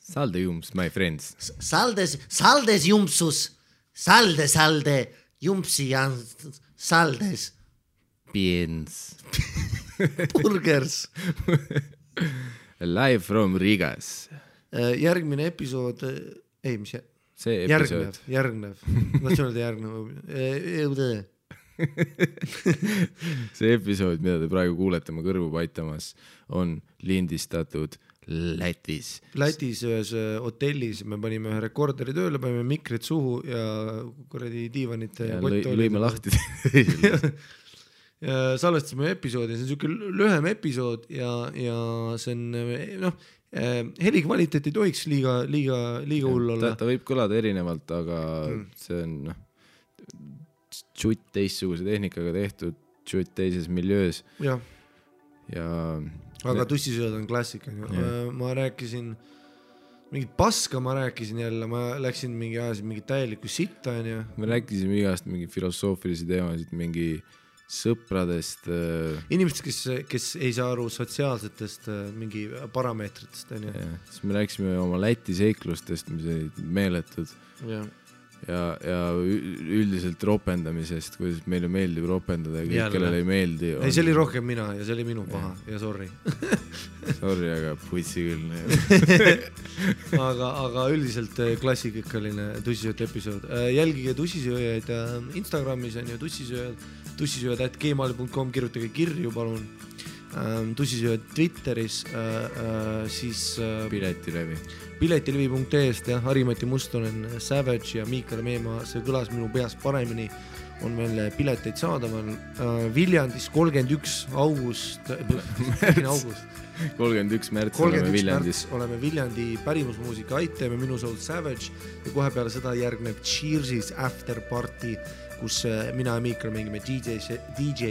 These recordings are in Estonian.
Salde jumps, my friends. Saldes jumpsus. Salde, jumpsi ja saldes. Piens. Burgers. Live from Rigas. Järgmine episood, See episood. Järgnev. Tahtsin öelda järgnev. See episood, mida te praegu kuulete, ma kõrvu paitamas, on lindistatud Lätis. Lätis ühes hotellis me panime ühe rekorderi tööle, panime mikrid suhu ja kuradi diivanite ja lõime lahti. Ja salvestasime episoodi, see on niisugune lühem episood ja see on, heli kvaliteet ei tohiks liiga hull olla. Ta võib kõlada erinevalt, aga see on tšutt teistsuguse tehnikaga tehtud, tšutt teises miljöös. Ja aga tussisööd on klassika. Ma rääkisin mingit paska, ma jälle, ma läksin mingi täielikku sitta. Me rääkisime igast mingi filosoofilisi teemasid, mingi sõpradest. Inimestest, kes ei saa aru sotsiaalsetest mingi parameetritest. Siis me rääkisime oma Läti seiklustest, mis olid meeletud. Ja üldiselt ropendamisest, kuidas meile meeldib ropendada ja kõik, kellele ei meeldi. Ei, see oli rohkem mina ja see oli minu paha ja sorry. Sorry, aga putsi küll. Aga üldiselt klassikikaline tussisööd episood. Jälgige tussisööjaid Instagramis on ju tussisööjad@gmail.com, kirjutage kirju, palun. Tussisööjad Twitteris, siis piletilevi.ee-st ja Harimati Mustonen, Savage ja Miikal Meemaa, see kõlas minu peas paremini, on veel pileteid saadaval. Viljandis 31 august 31 märts oleme Viljandis. Oleme Viljandi pärimusmuusika Aiteme, Minu Soul Savage ja kohe peale seda järgneb Cheersis After Party, kus mina ja Miikal mängime DJ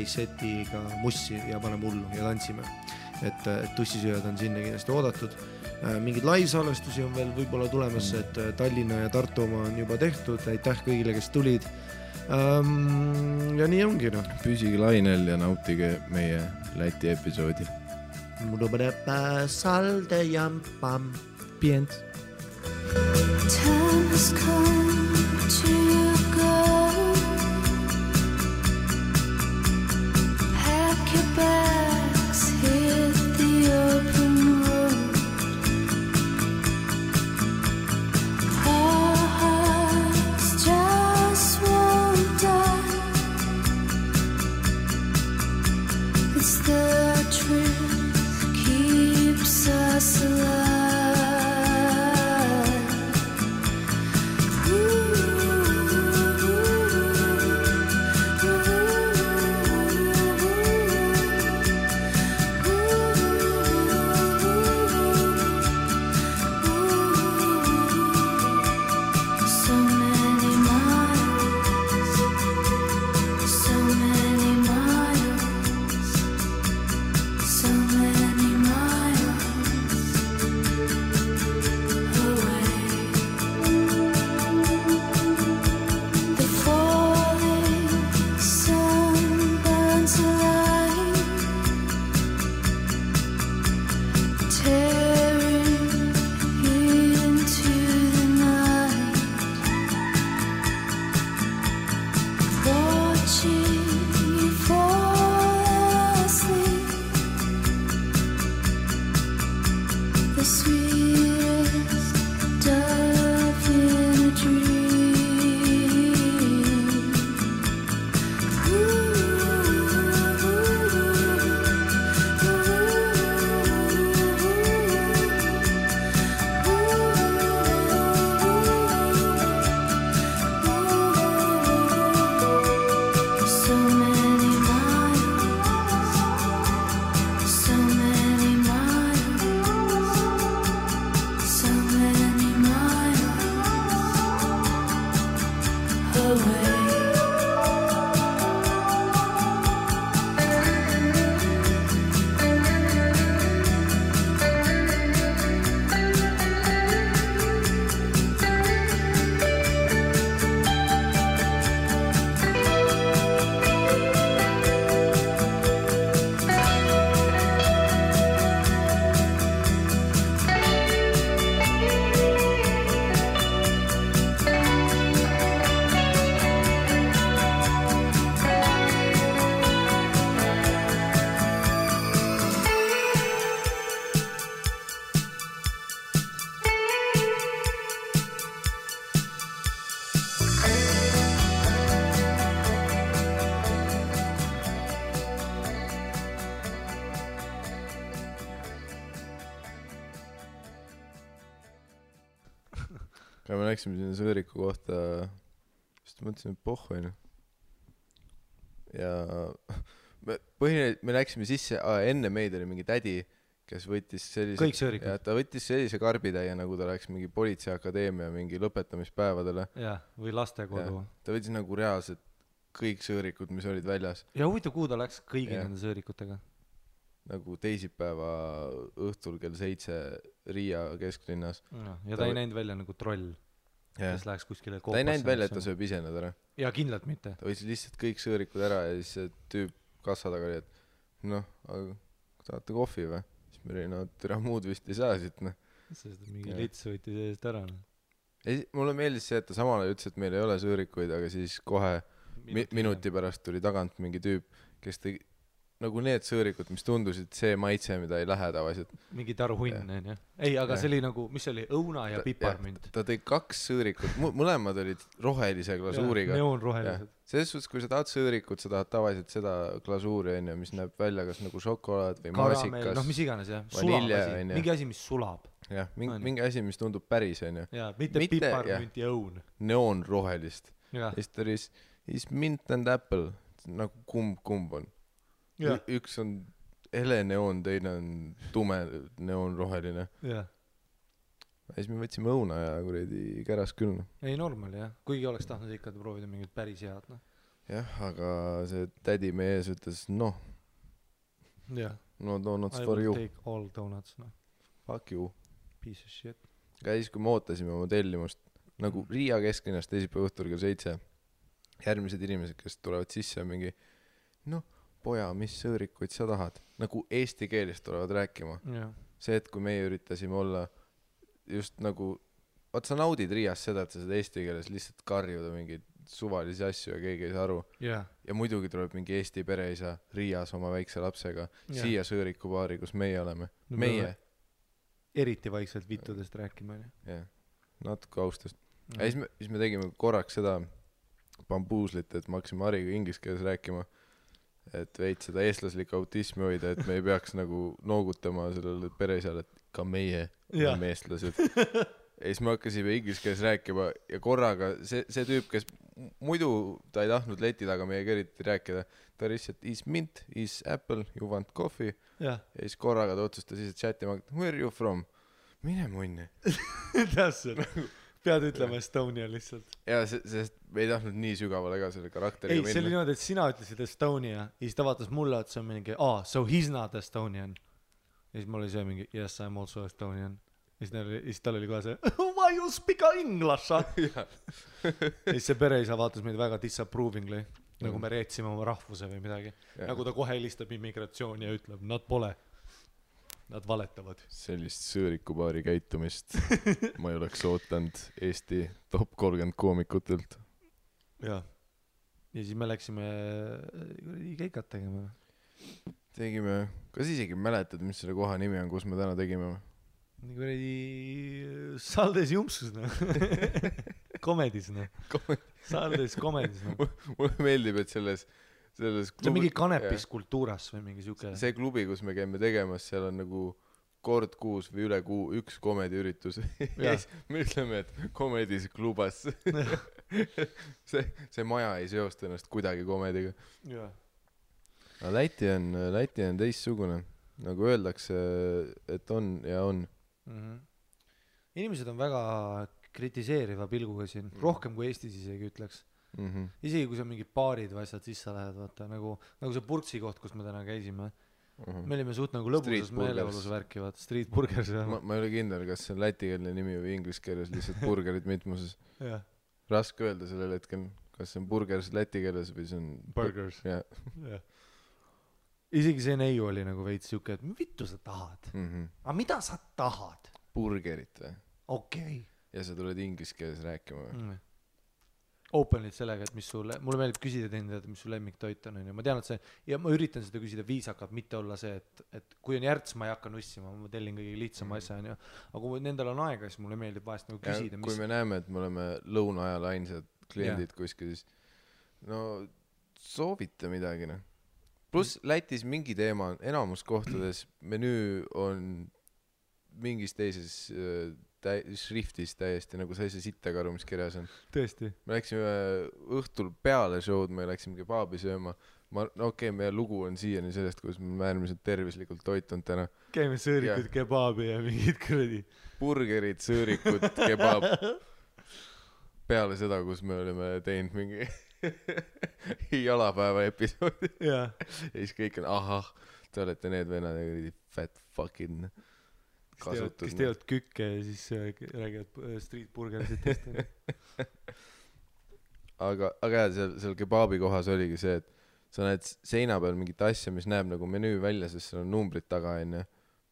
setiga mussi ja paneme hullu ja tantsime. Et tussisööjad on sinna kindlasti oodatud. Mingid live-salvestusi on veel võib-olla tulemas, et Tallinna ja Tartu oma on juba tehtud. Aitäh kõigile, kes tulid. Ja nii ongi. Püsige lainel ja nautige meie Läti episoodi. Salde jampam. Pients. Time has come to go. Pack your bags, hit the open road. Our hearts just won't die. It's the truth keeps us alive. aga me läksime sinna sõõriku kohta, sest mõtlesime, et pohhu, ja me läksime sisse, enne meid oli mingi tädi, kes võttis sellise... Kõik sõõrikud? Ja ta võttis sellise karbitäie, nagu ta läks mingi politseiakadeemia mingi lõpetamispäevadele. Ja, või lastekodu. Ja, ta võttis nagu reaalselt kõik sõõrikud, mis olid väljas. Ja huvitav, kuhu ta läks kõigi nende sõõrikutega? Nagu teisipäeva õhtul kell 7 Riia kesklinnas. Ja ta ei näinud välja nagu troll, kes läheks kuskile koopasse. Ta ei näinud välja, et ta sööb ise nad ära. Ja kindlalt mitte. Ta võttis lihtsalt kõik sõõrikud ära ja siis see tüüp kassa taga oli, et noh, aga tahate kohvi või? Siis me olime, türa muud vist ei saa siit, noh. Sest mingi lits võttis eest ära, noh. Mulle meeldis see, et ta samal ajal ütles, et meil ei ole sõõrikuid, aga siis kohe minuti pärast tuli tagant mingi tüüp, kes tegi nagu need sõõrikud, mis tundusid see maitse, mida ei lähe tavaliselt. Mingi taruhunn, on. Ei, aga see oli nagu, mis oli, õuna ja piparmünt. Ta tõi 2 sõõrikut, mõlemad olid rohelise glasuuriga. Neoonrohelised. Selles suhtes, kui sa tahad sõõrikut, sa tahad tavaliselt seda glasuuri, mis näeb välja kas nagu šokolaad või maasikas. Noh, mis iganes, jah. Vanilja, mingi asi, mis sulab. Jah, mingi asi, mis tundub päris, on. Jaa, mitte piparmünt ja õun. Neoonrohelist. Ja siis ta oli is mint and apple, nagu kumb on. Üks on hele neoon, teine on tume neoonroheline. Ja siis me võtsime õuna ja kuredi käras küll. Ei, normal, jah. Kuigi oleks tahtnud ikka proovida mingit päris head, noh. Jah, aga see tädi meie ees ütles, noh. No donuts for you. I will take all donuts, noh. Fuck you. Piece of shit. Aga siis, kui me ootasime oma tellimust, nagu Riia kesklinnast teisipäeva õhtul kell 7, järgmised inimesed, kes tulevad sisse mingi, noh, poja, mis sõõrikuid sa tahad? Nagu eesti keelist tulevad rääkima. Ja. See, et kui meie üritasime olla just nagu, sa naudid Riias seda, et sa seda eesti keeles lihtsalt karjuda mingeid suvalisi asju ja keegi ei saa aru. Ja muidugi tuleb mingi eesti pereisa Riias oma väikse lapsega siia sõõrikubaari, kus meie oleme. Meie. Eriti vaikselt vittudest rääkima. Jah, natuke austust. Ja siis me tegime korraks seda bambuuslit, et me hakkasime Hariga inglise keeles rääkima. Et veid seda eestlaslik autismi hoida, et me ei peaks nagu noogutama sellele pereisale, et ka meie oleme eestlased. Ja siis me hakkasime inglise keeles rääkima ja korraga see tüüp, kes muidu ta ei tahtnud leti taga meie keriti rääkida, ta lihtsalt is mint, is apple, you want coffee. Ja siis korraga ta otsustas lihtsalt chatima, where are you from? Mine munni. Täpselt. Pead ütlema Estonia lihtsalt. Ja sest me ei tahtnud nii sügavale ka selle karakteriga minna. Ei, see oli niimoodi, et sina ütlesid Estonia ja siis ta vaatas mulle, et see on mingi, so he's not Estonian. Ja siis mul oli see mingi, yes, I'm also Estonian. Ja siis tal oli kohe see, why you speak English? Ja siis see pereisa vaatas meid väga disapprovingly, nagu me reetsime oma rahvuse või midagi. Nagu ta kohe helistab immigratsiooni ja ütleb, nad pole. Nad valetavad. Sellist sõõrikubaari käitumist ma ei oleks ootanud Eesti top 30 koomikutelt. Ja siis me läksime keikat tegema. Tegime, kas isegi mäletad, mis selle koha nimi on, kus me täna tegime? Nii kuradi Saldes Jumpsus, Komedis, Saldes Komedis. Mulle meeldib, et selles klubi, see on mingi kanepis kultuuras või mingi siuke. See klubi, kus me käime tegemas, seal on nagu kord kuus või üle kuu üks komediüritus. Ja me ütleme, et komedis klubas. see maja ei seosta ennast kuidagi komediga. Ja. Läti on teissugune. Nagu öeldakse, et on ja on. Inimesed on väga kritiseeriva pilguga siin. Rohkem kui Eestis isegi ütleks. Isegi kui sa mingid baarid või asjad sisse lähed, vaata, nagu see Purtsi koht, kus me täna käisime. Me olime suht nagu lõbusas meeleolus värki, vaata, Street Burgers. Ma ei ole kindel, kas see on lätikeelne nimi või inglise keeles lihtsalt burgerid mitmuses. Raske öelda sellel hetkel, kas see on burgers läti keeles või see on burgers. Isegi see neiu oli nagu veits siuke, et vittu sa tahad? Aga mida sa tahad? Burgerit või? Okei. Ja sa tuled inglise keeles rääkima või? Openlit sellega, et mulle meeldib küsida teinid, mis su lemmiktoit on. Ma tean, et see, ja ma üritan seda küsida viisakalt, mitte olla see, et kui on järts, ma ei hakka nussima, ma tellin kõige lihtsama asja. Aga kui nendel on aega, siis mulle meeldib vahest nagu küsida. Kui me näeme, et me oleme lõuna ajal ainsad kliendid kuskil, siis no soovita midagi. Plus Lätis mingi teema on, enamus kohtades menüü on mingis teises šriftis täiesti nagu sa ei saa sittagi aru, mis kirjas on. tõesti. Me läksime õhtul peale show'd, me läksime kebaabi sööma. Meie lugu on siiani sellest, kus me äärmiselt tervislikult toitunud täna. Käime sõõrikud kebaabi ja mingid kuradi. Burgerid, sõõrikud, kebaab. Peale seda, kus me olime teinud mingi jalapäeva episoodi. Ja siis kõik on, ahah, te olete need vennad ja fat fucking kasutud. Kes teevad kükke ja siis räägivad street burgerisitest. aga jah, seal kebaabi kohas oligi see, et sa näed seina peal mingit asja, mis näeb nagu menüü välja, sest seal on numbrid taga enne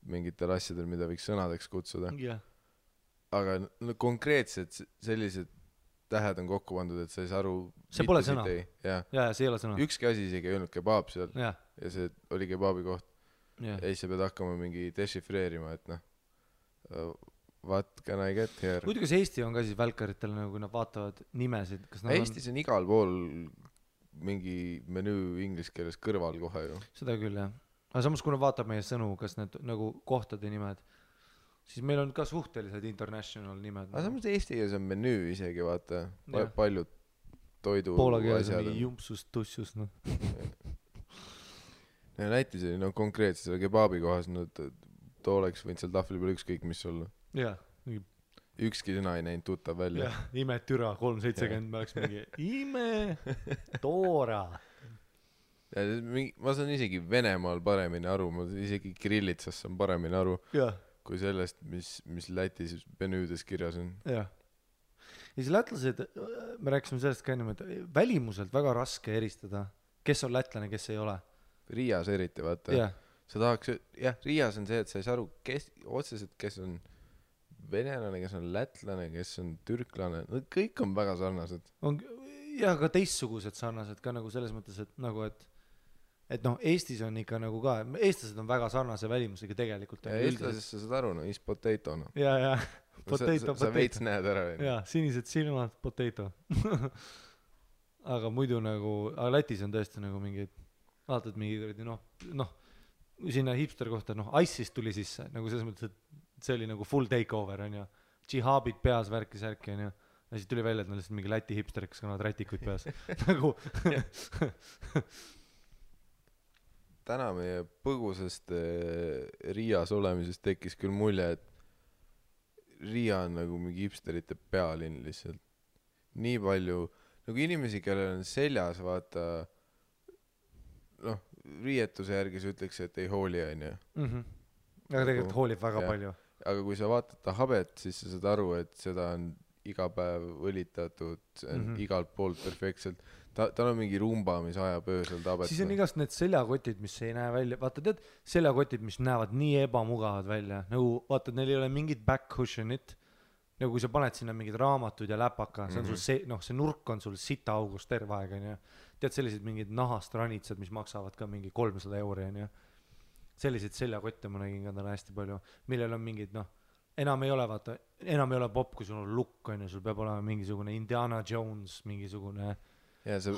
mingitel asjadel, mida võiks sõnadeks kutsuda. Aga konkreetselt sellised tähed on kokku pandud, et sa ei saa aru. See pole sõna. Ja, see ei ole sõna. Ükski asi isegi ei öelnud kebaab seal ja see oli kebaabi koht. Ja siis sa pead hakkama mingi dešifreerima, et what can I get here? Muidu kas Eesti on ka siis välkaritel, nagu kui nad vaatavad nimesid? Eestis on igal pool mingi menüü inglise keeles kõrval kohe ju. Seda küll, jah. Aga samas, kui nad vaatab meie sõnu, kas need nagu kohtade nimed, siis meil on ka suhtelised international nimed. Aga samas Eesti keeles on menüü isegi, vaata. Paljud toidu Poola keeles on mingi jumpsus, tussus, noh. Lätis oli konkreetselt selle kebaabi kohas, too oleks võinud seal tahvli peal ükskõik mis olla. Jah. Ükski sõna ei näinud tuttav välja. Jah, ime türa, 370, me oleks mingi ime, toora. Ma saan isegi Venemaal paremini aru, ma isegi Kirillitsas saan paremini aru, kui sellest, mis Lätis menüüdes kirjas on. Jah. Ja siis lätlased, me rääkisime sellest ka ennem, et välimuselt väga raske eristada, kes on lätlane, kes ei ole. Riias eriti, vaata. Sa tahaks, Riias on see, et sa ei saa aru otseselt, kes on venelane, kes on lätlane, kes on türklane, kõik on väga sarnased. Ja ka teistsugused sarnased ka nagu selles mõttes, et nagu, et Eestis on ikka nagu ka, eestlased on väga sarnase välimusega tegelikult. Ja eestlasest sa saad aru, is potato, no. Ja, potato. Sa veits näed ära. Ja, sinised silmad, potato. Aga muidu nagu, aga Lätis on tõesti nagu mingid, vaatad mingi, sinna hipster kohta, Ice'ist tuli sisse, nagu selles mõttes, et see oli nagu full takeover, on ju. Džihaabid peas, värki, on ju. Ja siis tuli välja, et nad lihtsalt mingi Läti hipster, kes kannavad rätikuid peas. Nagu. Täna meie põgusest Riias olemisest tekkis küll mulje, et Riia on nagu mingi hipsterite pealinn lihtsalt. Nii palju, nagu inimesi, kellel on seljas, vaata, riietuse järgi sa ütleks, et ei hooli, on ju. Aga tegelikult hoolib väga palju. Aga kui sa vaatad ta habet, siis sa saad aru, et seda on iga päev õlitatud, see on igalt poolt perfektselt. Tal on mingi rumba, mis ajab öösel tabet. Siis on igast need seljakotid, mis ei näe välja. Vaata, tead, seljakotid, mis näevad nii ebamugavad välja. Nagu, vaata, neil ei ole mingit back cushionit. Nagu kui sa paned sinna mingid raamatud ja läpaka, see on sul see nurk on sul sita august terve aeg, on ju. Tead, sellised mingid nahast ranitsad, mis maksavad ka mingi 300 €, on ju. Selliseid seljakotte ma nägin ka täna hästi palju, millel on mingid, enam ei ole pop, kui sul on lukk, on ju, sul peab olema mingisugune Indiana Jones, mingisugune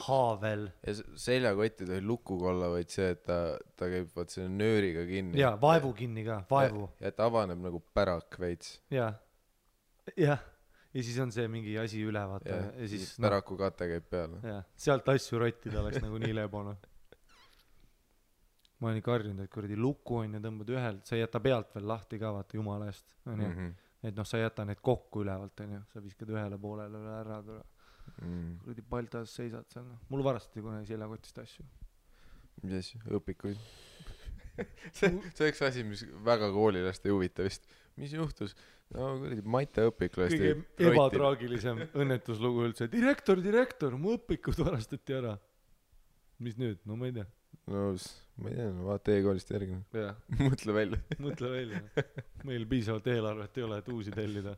haavel. Ja seljakott ei tohi lukuga olla, vaid see, et ta käib vaat selle nööriga kinni. Ja, vaevu kinni ka, vaevu. Ja ta avaneb nagu pärak veits. Ja siis on see mingi asi üle, vaata. Ja siis päraku kate käib peale. Ja, sealt asju rottida oleks nagu nii lebona. Ma olen ikka harjunud, et kuradi luku on ja tõmbad ühelt, sa ei jäta pealt veel lahti ka, vaata jumala eest. Et sa ei jäta need kokku ülevalt, on ju. Sa viskad ühele poolele üle ära. Kuradi paltas seisad seal. Mul varastati kunagi seljakotist asju. Mis asju? Õpikuid? See üks asi, mis väga koolilaste ei huvita vist. Mis juhtus? Kuradi Maite õpik lasti. Kõige ebatraagilisem õnnetuslugu üldse. Direktor, mu õpikud varastati ära. Mis nüüd? No ma ei tea. Ma ei tea, vaata e-koolist järgi. Mõtle välja. Meil piisavalt eelarvet ei ole, et uusi tellida.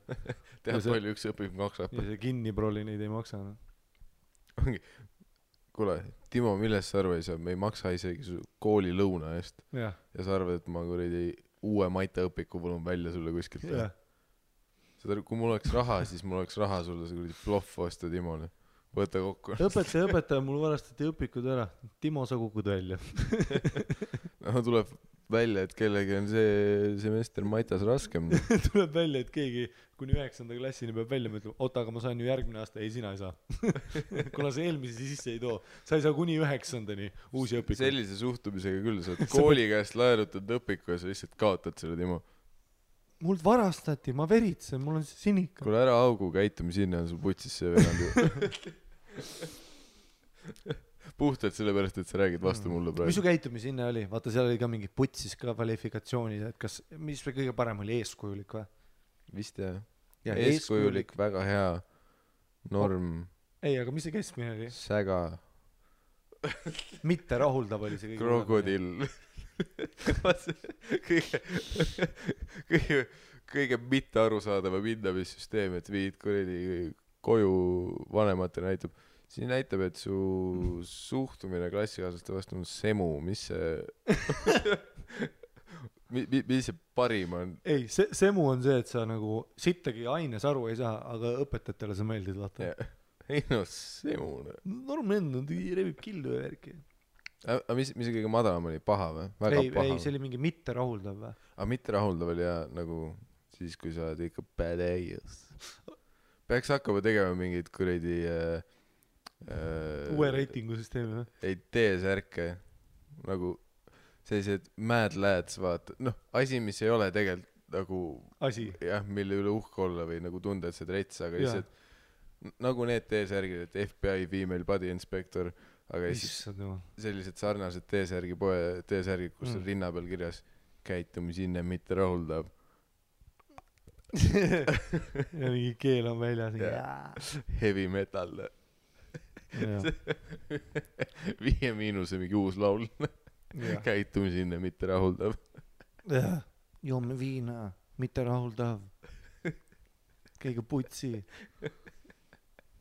Tead palju üks õpik maksab. Ja see kinniproli neid ei maksa. Kuule, Timo, millest sa arva ei saa? Me ei maksa isegi kooli lõuna eest. Ja sa arvad, et ma kuradi uue Maite õpiku võlun välja sulle kuskilt. Kui mul oleks raha, siis mul oleks raha sulle see kuradi ploff osta Timole. Võta kokku. Õpetaja, mul varastati õpikud ära. Timo, sa kukud välja. Tuleb välja, et kellegi on see semester Maitas raskem. tuleb välja, et keegi kuni 9. klassini peab välja mõtlema, oota, aga ma saan ju järgmine aasta, ei sina ei saa. Kuna see eelmise sisse ei too, sa ei saa kuni 9-ndani uusi õpikuid. Sellise suhtumisega küll, sa oled kooli käest laenutad õpiku ja sa lihtsalt kaotad selle Timo. Mult varastati, ma veritsen, mul on sinika. Kuule ära augu, käitumi sinna on sul putsis see venand ju. Puhtalt sellepärast, et sa räägid vastu mulle praegu. Mis su käitumi sinna oli? Vaata, seal oli ka mingi putsis ka kvalifikatsioonid, et kas, mis kõige parem oli, eeskujulik või? Vist jah. Eeskujulik, väga hea norm. Ei, aga mis see keskmine oli? Säga. Mitte rahuldav oli see kõige Krokodill. kõige mitte arusaadava hindamissüsteem, et viid kuradi koju vanematele näitab. Siin näitab, et su suhtumine klassikaaslaste vastu on semu, mis see mis see parim on? Ei, semu on see, et sa nagu sittagi aines aru ei saa, aga õpetajatele sa meeldid, vaata. Ei no, semu. Normaalne, rebib killu ja värki. Aga mis see kõige madalam oli? Paha või? Väga paha. Ei, see oli mingi mitte rahuldav või? Aga mitte rahuldav oli ja nagu siis, kui sa oled ikka badass. Peaks hakkama tegema mingid kuradi uue reitingu süsteemi või? Ei, T-särke nagu sellised mad lads, vaata, noh, asi, mis ei ole tegelikult nagu asi, jah, mille üle uhke olla või nagu tunda, et see trets, aga lihtsalt nagu need T-särgid, et FBI female body inspector, aga sellised sarnased T-särgid, kus on rinna peal kirjas käitumisinne mitte rahuldav. ja mingi keel on väljas. Heavy metal. 5 miinuse mingi uus laul. Käitumisinne mitte rahuldav. Joome viina, mitte rahuldav. Kõige putsi.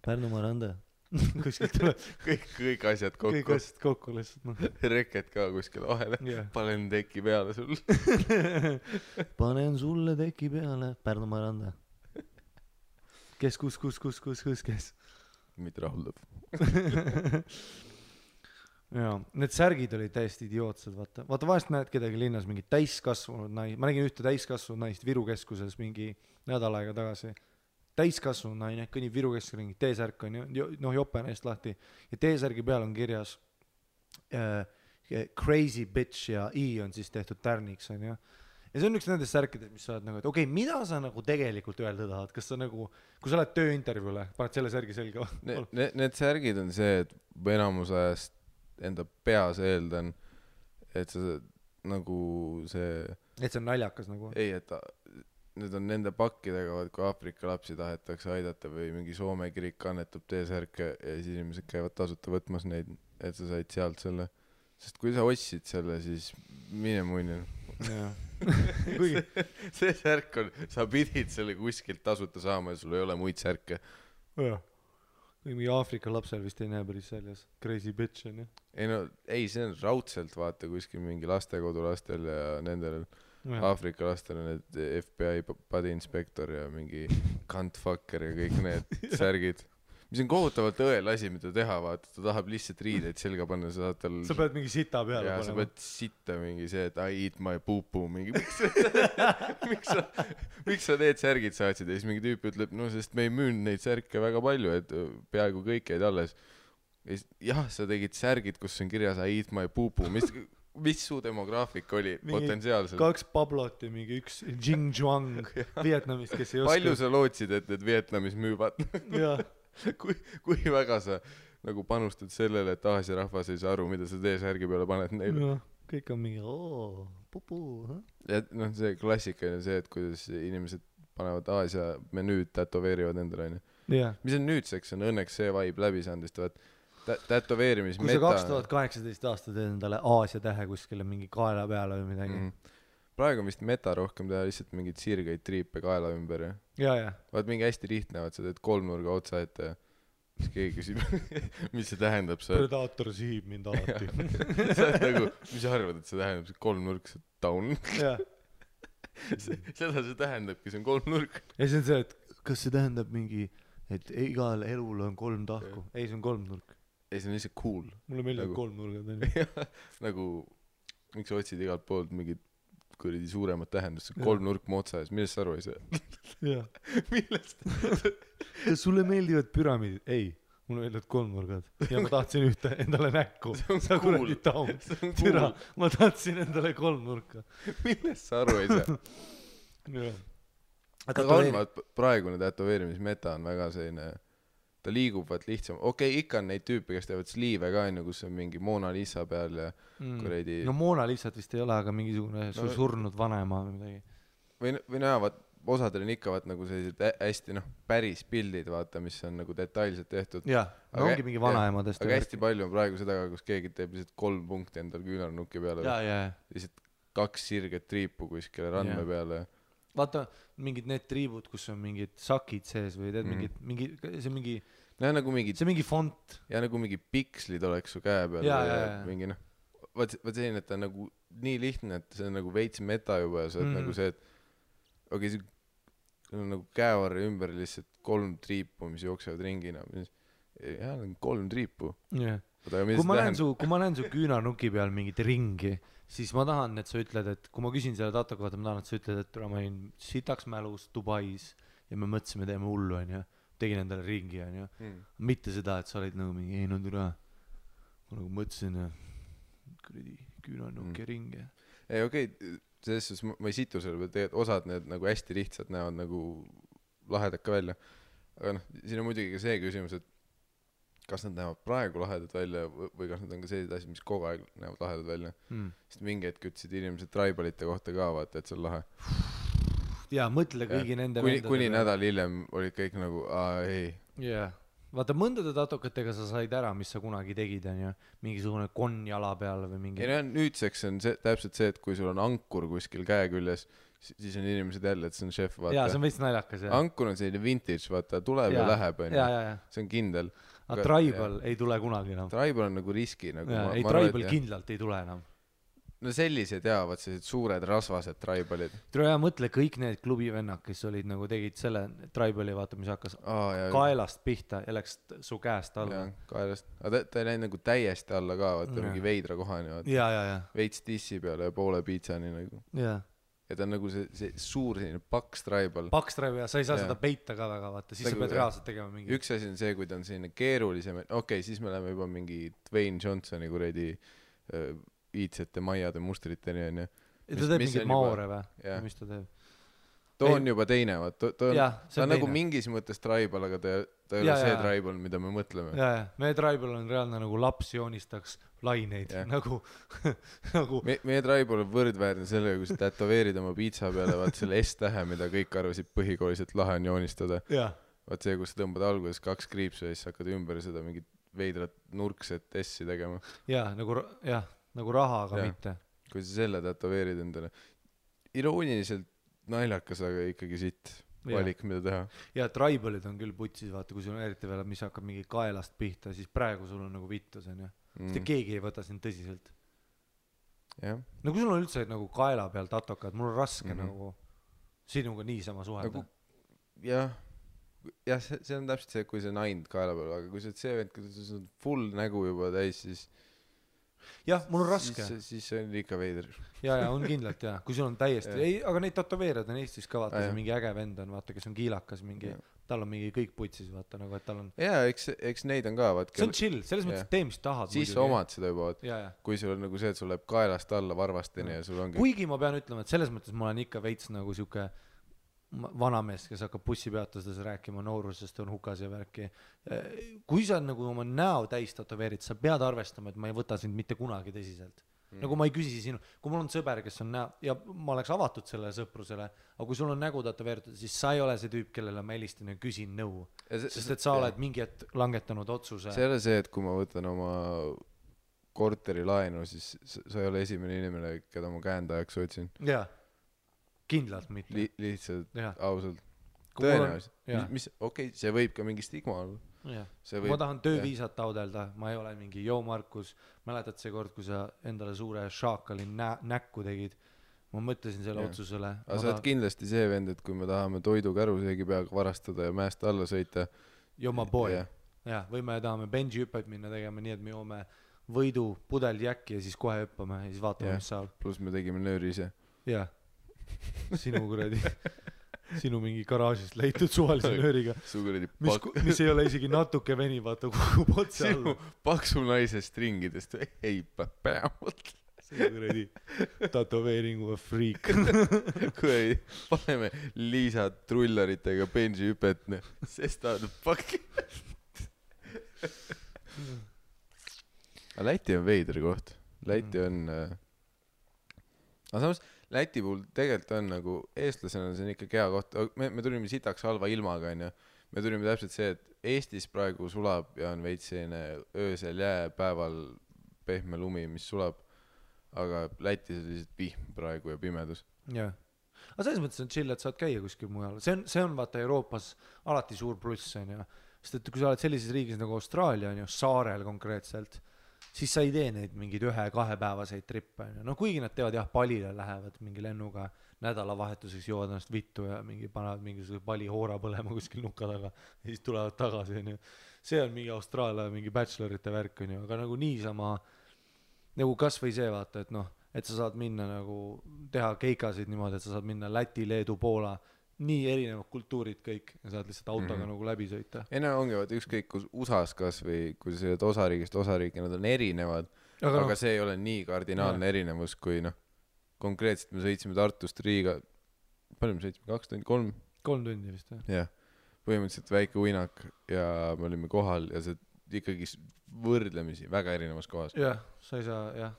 Pärnu Maranda. Kuskilt tuleb kõik asjad kokku. Kõik asjad kokku lihtsalt, noh. Reket ka kuskil vahele. Panen teki peale sul. Panen sulle teki peale. Pärnu Maranda. Kes, kes? Mitte rahuldav. Jaa, need särgid olid täiesti idiootsed, vaata vahest näed kedagi linnas mingi täiskasvanud naist, ma nägin ühte täiskasvanud naist Viru keskuses mingi nädal aega tagasi, täiskasvanud naine, kõnnib Viru keskusel, mingi T-särk on ju, noh jope neist lahti ja T-särgi peal on kirjas crazy bitch ja I on siis tehtud tärniks on ju. Ja see on üks nendest särkidest, mis sa oled nagu, et okei, mida sa nagu tegelikult öelda tahad, kas sa nagu, kui sa oled tööintervjuule, paned selle särgi selga? Need särgid on see, et enamus ajast enda peas eeldan, et sa nagu see et see on naljakas nagu? Ei, et need on nende pakkidega, kui Aafrika lapsi tahetakse aidata või mingi Soome kirik annetab T-särke ja siis inimesed käivad tasuta võtmas neid, et sa said sealt selle, sest kui sa ostsid selle, siis mine munni. see särk on, sa pidid selle kuskilt tasuta saama ja sul ei ole muid särke. Mingi Aafrika lapsel vist ei näe päris väljas. Crazy bitch on ju. Ei, see on raudselt vaata kuskil mingi lastekodu lastel ja nendel Aafrika lastel on need FBI body inspector ja mingi cuntfucker ja kõik need särgid. Mis on kohutavalt õel asi, mida teha, vaata, ta tahab lihtsalt riideid selga panna, sa saad tal... Sa pead mingi sita peale panema. Ja sa pead sitta mingi see, et I eat my poo-poo, mingi miks sa need särgid saatsid ja siis mingi tüüp ütleb, no sest me ei müünud neid särke väga palju, et peaaegu kõik jäid alles. Jah, sa tegid särgid, kus on kirjas I eat my poo-poo, mis su demograafik oli potentsiaalselt? 2 Pablot ja mingi 1 Jing Zhuang Vietnamist, kes ei oska... Palju sa lootsid, et need Vietnamis müüvad? Jah. Kui väga sa nagu panustad sellele, et Aasia rahvas ei saa aru, mida sa T-särgi peale paned neile? No, kõik on mingi pupu. Ja noh, see klassikaline see, et kuidas inimesed panevad Aasia menüüd, tätoveerivad endale. Mis on nüüdseks, on õnneks see vibe läbi saanud, sest tätoveerimis kui sa 2018 aasta teed endale Aasia tähe kuskile mingi kaela peale või midagi. Praegu on vist meta rohkem teha lihtsalt mingid sirgeid triipe kaela ümber ja. Vaat mingi hästi lihtne, vaat sa teed 3-nurga otsa ette ja siis keegi küsib, mis see tähendab. Predaator sihib mind alati. Sa oled nagu, mis sa arvad, et see tähendab, see 3-nurk, see down? Seda see tähendabki, see on 3-nurk. Ja see on see, et kas see tähendab mingi, et igal elul on 3 tahku? Ei, see on 3-nurk. Ei, see on lihtsalt cool. Mulle meeldib 3-nurgad. Nagu miks sa otsid igalt poolt mingit kuradi suuremat tähendust, kolmnurk motsa ees, millest sa aru ei saa? jah. Millest? Sulle meeldivad püramiidid? Ei, mulle meeldivad kolmnurgad ja ma tahtsin ühte endale näkku. Sa kuradi taun. Türa, ma tahtsin endale kolmnurka. Millest sa aru ei saa? Aga on, praegune tätoveerimismeta on väga selline, ta liigub vaat lihtsam. Okei, ikka on neid tüüpe, kes teevad sliive ka, kus on mingi Mona Lisa peal ja kuredi... No Mona Lisat vist ei ole, aga mingisugune surnud vanema või midagi. Või näha, vaat osadel on ikka vaat nagu sellised hästi päris pildid, vaata, mis on nagu detailselt tehtud. Jah, no ongi mingi vanaemadest. Aga hästi palju on praegu seda, kus keegi teeb lihtsalt 3 punkti endal küünarnukki peale. Lihtsalt 2 sirget triipu kuskile randme peale. Vaata, mingid need triibud, kus on mingid sakid sees või teed see on mingi font. Ja nagu mingi pikslid oleks su käe peal. Mingi vaat selline, et ta on nagu nii lihtne, et see on nagu veits meta juba ja sa oled nagu see, et okei, see on nagu käevarri ümber lihtsalt 3 triipu, mis jooksevad ringina. Jah, 3 triipu. Kui ma näen su küünarnuki peal mingit ringi, siis ma tahan, et sa ütled, et kui ma küsin selle tato kohta, ma tahan, et sa ütled, et ma olin sitaks mälus Dubais ja me mõtlesime, teeme hullu, tegin endale ringi, mitte seda, et sa olid nagu mingi, ei no türa, ma nagu mõtlesin küünarnuki ringi. Ei, okei, selles suhtes ma ei situ selle peal, tegelikult osad need nagu hästi lihtsalt näevad nagu lahedad ka välja. Aga siin on muidugi ka see küsimus, et kas nad näevad praegu lahedad välja või kas nad on ka sellised asjad, mis kogu aeg näevad lahedad välja. Sest mingi hetk ütlesid inimesed tribalite kohta ka, vaata, et see on lahe. Jaa, mõtle kõigi nende kuni nädal hiljem olid kõik nagu, ei. Jaa. Vaata, mõndade tatokatega sa said ära, mis sa kunagi tegid, mingisugune konjala peal või mingi... Ei, nüüdseks on täpselt see, et kui sul on ankur kuskil käe küljes, siis on inimesed jälle, et see on šef, vaata. Jaa, see on veits naljakas, jah. Ankur on selline vintage, vaata, tuleb ja läheb, see on kindel. Aga tribal ei tule kunagi enam. Tribal on nagu riski. Ei, tribal kindlalt ei tule enam. No sellised jaavad, sellised suured rasvased tribalid. Tule ja mõtle kõik need klubivennad, kes olid nagu tegid selle tribali, vaata, mis hakkas kaelast pihta ja läks su käest alla. Kaelast. Aga ta ei läinud nagu täiesti alla ka, vaata, mingi veidra kohani. Veits tissi peale ja poole piitsani nagu. Ja ta on nagu see suur selline paks tribal. Paks tribal ja sa ei saa seda peita ka väga, vaata, siis sa pead reaalselt tegema mingi. Üks asi on see, kui ta on selline keerulisem, okei, siis me läheme juba mingi Dwayne Johnsoni kuredi iidsete maiade mustriteni on. Ja ta teeb mingid maore või? Mis ta teeb? Too on juba teine, ta on nagu mingis mõttes tribal, aga ta ei ole see tribal, mida me mõtleme. Meie tribal on reaalne nagu laps joonistaks laineid. Meie tribal on võrdväärne sellega, kui sa tätoveerid oma piitsa peale, vaat selle S-tähe, mida kõik arvasid põhikooliselt lahe on joonistada. Vaat see, kus sa tõmbad alguses 2 kriipsu ja siis hakkad ümber seda mingit veidrat nurkset S-i tegema. Nagu raha, aga mitte. Kui sa selle tätoveerid endale. Irooniliselt naljakas, aga ikkagi sitt valik, mida teha. Ja tribalid on küll putsis, vaata, kui sul on eriti veel, mis hakkab mingi kaelast pihta, siis praegu sul on nagu vittus, sest keegi ei võta sind tõsiselt. No kui sul on üldse nagu kaela peal tatokad, mul on raske nagu sinuga niisama suhelda. Jah, see on täpselt see, kui see naind kaela peal, aga kui see vend, kui see on full nägu juba täis, siis jah, mul on raske. Siis see on ikka veider. Ja, on kindlalt, jah. Kui sul on täiesti... Ei, aga neid tatoveerad on Eestis ka, vaata, see mingi äge vend on, vaata, kes on kiilakas mingi... Tal on mingi kõik putsis, vaata, nagu, et tal on... Jaa, eks neid on ka, vaata... See on chill, selles mõttes, et tee, mis tahad. Siis sa omad seda juba, kui sul on nagu see, et sul läheb kaelast alla varvasteni ja sul ongi... Kuigi ma pean ütlema, et selles mõttes ma olen ikka veits nagu siuke vanamees, kes hakkab bussipeatustades rääkima noorusest on hukas ja värki. Kui sa nagu oma näo täis tatoveerid, sa pead arvestama, et ma ei võta sind mitte kunagi tõsiselt. Nagu ma ei küsi sinu, kui mul on sõber, kes on näo, ja ma oleks avatud sellele sõprusele, aga kui sul on nägu tatoveeritud, siis sa ei ole see tüüp, kellele ma helistan ja küsin nõu. Sest et sa oled mingi hetk langetanud otsuse. See ei ole see, et kui ma võtan oma korteri laenu, siis sa ei ole esimene inimene, keda ma käendajaks otsin. Jaa. Kindlalt mitte. Lihtsalt, ausalt. Tõenäoliselt. Okei, see võib ka mingi stigma olla. Ma tahan tööviisat taodelda, ma ei ole mingi Markus, mäletad see kord, kui sa endale suure šaakali näkku tegid, ma mõtlesin selle otsusele. Aga sa oled kindlasti see vend, et kui me tahame toidu käruseegi peaga varastada ja mäest alla sõita. Joma boy. Või me tahame benji hüpet minna tegema nii, et me joome võidu pudel jäkki ja siis kohe hüppame ja siis vaatame Jah. mis saab pluss me tegime nööri ise jah sinu kuradi sinu mingi garaažist leitud suvalise nööriga su kuradi mis ei ole isegi natuke veni vaata kukub otse alla sinu paksu naise stringidest ei päevalt see kuradi tätoveeringuga friik kuradi paneme Liisa trullaritega benji hüpet sest ta on pakk aga Läti on veider koht Läti on aga samas Läti puhul tegelikult on nagu eestlasena see on ikkagi hea koht me tulime sitaks halva ilmaga onju me tulime täpselt see et Eestis praegu sulab ja on veits selline öösel jää päeval pehme lumi mis sulab aga Lätis on lihtsalt vihm praegu ja pimedus jah aga selles mõttes on chill et saad käia kuskil mujal see on vaata Euroopas alati suur pluss onju sest et kui sa oled sellises riigis nagu Austraalia onju saarel konkreetselt siis sa ei tee neid mingeid 1-2 päevaseid trippe onju no kuigi nad teevad jah palile lähevad mingi lennuga nädalavahetuseks joovad ennast vittu ja mingi panevad mingisuguse pali hoora põlema kuskil nuka taga ja siis tulevad tagasi onju see on mingi Austraalia mingi bachelorite värk onju aga nagu niisama nagu kasvõi see vaata et noh et sa saad minna nagu teha keikasid niimoodi et sa saad minna Läti, Leedu, Poola nii erinevad kultuurid kõik ja saad lihtsalt autoga nagu läbi sõita ei no ongi vaata ükskõik kus USA-s kas või kui sa sõidad osariigist osariiki nad on erinevad aga see ei ole nii kardinaalne erinevus kui noh konkreetselt me sõitsime Tartust Riiga palju me sõitsime 2 tundi 3 tundi vist jah põhimõtteliselt väike uinak ja me olime kohal ja see ikkagi võrdlemisi väga erinevas kohas jah sa ei saa jah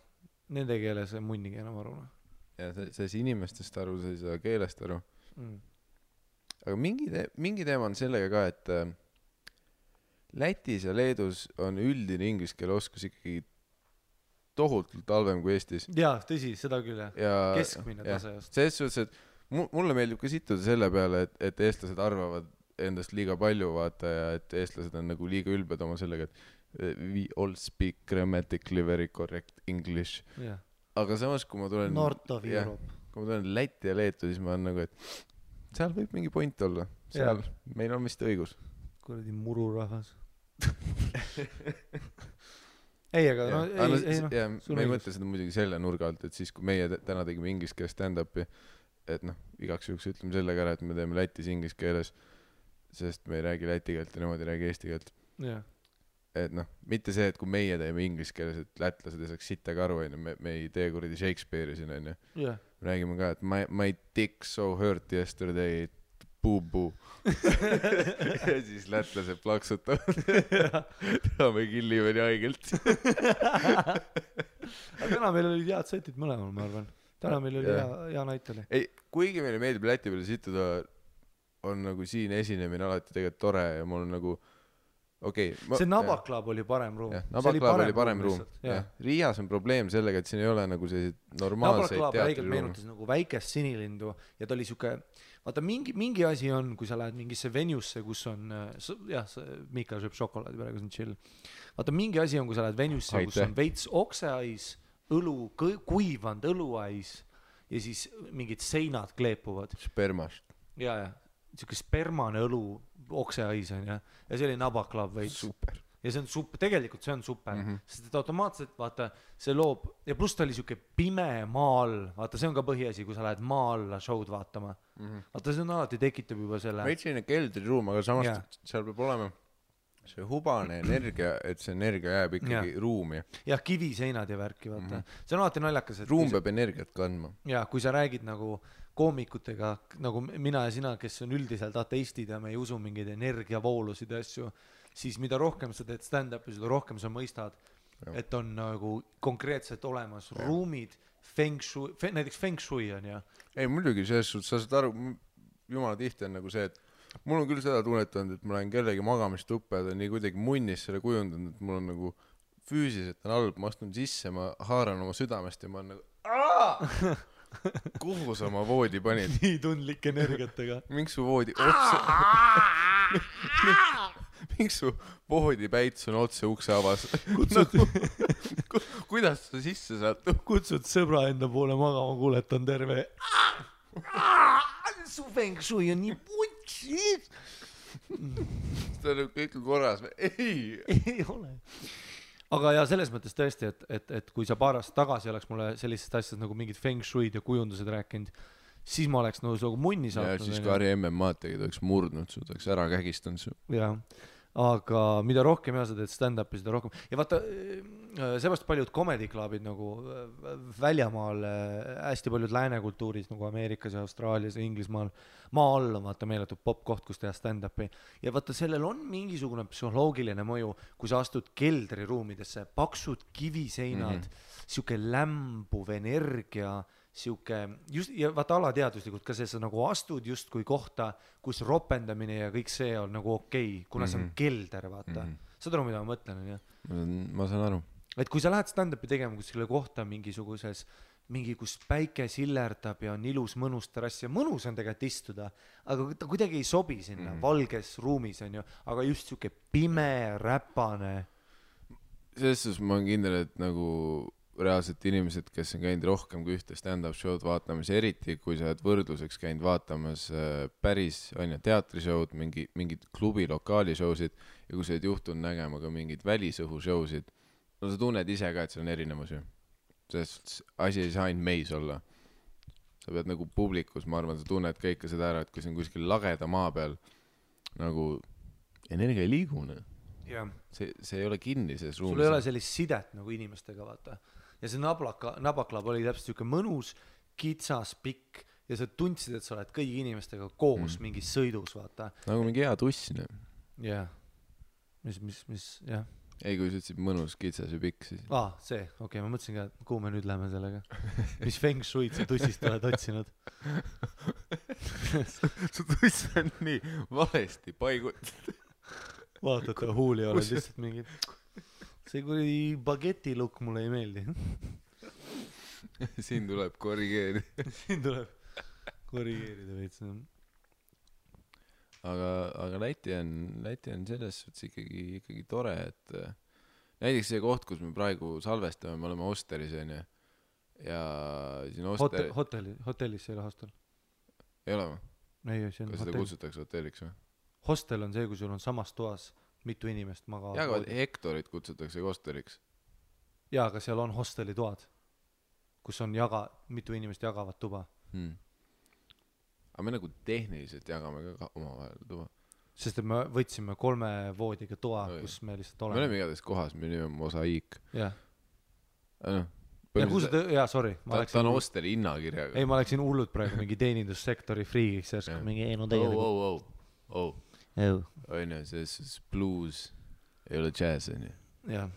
nende keeles munnigi enam aru ja sa ei saa inimestest aru sa ei saa keelest aru aga mingi teema on sellega ka et Lätis ja Leedus on üldine inglise keele oskus ikkagi tohutult halvem kui Eestis jaa tõsi seda küll jah keskmine tase just selles suhtes et mulle meeldib ka situda selle peale et eestlased arvavad endast liiga palju vaata ja et eestlased on nagu liiga ülbed oma sellega et we all speak grammatically very correct English aga samas kui ma tulen North of Europe kui ma tulen Läti ja Leetu siis ma olen nagu et seal võib mingi point olla seal meil on vist õigus kuradi mururahvas ei aga no ei noh me ei mõtle seda muidugi selle nurga alt et siis kui meie täna tegime inglise keeles stand-up'i et noh igaks juhuks ütleme selle ka ära et me teeme Lätis inglise keeles sest me ei räägi läti keelt ja nemad ei räägi eesti keelt et noh mitte see et kui meie teeme inglise keeles et lätlased ei saaks sittagi aru onju me ei tee kuradi Shakespeare'i siin onju me räägime ka et my dick so hurt yesterday boo ja siis lätlased plaksutavad me killime nii haigelt aga täna meil olid head setid mõlemal ma arvan täna meil oli hea näit oli ei kuigi meile meeldib Läti peale situda on nagu siin esinemine alati tegelikult tore ja mul on nagu see Nabaklab oli parem ruum Nabaklab oli parem ruum Riias on probleem sellega et siin ei ole nagu selliseid normaalseid teatriruume meenutas nagu väikest sinilindu ja ta oli siuke vaata mingi asi on kui sa lähed mingisse venuesse kus on jah Miikal sööb šokolaadi praegu see on chill vaata mingi asi on kui sa lähed venusse kus on veits okseais õlu kuivanud õluais ja siis mingid seinad kleepuvad spermast ja siuke spermane õlu okseais on ja see oli Nabaklab veits super ja see on super tegelikult see on super sest et automaatselt vaata see loob ja pluss ta oli siuke pime maa all vaata see on ka põhiasi kui sa lähed maa alla show'd vaatama vaata see on alati tekitab juba selle veits selline keldriruum aga samas seal peab olema see hubane energia et see energia jääb ikkagi ruumi jah kiviseinad ja värki vaata see on alati naljakas et ruum peab energiat kandma ja kui sa räägid nagu koomikutega nagu mina ja sina kes on üldiselt ateistid ja me ei usu mingeid energiavoolusid ja asju siis mida rohkem sa teed stand-up'i seda rohkem sa mõistad et on nagu konkreetselt olemas ruumid feng shui näiteks feng shui on ja ei muidugi selles suhtes sa saad aru jumala tihti on nagu see et mul on küll seda tunnetanud et ma lähen kellegi magamistuppa ja ta on nii kuidagi munnis selle kujundanud et mul on nagu füüsiliselt on halb ma astun sisse ma haaran oma südamest ja ma olen nagu kuhu sa oma voodi panid nii tundlike energiatega miks su voodi otse miks su voodipäits on otse ukse avas kuidas sa sisse saad kutsud sõbra enda poole magama kuule et on terve su feng shui on nii putsi ta on kõik korras ei ole aga ja selles mõttes tõesti, et kui sa paar aastat tagasi oleks mulle sellisest asjast nagu mingid feng shuid ja kujundused rääkinud, siis ma oleks nagu munni ja saatnud. siis kui Harri MM-ad tegid, oleks murdnud su, oleks ära kägistanud su. jah, aga mida rohkem sa teed stand-up'i, seda rohkem. Ja vaata, seepärast paljud comedy clubid nagu väljamaal, hästi paljud lääne kultuuris nagu Ameerikas ja Austraalias ja Inglismaal, maa all on vaata meeletud popkoht, kus teha stand-up'i. Ja vaata, sellel on mingisugune psühholoogiline mõju, kui sa astud keldriruumidesse, paksud kiviseinad, siuke lämbuv energia, siuke just, ja vaata alateaduslikult ka see, sa nagu astud justkui kohta, kus ropendamine ja kõik see on nagu okei, kuna see on kelder, vaata. Saad aru, mida ma mõtlen, on ju? Ma saan aru. Et kui sa lähed stand-up'i tegema kuskile kohta mingisuguses, kus päike sillerdab ja on ilus mõnus terrass ja mõnus on tegelikult istuda, aga ta kuidagi ei sobi sinna valges ruumis, on ju, aga just siuke pime, räpane. Selles suhtes ma olen kindel, et nagu reaalselt inimesed, kes on käinud rohkem kui ühte stand-up show'd vaatamas, eriti kui sa oled võrdluseks käinud vaatamas päris teatrishow'd, mingid klubi lokaali show'sid ja kui sa oled juhtunud nägema ka mingid välisõhu show'sid, no sa tunned ise ka, et see on erinevus ju. Sest asi ei saa ainult meis olla. Sa pead nagu publikus, ma arvan, sa tunned ka ikka seda ära, et kui see on kuskil lageda maa peal, nagu energia ei liigu. Yeah. See ei ole kinni selles ruumis. Sul ei ole sellist sidet nagu inimestega, vaata. Ja see nabaklab oli täpselt siuke mõnus, kitsas, pikk ja sa tundsid, et sa oled kõigi inimestega koos mingis sõidus, vaata. Nagu mingi hea tussin. Jah. Mis, jah. Ei, kui sa ütlesid mõnus, kitsas ja pikk, siis. See, okei, ma mõtlesin ka, kuhu me nüüd läheme sellega. Mis feng shuid sa tussist oled otsinud? Su tuss on nii valesti paigut. Vaata, et huuli oled lihtsalt mingid. See kui bageti lukk mulle ei meeldi. Siin tuleb korrigeerida. Siin tuleb korrigeerida veits. Aga Läti on selles suhtes ikkagi tore, et näiteks see koht, kus me praegu salvestame, me oleme Osteris, on ju. Ja siin hotellis ei ole hostel. Ei ole või? Ei, see on kas seda kutsutakse hotelliks või? Hostel on see, kui sul on samas toas mitu inimest magavad. Ja, aga Hektorit kutsutakse hosteliks. Ja, aga seal on hosteli toad, kus on mitu inimest jagavad tuba. Aga me nagu tehniliselt jagame ka omavahel tuba. Sest et me võtsime 3 voodiga toa, kus me lihtsalt oleme. Me oleme igatahes kohas, me oleme Mosaiik. Jah. Ja, sorry. Ta on hosteli hinnakirjaga. Ei, ma läksin hullud praegu mingi teenindussektori friigiks. Mingi Oine, see blues ei ole jazz, on ju. Jah.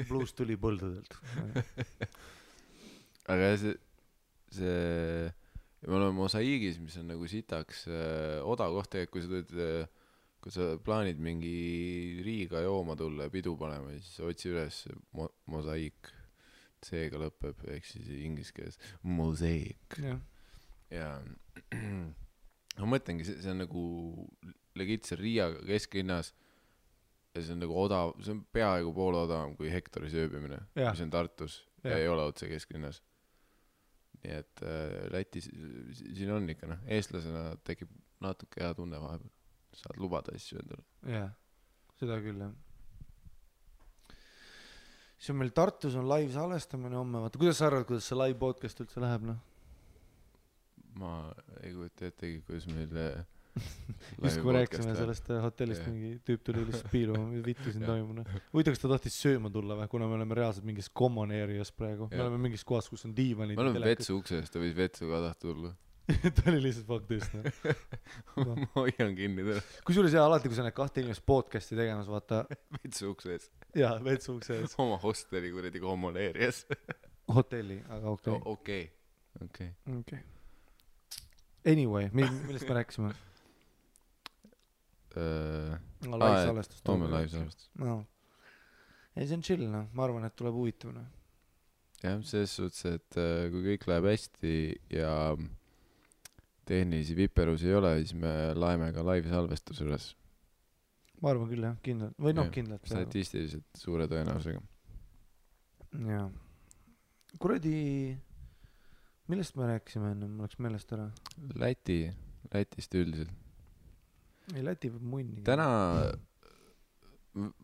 Blues tuli põldudelt. Aga see me oleme Mosaiigis, mis on nagu sitaks odav koht, kui sa plaanid mingi Riiga jooma tulla ja pidu panema, siis otsi üles Mosaiik. C-ga lõpeb, ehk siis inglise keeles Mosaiik. Ja ma mõtlengi, see on nagu legitse Riia kesklinnas ja see on nagu odav, see on peaaegu pool odavam kui Hektoris ööbimine, mis on Tartus ja ei ole otse kesklinnas. Nii et Lätis siin on ikka, eestlasena tekib natuke hea tunne vahepeal. Saad lubada asju endale. Jah, seda küll, jah. See on meil Tartus on live salvestamine homme, vaata, kuidas sa arvad, kuidas see live podcast üldse läheb, Ma ei kujuta ettegi, kuidas meil just kui rääksime sellest hotellist mingi tüüp tuli lihtsalt piiluma, vittu siin toimuna. Võita, kas ta tahtis sööma tulla või, kuna me oleme reaalselt mingis common areas praegu. Me oleme mingis kohas, kus on diivanid. Me oleme vetsu ukses, ta võis vetsu ka tahta tulla. Ta oli lihtsalt faktist. Ma hoian kinni täna. Kusjuures alati, kui sa need 2 inimest podcasti tegemas, vaata. Vetsu ukses. Jaa, vetsu ukses. Oma hosteli kuradi common areas. Hotelli, aga okei. Anyway, millest me rääkisime? Live salvestus. Live salvestus. Ei, see on chill, ma arvan, et tuleb huvitav. Jah, selles suhtes, et kui kõik läheb hästi ja tehnilisi viperus ei ole, siis me laeme ka live salvestus üles. Ma arvan küll, jah, kindlalt. Või kindlalt. Statistiliselt suure tõenäosusega. Jaa. Kuradi, millest me rääkisime enne, ma oleks meelest ära? Lätist üldiselt. Ei, Läti võib munni. Täna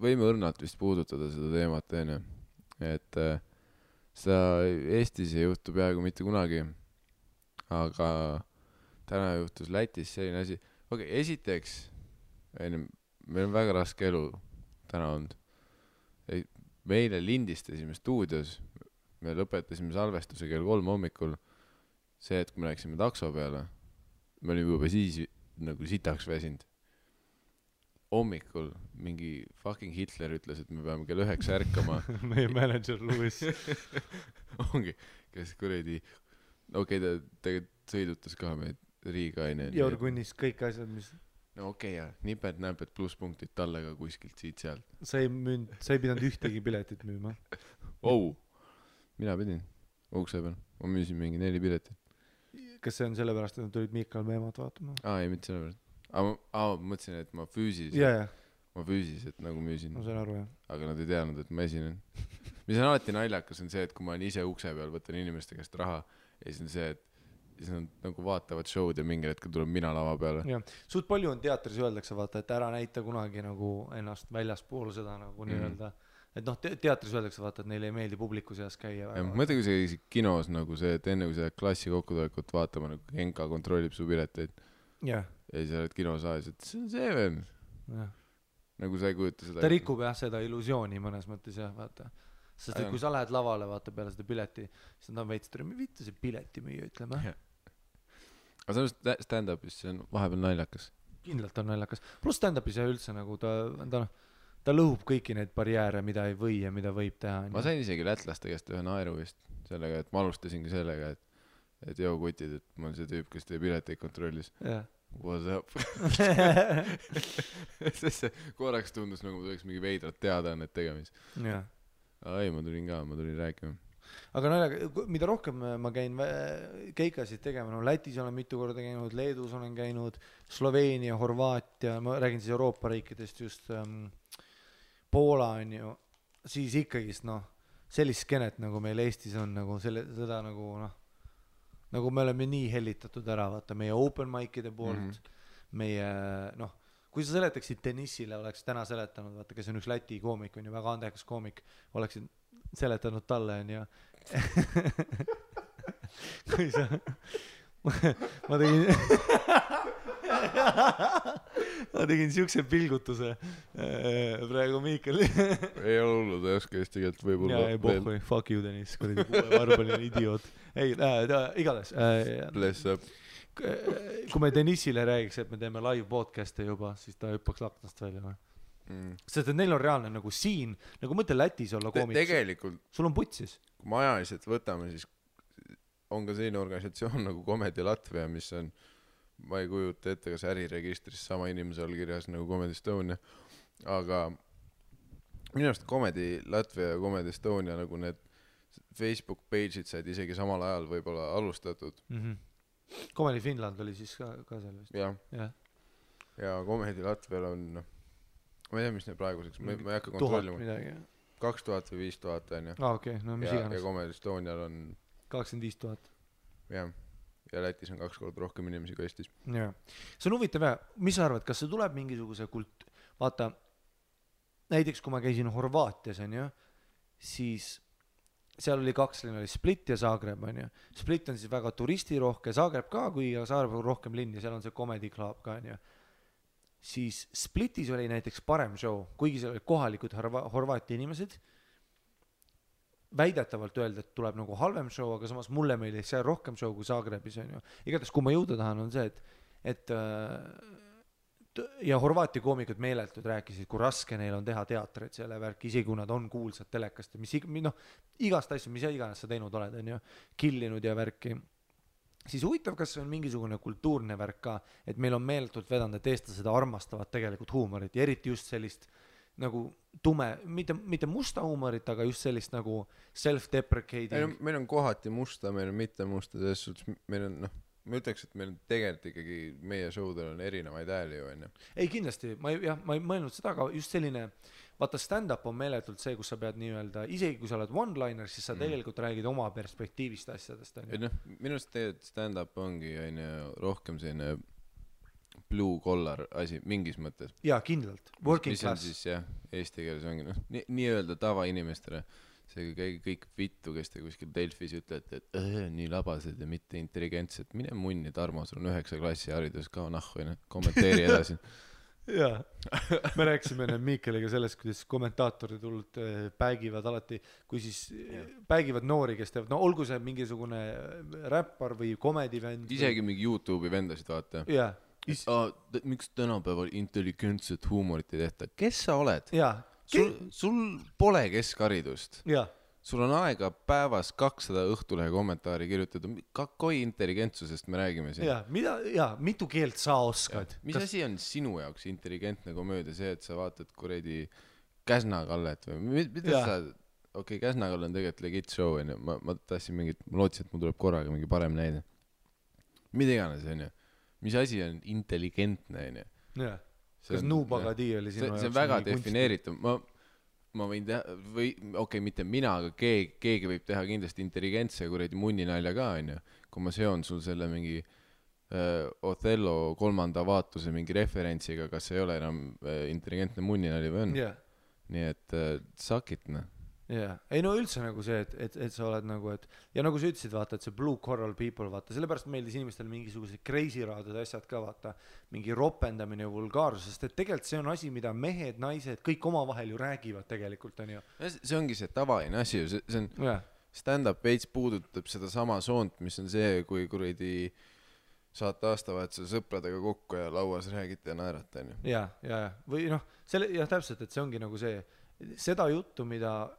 võime õrnalt vist puudutada seda teemat, onju. Et seda Eestis ei juhtu peaaegu mitte kunagi. Aga täna juhtus Lätis selline asi. Okei, esiteks, meil on väga raske elu täna olnud. Meile lindistasime stuudios, me lõpetasime salvestuse kell 3 hommikul. See, et kui me läksime takso peale, me olime juba siis nagu sitaks väsinud. Hommikul mingi fucking Hitler ütles, et me peame kell 9 ärkama. Meie manager Lewis. Ongi, kes kuradi, okei, ta tegelikult sõidutas ka meid Riigaine. Jorgunnis kõik asjad, mis... No okei, ja niped-näped plusspunktid talle ka kuskilt siit-sealt. Sa ei pidanud ühtegi piletit müüma. Mina pidin ukse peal. Ma müüsin mingi 4 piletit. Kas see on sellepärast, et nad tulid Miikal Meemat vaatama? Ei, mitte sellepärast. Ma mõtlesin, et ma füüsiliselt nagu müüsin. Ma sain aru, jah. Aga nad ei teadnud, et ma esinen. Mis on alati naljakas, on see, et kui ma olen ise ukse peal, võtan inimeste käest raha ja siis on see, et siis nad nagu vaatavad show'd ja mingil hetkel tuleb mina lava peale. Ja. Suht palju on teatris öeldakse, vaata, et ära näita kunagi nagu ennast väljaspool seda nagu nii-öelda. Et noh, teatris öeldakse, vaata, et neile ei meeldi publiku seas käia. Mõtle, kui sa käisid kinos nagu see, et enne kui sa klassi kokkutulekut vaatama, nagu Genka kontrollib su pileteid. Ja siis sa oled kinosaalis, et see on see veel. Nagu sa ei kujuta seda. Ta rikub jah seda illusiooni mõnes mõttes jah, vaata. Sest et kui sa lähed lavale, vaata peale seda pileti, siis nad on veits, et viita see pileti müüa, ütleme. Aga see stand-upis, see on vahepeal naljakas. Kindlalt on naljakas. Plus stand-upis ja üldse nagu ta lõhub kõiki neid barjääre, mida ei või ja mida võib teha. Ma sain isegi lätlaste käest ühe naeru vist sellega, et ma alustasingi sellega, et joo kutid, et ma olen see tüüp, kes teie pileteid kontrollis. What's up? Sest see korraks tundus nagu ma tuleks mingi veidrat teada on need tegemis. Ei, ma tulin rääkima. Aga mida rohkem ma käin keikasid tegema, no Lätis olen mitu korda käinud, Leedus olen käinud, Sloveenia, Horvaatia, ma räägin siis Euroopa riikidest just Poola on ju, siis ikkagist sellist skenet nagu meil Eestis on nagu seda nagu me oleme nii hellitatud ära, vaata meie open mic'ide poolt, meie kui sa seletaksid Dennisile, oleks täna seletanud, vaata, kes on üks Läti koomik, on ju väga andekas koomik, oleksid seletanud talle on ja kui sa ma tegin siukse pilgutuse praegu Miikal ei ole hullu, ta ei oska eesti keelt võib-olla ei pohhui, fuck you Dennis, kuradi varbaline idioot ei, igatahes bless up kui me Dennisile räägiks, et me teeme live podcast'e juba, siis ta hüppaks laknast välja või? Sest et neil on reaalne nagu siin, nagu mõtle Lätis olla koomik. Tegelikult, sul on putsis. Kui me ajaliselt võtame, siis on ka selline organisatsioon nagu Comedy Latvia, mis on, ma ei kujuta ette, kas äriregistris sama inimese allkirjas nagu Comedy Estonia, aga minu arust Comedy Latvia ja Comedy Estonia nagu need Facebook page'id said isegi samal ajal võib-olla alustatud. Comedy Finland oli siis ka seal vist. Ja Comedy Latvial on ma ei tea, mis need praeguseks, ma ei hakka kontrollima. 2000 või 5000 on ju. Okei, no mis iganes. Ja Comedy Estonial on 25 000. Ja Lätis on 2 korda rohkem inimesi kui Eestis. See on huvitav, mis sa arvad, kas see tuleb mingisuguse vaata, näiteks kui ma käisin Horvaatias on ju, siis seal oli 2 linna, oli Split ja Zagreb on ju. Split on siis väga turistirohke, Zagreb ka, kui Zagreb on rohkem linn ja seal on see Comedy Club ka on ju. Siis Splitis oli näiteks parem show, kuigi seal olid kohalikud Horvaatia inimesed, väidetavalt öelda, et tuleb nagu halvem show, aga samas mulle meeldis seal rohkem show kui Zagrebis on ju. Igatahes, kui ma jõuda tahan, on see, et ja Horvaatia koomikud meeletud rääkisid, kui raske neil on teha teatrit selle värk, isegi kui nad on kuulsad telekast ja igast asju, mis iganes sa teinud oled, on ju, killinud ja värki. Siis huvitav, kas see on mingisugune kultuurne värk ka, et meil on meeletult vedanud, et eestlased armastavad tegelikult huumorit ja eriti just sellist nagu tume, mitte musta huumorit, aga just sellist nagu self-deprecating. Meil on kohati musta, meil on mitte musta, selles suhtes meil on, ma ütleks, et meil tegelikult ikkagi meie showdel on erinevaid hääli ju enne. Ei kindlasti, ma ei mõelnud seda, aga just selline vaata stand-up on meeletult see, kus sa pead nii-öelda, isegi kui sa oled one-liner, siis sa tegelikult räägid oma perspektiivist asjadest. Minust tegelikult stand-up ongi rohkem selline blue collar asi mingis mõttes. jaa, kindlalt, working mis on class. siis jah, eesti keeles ongi noh, nii-öelda tavainimestele, see käige kõik vittu, kes te kuskil Delfis ütlete, et nii labased ja mitte intelligentsed, mine munni, Tarmo, sul on 9 klassi haridus, kao nahku, kommenteeri edasi. jaa, me rääkisime enne Miikeliga sellest, kuidas kommentaatorid hullult päigivad alati, kui siis päigivad noori, kes teevad, no olgu see mingisugune räppar või komedivend. isegi mingi YouTube'i vendasid vaata. jaa. Miks tänapäeval intelligentset huumorit ei tehta? Kes sa oled? jaa. Sul pole keskharidust. jaa. Sul on aega päevas 200 Õhtulehe kommentaari kirjutada. Kakoi intelligentsusest me räägime siin. mitu keelt sa oskad? Mis asi on sinu jaoks intelligentne komöödia? See, et sa vaatad kuradi Käsna-Kallet või mida sa... Okei, Käsna-Kalle on tegelikult legit show, on ju. Ma tahtsin mingit... Ma lootsin, et mul tuleb korraga mingi parem näide. Mida iganes, on ju. Mis asi on intelligentne, on ju? Jaa. Kas Nuubagadi oli sinu jaoks? See on väga defineeritud. Ma võin teha, või okei, mitte mina, aga keegi võib teha kindlasti intelligentse kuradi munninalja ka, on ju. Kui ma seon sul selle mingi Othello 3. vaatuse mingi referentsiga, kas ei ole enam intelligentne munninali või on? Nii et suck it, noh. jaa, ei no üldse nagu see, et sa oled nagu, et ja nagu sa ütlesid, vaata, et see blue coral people, vaata, sellepärast meeldis inimestel mingisugused crazy raadud asjad ka, vaata, mingi ropendamine ja vulgaarsus, sest et tegelikult see on asi, mida mehed, naised, kõik omavahel ju räägivad tegelikult, on ju. See ongi see tavaline asi ju, see on stand-up veits puudutab seda sama soont, mis on see, kui kuradi saate aastavahetusel sõpradega kokku ja lauas räägite ja naerate, on ju. ja, või noh, täpselt, et see ongi nagu see, seda juttu, mida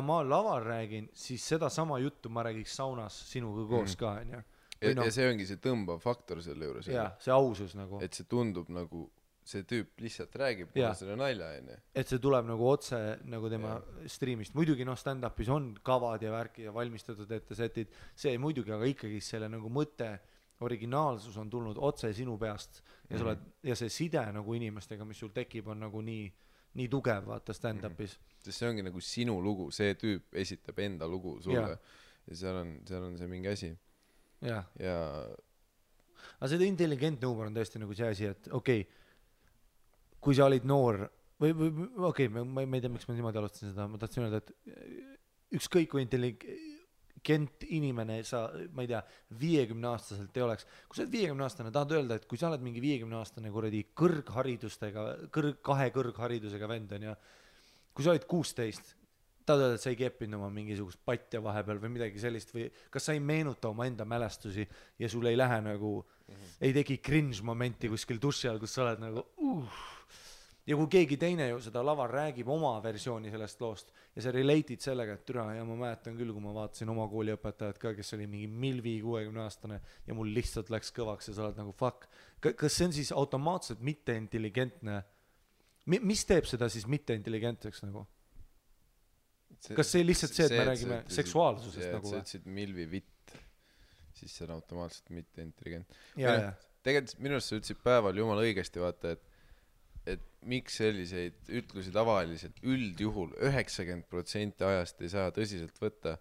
ma laval räägin, siis seda sama juttu ma räägiks saunas sinuga koos ka, on ju. Ja see ongi see tõmbav faktor selle juures. Jaa, see ausus nagu. Et see tundub nagu, see tüüp lihtsalt räägib selle nalja, on ju. Et see tuleb nagu otse nagu tema streamist. Muidugi stand-upis on kavad ja värki ja valmistatud ette setid, see muidugi, aga ikkagi selle nagu mõte, originaalsus on tulnud otse sinu peast ja, ja see side nagu inimestega, mis sul tekib, on nagu nii tugev, vaata stand-upis. Sest see ongi nagu sinu lugu, see tüüp esitab enda lugu sulle ja seal on see mingi asi. Ja. Aga see intelligentne huumor on tõesti nagu see asi, et okei, kui sa olid noor või okei, ma ei tea, miks ma niimoodi alustasin seda, ma tahtsin öelda, et ükskõik kui intelligent inimene sa, ma ei tea, 50-aastaselt ei oleks. Kui sa oled 50-aastane, tahad öelda, et kui sa oled mingi 50-aastane kuradi kahe kõrgharidusega vend on ja kui sa olid 16, tahad öelda, et sa ei keppinud oma mingisugust patja vahepeal või midagi sellist või kas sa ei meenuta oma enda mälestusi ja sul ei lähe nagu, ei tegi cringe momenti kuskil duši all, kus sa oled nagu ja kui keegi teine ju seda laval räägib oma versiooni sellest loost ja sa relate'id sellega, et türa, ja ma mäletan küll, kui ma vaatasin oma kooliõpetajat ka, kes oli mingi milvi 60-aastane ja mul lihtsalt läks kõvaks ja sa oled nagu fuck. Kas see on siis automaatselt mitte intelligentne? Mis teeb seda siis mitte intelligentseks nagu? Kas see lihtsalt see, et me räägime seksuaalsusest nagu või? See ütlesid milvi vitt, siis see on automaatselt mitte intelligent. Tegelikult minu arust sa ütlesid päeval jumala õigesti, vaata, et miks selliseid ütlusi tavaliselt üldjuhul 90% ajast ei saa tõsiselt võtta,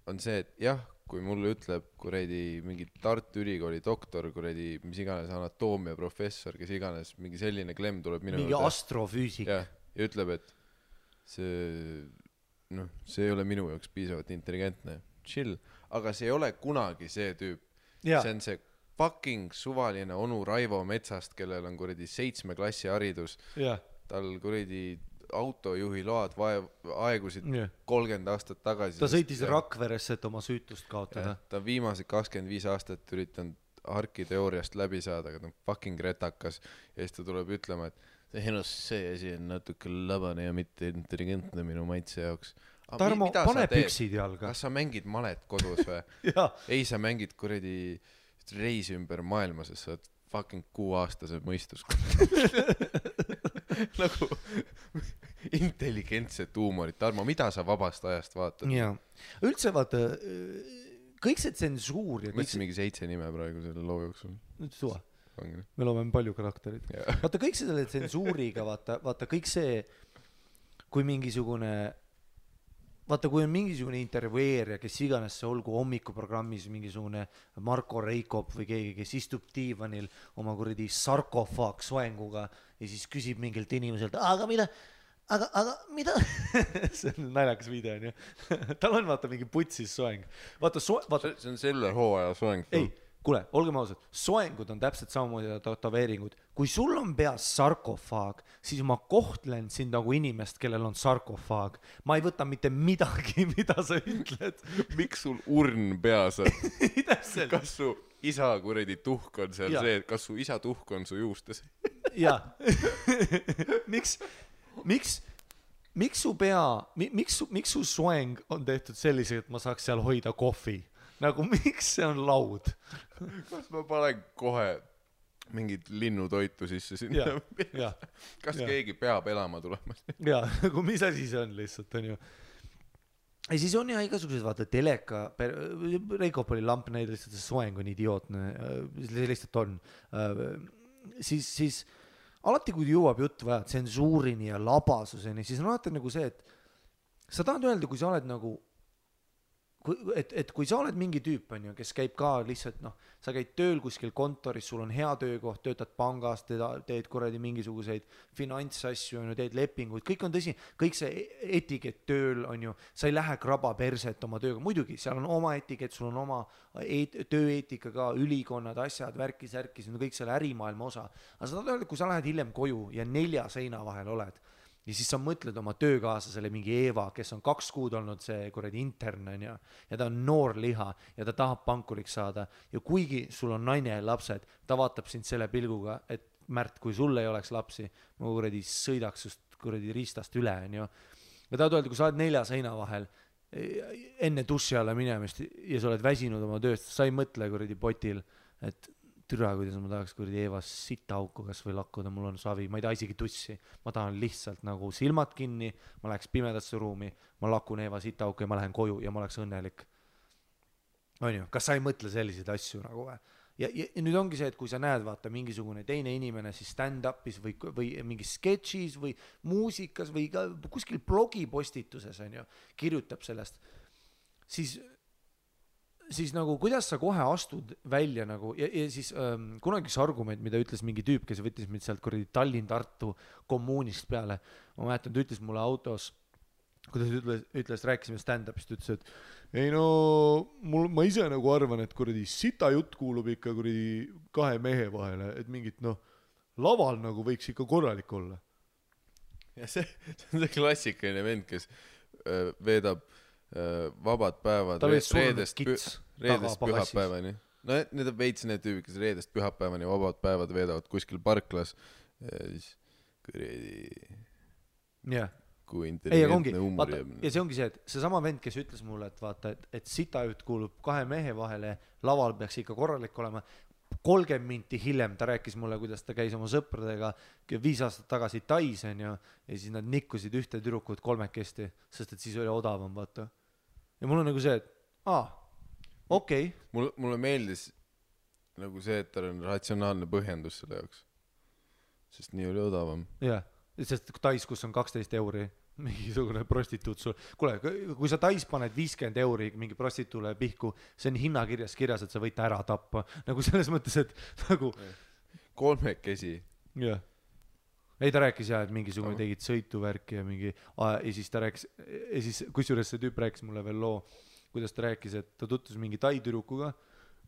on see, et jah, kui mulle ütleb kuradi mingi Tartu Ülikooli doktor, kuradi mis iganes anatoomia professor, kes iganes, mingi selline klemm tuleb minu mingi astrofüüsik ja ütleb, et see ei ole minu jaoks piisavalt intelligentne, chill, aga see ei ole kunagi see tüüp, see on see fucking suvaline onu Raivo Metsast, kellel on kuradi 7 klassi haridus, tal kuradi autojuhi load aegusid 30 aastat tagasi. Ta sõitis Rakveresse, et oma süütust kaotada. Ta viimased 25 aastat üritanud harkiteooriast läbi saada, aga ta on fucking retakas ja siis ta tuleb ütlema, et see asi on natuke labane ja mitte intelligentne minu maitse jaoks. Tarmo, pane püksid jalga. Kas sa mängid malet kodus või? Ei, sa mängid kuradi reisi ümber maailma, sest sa oled fucking 6-aastase mõistus. Nagu intelligentset huumorit. Tarmo, mida sa vabast ajast vaatad? Jaa. Üldse vaata, kõik see tsensuur ja mõtlesin mingi 7 nime praegu selle loo jooksul. Nüüd suva. Me loome palju karakterid. Vaata kõik selle tsensuuriga, vaata kõik see, kui mingisugune vaata, kui on mingisugune intervjueerija, kes iganes see olgu hommikuprogrammis mingisugune Marko Reikop või keegi, kes istub diivanil oma kuradi sarkofaag soenguga ja siis küsib mingilt inimeselt, aga mida see on naljakas video, on ju. Tal on vaata mingi putsis soeng. Vaata, see on selle hooaja soeng. Ei, kuule, olgem ausad, soengud on täpselt samamoodi tatoveeringud. Kui sul on peas sarkofaag, siis ma kohtlen sind nagu inimest, kellel on sarkofaag. Ma ei võta mitte midagi, mida sa ütled. Miks sul urn peas on? Täpselt. Kas su isa kuredi tuhk on seal see, kas su isa tuhk on su juustes? Jaa. Miks su pea, miks su soeng on tehtud sellisega, et ma saaks seal hoida kohvi? Nagu miks see on laud? Kas ma panen kohe mingit linnutoitu sisse sinna? Kas keegi peab elama tulema? Jaa, nagu mis asi see on lihtsalt, on ju. Ja siis on ja igasugused, vaata, teleka, Reikop oli lamp näide, lihtsalt see soeng on idiootne, see lihtsalt on. Siis alati, kui jõuab jutt vaja tsensuurini ja labasuseni, siis on alati nagu see, et sa tahad öelda, kui sa oled nagu, et kui sa oled mingi tüüp, on ju, kes käib ka lihtsalt, noh, sa käid tööl kuskil kontoris, sul on hea töökoht, töötad pangas, teed kuradi mingisuguseid finantsasju, on ju, teed lepinguid, kõik on tõsi, kõik see etikett tööl, on ju, sa ei lähe kraba perset oma tööga, muidugi, seal on oma etikett, sul on oma tööeetika ka, ülikonnad, asjad, värkis, see on kõik selle ärimaailma osa, aga sa tahad öelda, kui sa lähed hiljem koju ja 4 seina vahel oled, ja siis sa mõtled oma töökaaslasele mingi Eeva, kes on 2 kuud olnud see kuradi intern, on ju, ja ta on noor liha ja ta tahab pankuriks saada ja kuigi sul on naine ja lapsed, ta vaatab sind selle pilguga, et Märt, kui sul ei oleks lapsi, ma kuradi sõidaks just kuradi riistast üle, on ju. Ja tahad öelda, kui sa oled 4 seina vahel enne duši alla minemist ja sa oled väsinud oma tööst, sa ei mõtle kuradi potil, et türa, kuidas ma tahaks kuradi Eevas sitahauku kas või lakkuda, mul on savi, ma ei taha isegi tussi, ma tahan lihtsalt nagu silmad kinni, ma läheks pimedasse ruumi, ma lakun Eeva sitahauku ja ma lähen koju ja ma oleks õnnelik. On ju, kas sa ei mõtle selliseid asju nagu või? Ja nüüd ongi see, et kui sa näed, vaata, mingisugune teine inimene siis stand-upis või mingis sketšis või muusikas või ka kuskil blogipostituses, on ju, kirjutab sellest, siis nagu kuidas sa kohe astud välja nagu ja siis kunagi üks argument, mida ütles mingi tüüp, kes võttis mind sealt kuradi Tallinn-Tartu kommuunist peale, ma mäletan, ta ütles mulle autos, kuidas ütles, rääkisime stand-upist, ütles, et ei no, ma ise nagu arvan, et kuradi sita jutt kuulub ikka kuradi 2 mehe vahele, et mingit laval nagu võiks ikka korralik olla. Ja see on see klassikaline vend, kes veedab vabad päevad reedest pühapäevani. No need on veits need tüübid, kes reedest pühapäevani vabad päevad veedavad kuskil parklas ja siis kui intelligentne huumor jääb. Ja see ongi see, et see sama vend, kes ütles mulle, et vaata, et sitajutt kuulub 2 mehe vahele, laval peaks ikka korralik olema. 30 minti hiljem ta rääkis mulle, kuidas ta käis oma sõpradega 5 aastat tagasi Tais, on ju, ja siis nad nikkusid ühte tüdrukut 3-kesti, sest et siis oli odavam, vaata. Ja mul on nagu see, et okei. Mulle meeldis nagu see, et tal on ratsionaalne põhjendus selle jaoks, sest nii oli odavam. Jah, sest Tais, kus on 12 euri, mingisugune prostituut sul. Kuule, kui sa Tais paned 50 euri mingi prostituule pihku, see on hinnakirjas kirjas, et sa võid ta ära tappa. Nagu selles mõttes, et nagu... 3-kesi. Jah. Ei, ta rääkis jah, et mingisugune tegid sõituvärki ja mingi... Ja siis ta rääkis... Ja siis kusjuures see tüüp rääkis mulle veel loo, kuidas ta rääkis, et ta tutvus mingi Tai tüdrukuga.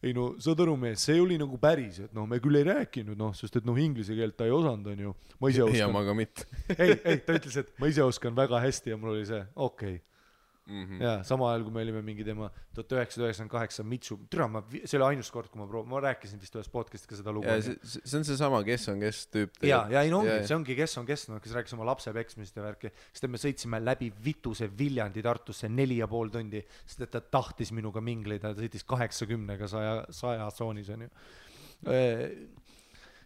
Ei no, saad aru mees, see oli nagu päris, et me küll ei rääkinud, sest et inglise keelt ta ei osanud, on ju. Ma ise oskan. Ja ma ka mitte. ei, ta ütles, et ma ise oskan väga hästi ja mul oli see, okei. Ja sama ajal, kui me olime mingi tema 1998 Mitsu, see oli ainus kord, kui ma rääkisin vist ühes podcast'i ka seda lugu. Ja see on see sama kes on kes tüüp. Ja ei no ongi, see ongi kes on kes, kes rääkis oma lapse peksmist ja värki. Sest me sõitsime läbi Vituse Viljandi Tartusse 4,5 tundi, sest et ta tahtis minuga mingleida, ta sõitis 80-ga 100 tsoonis, on ju.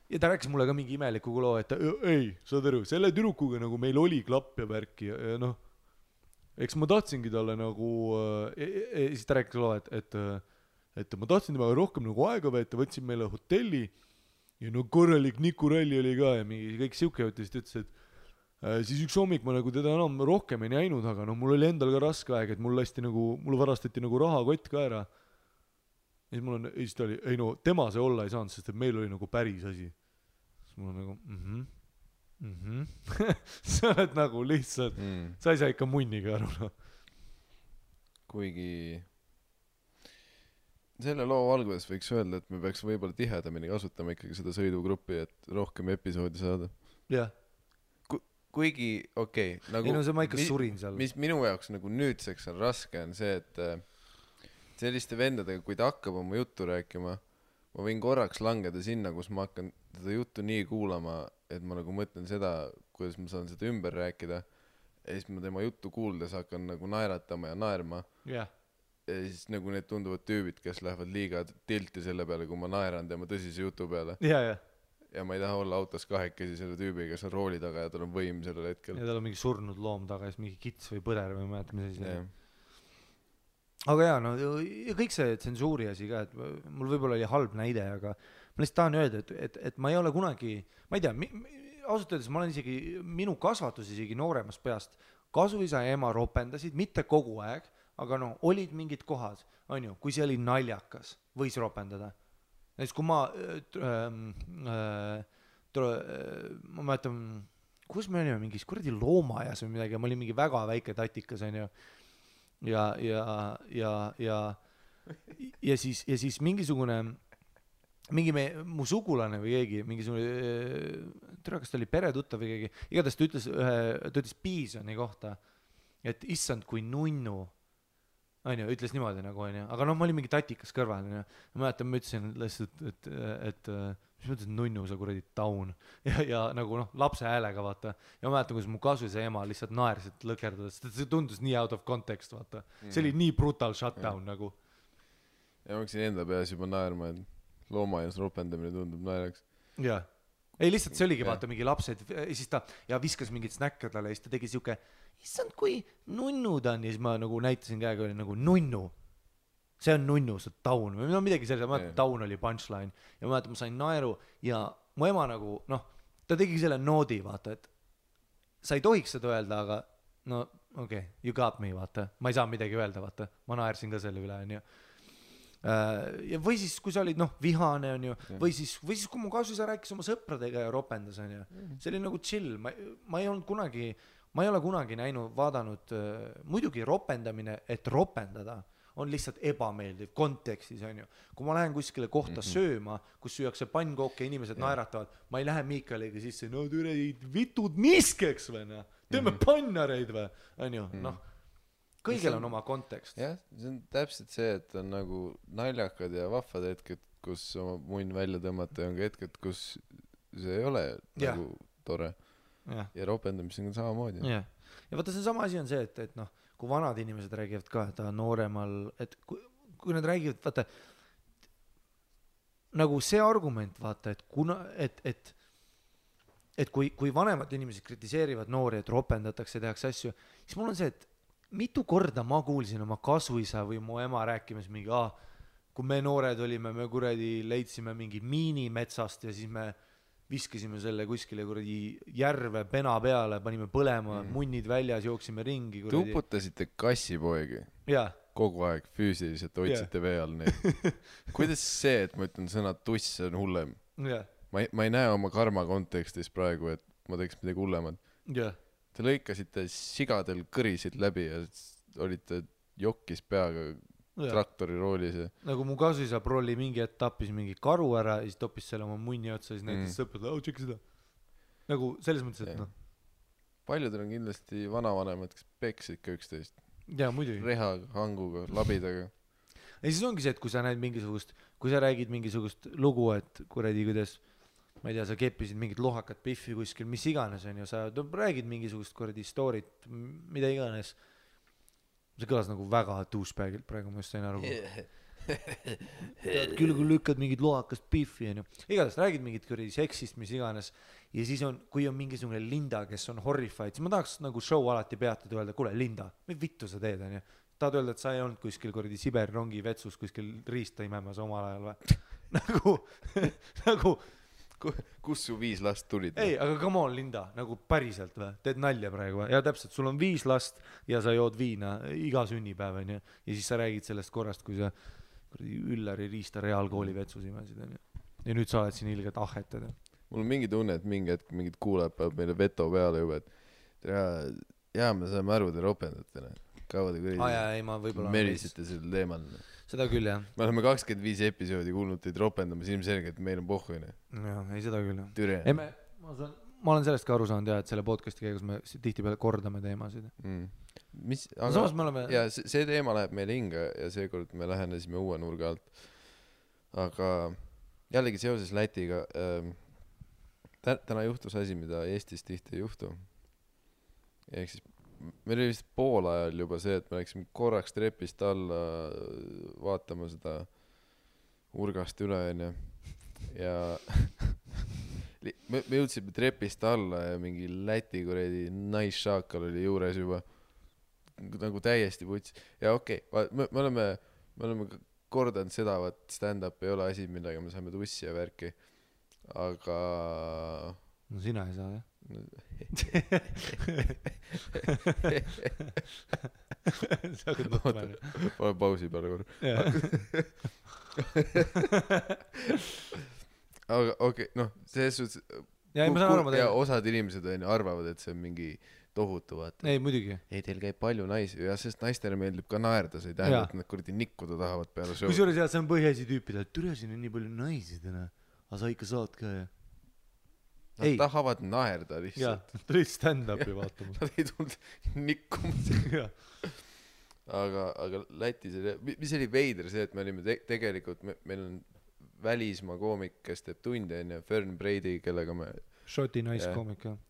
Ja ta rääkis mulle ka mingi imeliku loo, et ei, saad aru, selle tüdrukuga nagu meil oli klapp ja värki ja noh, eks ma tahtsingi talle nagu, siis ta rääkis loo, et ma tahtsin temaga rohkem nagu aega veeta, võtsin meile hotelli ja no korralik Nikuralli oli ka ja mingi kõik siuke jutt ja siis ta ütles, siis üks hommik ma nagu teda enam rohkem ei näinud, aga no mul oli endal ka raske aeg, et mul varastati nagu rahakott ka ära. Ja siis ta oli, ei no tema see olla ei saanud, sest et meil oli nagu päris asi. Siis mul on nagu sa oled nagu lihtsalt sa ei saa ikka munniga aru no. Kuigi selle loo valguses võiks öelda, et me peaks võib-olla tihedamini kasutama ikkagi seda sõidugruppi, et rohkem episoodi saada. jah kuigi okei, nagu ei no see ma ikka surin seal. Mis minu jaoks nagu nüüdseks on raske, on see, et selliste vendadega, kui ta hakkab oma juttu rääkima, ma võin korraks langeda sinna, kus ma hakkan seda juttu nii kuulama, et ma nagu mõtlen seda, kuidas ma saan seda ümber rääkida, ja siis ma tema juttu kuuldes hakkan nagu naeratama ja naerma. ja siis nagu need tunduvad tüübid, kes lähevad liiga tilti selle peale, kui ma naeran tema tõsise jutu peale. Ja ma ei taha olla autos kahekesi selle tüübi, kes on rooli taga ja tal on võim sellel hetkel. Ja tal on mingi surnud loom taga, siis mingi kits või põder või ma mäletan, mis asi. Aga jaa, no ja kõik see tsensuuri asi ka, et mul võib-olla oli halb näide, aga ma lihtsalt tahan öelda, et ma ei ole kunagi, ma ei tea, ausalt öeldes ma olen isegi, minu kasvatus isegi nooremast peast, kasuisa ja ema ropendasid, mitte kogu aeg, aga no olid mingid kohad, on ju, kui see oli naljakas, võis ropendada. Näiteks kui ma mäletan, kus me olime mingis kuradi loomajas või midagi, ma olin mingi väga väike tatikas, on ju, ja siis mingisugune mu sugulane või keegi, mingisugune, tere, kas ta oli peretuttav või keegi, igatahes ta ütles Piisoni kohta, et issand kui nunnu, on ju, ütles niimoodi nagu, on ju, aga noh, ma olin mingi tatikas kõrval, on ju, ma mäletan, ma ütlesin lihtsalt, et mis mõttes nunnu, sa kuradi taun, ja nagu noh, lapse häälega, vaata, ja ma mäletan, kus mu kasuisa ema lihtsalt naersid lõkerdades, see tundus nii out of context, vaata, see oli nii brutal shutdown nagu. Ja ma hakkasin enda peas juba naerma, et loomajas ropendamine tundub naeraks. Jaa. Ei, lihtsalt see oligi, vaata, mingi lapsed, siis ta ja viskas mingit snäkke talle, ja siis ta tegi siuke, issand, kui nunnu ta on, ja siis ma nagu näitasin käega, oli nagu nunnu. See on nunnu, see on taun, või no midagi sellise, ma mäletan, taun oli punchline, ja ma mäletan, ma sain naeru, ja mu ema nagu, noh, ta tegi selle noodi, vaata, et sa ei tohiks seda öelda, aga no, okei, you got me, vaata, ma ei saa midagi öelda, vaata, ma naersin ka selle üle, on ju. Ja või siis kui sa olid vihane on ju või siis kui mu kasuisa rääkis oma sõpradega ja ropendas on ju see oli nagu chill ma ei ole kunagi vaadanud muidugi ropendamine et ropendada on lihtsalt ebameeldiv kontekstis on ju kui ma lähen kuskile kohta sööma kus süüakse pannkooke ja inimesed naeratavad ma ei lähe Miikaliga sisse no türe vitud miskeks või teeme pannareid või on ju kõigil on oma kontekst. Jah, see on täpselt see, et on nagu naljakad ja vahvad hetked, kus oma munn välja tõmmata ja on ka hetked, kus see ei ole nagu tore. Ja ropendamisega on samamoodi. Ja vaata, see sama asi on see, et kui vanad inimesed räägivad ka, et nooremal, et kui nad räägivad, vaata, nagu see argument, vaata, et kui vanemad inimesed kritiseerivad noori, et ropendatakse ja tehakse asju, siis mul on see, et mitu korda ma kuulsin oma kasuisa või mu ema rääkimas mingi, kui me noored olime, me kuradi leidsime mingi miini metsast ja siis me viskasime selle kuskile kuradi järve pena peale, panime põlema, munnid väljas, jooksime ringi. Tuputasite kassipoegi kogu aeg füüsiliselt, hoidsite vee all neid. Kuidas see, et ma ütlen sõna tuss on hullem? Ma ei näe oma karma kontekstis praegu, et ma teeks midagi hullemad. Te lõikasite sigadel kõrisid läbi ja olite jokkis peaga traktori roolis. Nagu mu kasuisa prolli mingi etappis mingi karu ära ja siis toppis selle oma munni otsa ja siis näitas sõprad, tšekki seda. Nagu selles mõttes, et Paljudel on kindlasti vanavanemad, kes peksid ka üksteist. Jaa, muidugi. Reha, hanguga, labidaga. Ja siis ongi see, et kui sa näed mingisugust, kui sa räägid mingisugust lugu, et kuradi kuidas ma ei tea, sa keppisid mingit lohakat piffi kuskil, mis iganes on ju, sa räägid mingisugust kuradi storyt, mida iganes. See kõlas nagu väga douchebagilt praegu, ma just sain aru. Küll kui lükkad mingit lohakast piffi on ju. Igatahes räägid mingit kuradi seksist, mis iganes. Ja siis on, kui on mingisugune Linda, kes on horrified, siis ma tahaks nagu show alati peatud ja öelda, kuule Linda, mis vittu sa teed on ju. Tahad öelda, et sa ei olnud kuskil kuradi Siberi rongi vetsus kuskil riista imemas omal ajal või? Nagu kus su 5 last tulid? ei , aga come on , Linda , nagu päriselt või ? teed nalja praegu või ? ja täpselt , sul on 5 last ja sa jood viina iga sünnipäev , onju . ja siis sa räägid sellest korrast , kui sa kuradi Üllari Riista reaalkooli vetsus imesid , onju . ja nüüd sa oled siin ilgelt ahhetad . mul on mingi tunne , et mingi hetk mingid kuulajad peavad meile veto peale juba , et jaa , me saame aru , te ropendate , kaua te aa jaa , ei ma võib-olla merisite sel teemal . seda küll jah . me oleme 25 episoodi kuulnud teid ropendamas , ilmselgelt meil on pohhu , jah , ei seda küll jah . türe ei ma olen sellest ka aru saanud jah , et selle podcast'i käigus me tihtipeale kordame teemasid . mis , samas me oleme ja see teema läheb meile hinge ja seekord me lähenesime uue nurga alt . aga jällegi seoses Lätiga täna juhtus asi , mida Eestis tihti ei juhtu . ehk siis meil oli vist poolajal juba see , et me läksime korraks trepist alla vaatama seda urgast üle , onju . ja me jõudsime trepist alla ja mingi Läti kuradi naisšaakal oli juures juba nagu täiesti puts . ja okei , me oleme kordanud seda , vaat stand-up ei ole asi , millega me saame tussi ja värki . aga no sina ei saa jah . sa hakkad mõtlema . pane pausi peale korra . aga okei , noh , selles suhtes ja ei ma saan aru , ma ja teen . osad inimesed onju arvavad , et see on mingi tohutu , vaata . ei muidugi . ei , teil käib palju naisi ja sest naistele meeldib ka naerda , see ei tähenda , et nad kuradi nikkuda tahavad peale show'd . kusjuures jah , see on põhiasi tüüpidel , et türa siin on nii palju naisi täna , aga sa ikka saad ka jah . Nad ei. tahavad naerda jaa lihtsalt ., tulid stand-up'i vaatama . nad ei tulnud nikkuma . aga Lätis oli , mis oli veider see , et me olime tegelikult , meil on välismaa koomik , kes teeb tunde onju , Fern Brady , kellega me , Šoti naiskoomik jah .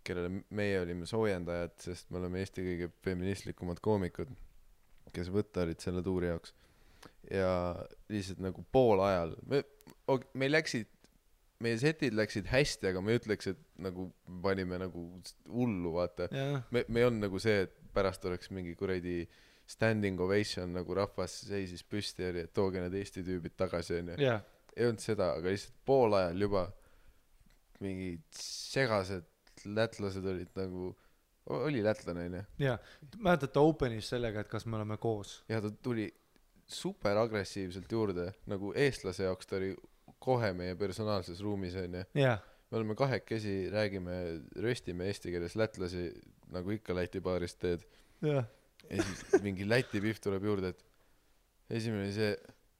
kellele meie olime soojendajad , sest me oleme Eesti kõige feministlikumad koomikud , kes võtta olid selle tuuri jaoks . ja lihtsalt nagu poolajal meil läksid , meie setid läksid hästi , aga ma ei ütleks , et nagu panime nagu hullu , vaata . me ei olnud nagu see , et pärast oleks mingi kuradi standing ovation , nagu rahvas seisis püsti ja oli , et tooge need Eesti tüübid tagasi onju . jah , ei olnud seda , aga lihtsalt poolajal juba mingid segased lätlased olid nagu , oli lätlane onju . jah . mäletate Openis sellega , et kas me oleme koos ? ja ta tuli super agressiivselt juurde , nagu eestlase jaoks ta oli kohe meie personaalses ruumis onju . jah , me oleme kahekesi , räägime , röstime eesti keeles lätlasi , nagu ikka Läti baarist teed . jah . ja siis mingi Läti pihv tuleb juurde , et esimene oli see ,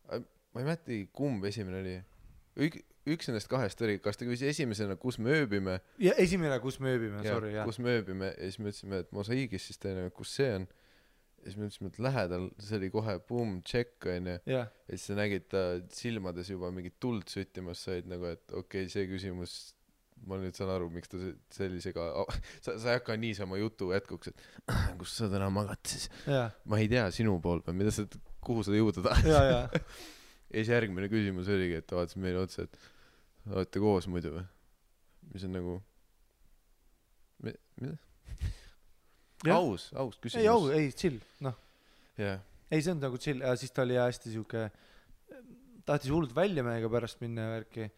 ma ei mäletagi , kumb esimene oli . üks nendest kahest oli , kas ta küsis esimesena , kus me ööbime . ja esimene , kus me ööbime , sorry jah . kus me ööbime ja siis me ütlesime , et Mosaiigis , siis teine , kus see on . ja siis me ütlesime , et lähedal , see oli kohe boom , check onju . jah , ja siis sa nägid ta silmades juba mingit tuld süttimas said nagu , et okei , see küsimus , ma nüüd saan aru , miks ta sellisega , sa ei hakka niisama jutu jätkuks , et kus sa täna magad siis . jah , ma ei tea , sinu pool või mida sa , kuhu sa jõuda tahad . ja , ja ja siis järgmine küsimus oligi , et ta vaatas meile otsa , et olete koos muidu või ? mis on nagu , mida ? aus küsimus . ei , au , ei , chill , noh . jah , ei , see on nagu chill ja siis ta oli hästi siuke , tahtis hullult välja meiega pärast minna ja värki .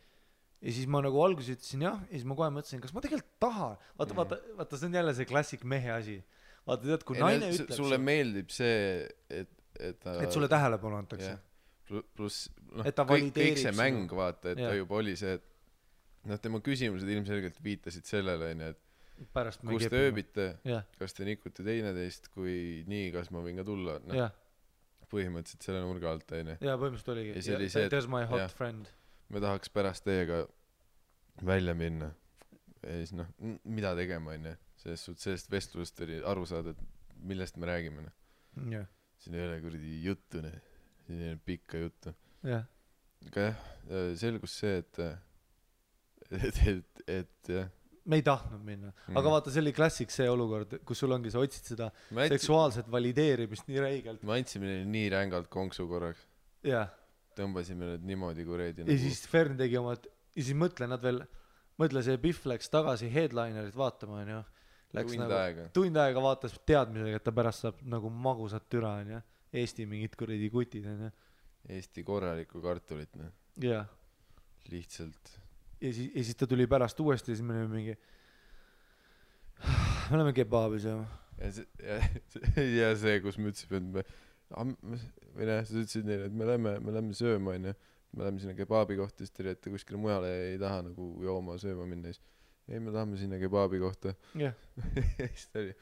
ja siis ma nagu alguses ütlesin jah , ja siis ma kohe mõtlesin , kas ma tegelikult tahan . vaata , see on jälle see klassik mehe asi . vaata , tead , kui naine ütleb sulle meeldib see , et ta et sulle tähelepanu antakse . pluss noh Et ta kõik valideerib see sinu- mäng vaata , et ta Jah. juba oli see , et noh , tema küsimused ilmselgelt viitasid sellele onju , et pärast me kus te ööbite , jah , kas te nikute teineteist , kui nii , kas ma võin ka tulla , noh jah , põhimõtteliselt selle nurga alt onju . ja põhimõtteliselt oligi Ja see oli see, et- there's my hot jah. friend . me tahaks pärast teiega välja minna ja siis noh , mida tegema onju , selles suhtes sellest vestlusest oli aru saada , et millest me räägime noh , jah , siin ei ole kuradi juttu noh , siin ei ole pikka juttu . jah , aga jah , selgus see , et jah , me ei tahtnud minna , aga vaata , see oli klassik see olukord , kus sul ongi , sa otsid seda seksuaalset valideerimist nii räigelt . me andsime neile nii rängalt konksu korraks , jah , tõmbasime need niimoodi kuradi ja siis Fern tegi oma , ja siis mõtle , nad veel , mõtle , see Pihv läks tagasi headlinerit vaatama , onju . Läks tund nagu aega . tund aega vaatas teadmisega , et ta pärast saab nagu magusat türa , onju . Eesti mingid kuradi kutid , onju . Eesti korralikku kartulit noh , jah , lihtsalt ja siis ta tuli pärast uuesti ja siis me olime mingi me oleme kebaabis ja ja see kus me ütlesime et või näe sa ütlesid neile et me lähme sööma onju me lähme sinna kebaabi kohta siis te olete kuskile mujale ei taha nagu jooma sööma minna siis ei me tahame sinna kebaabi kohta jah siis ta oli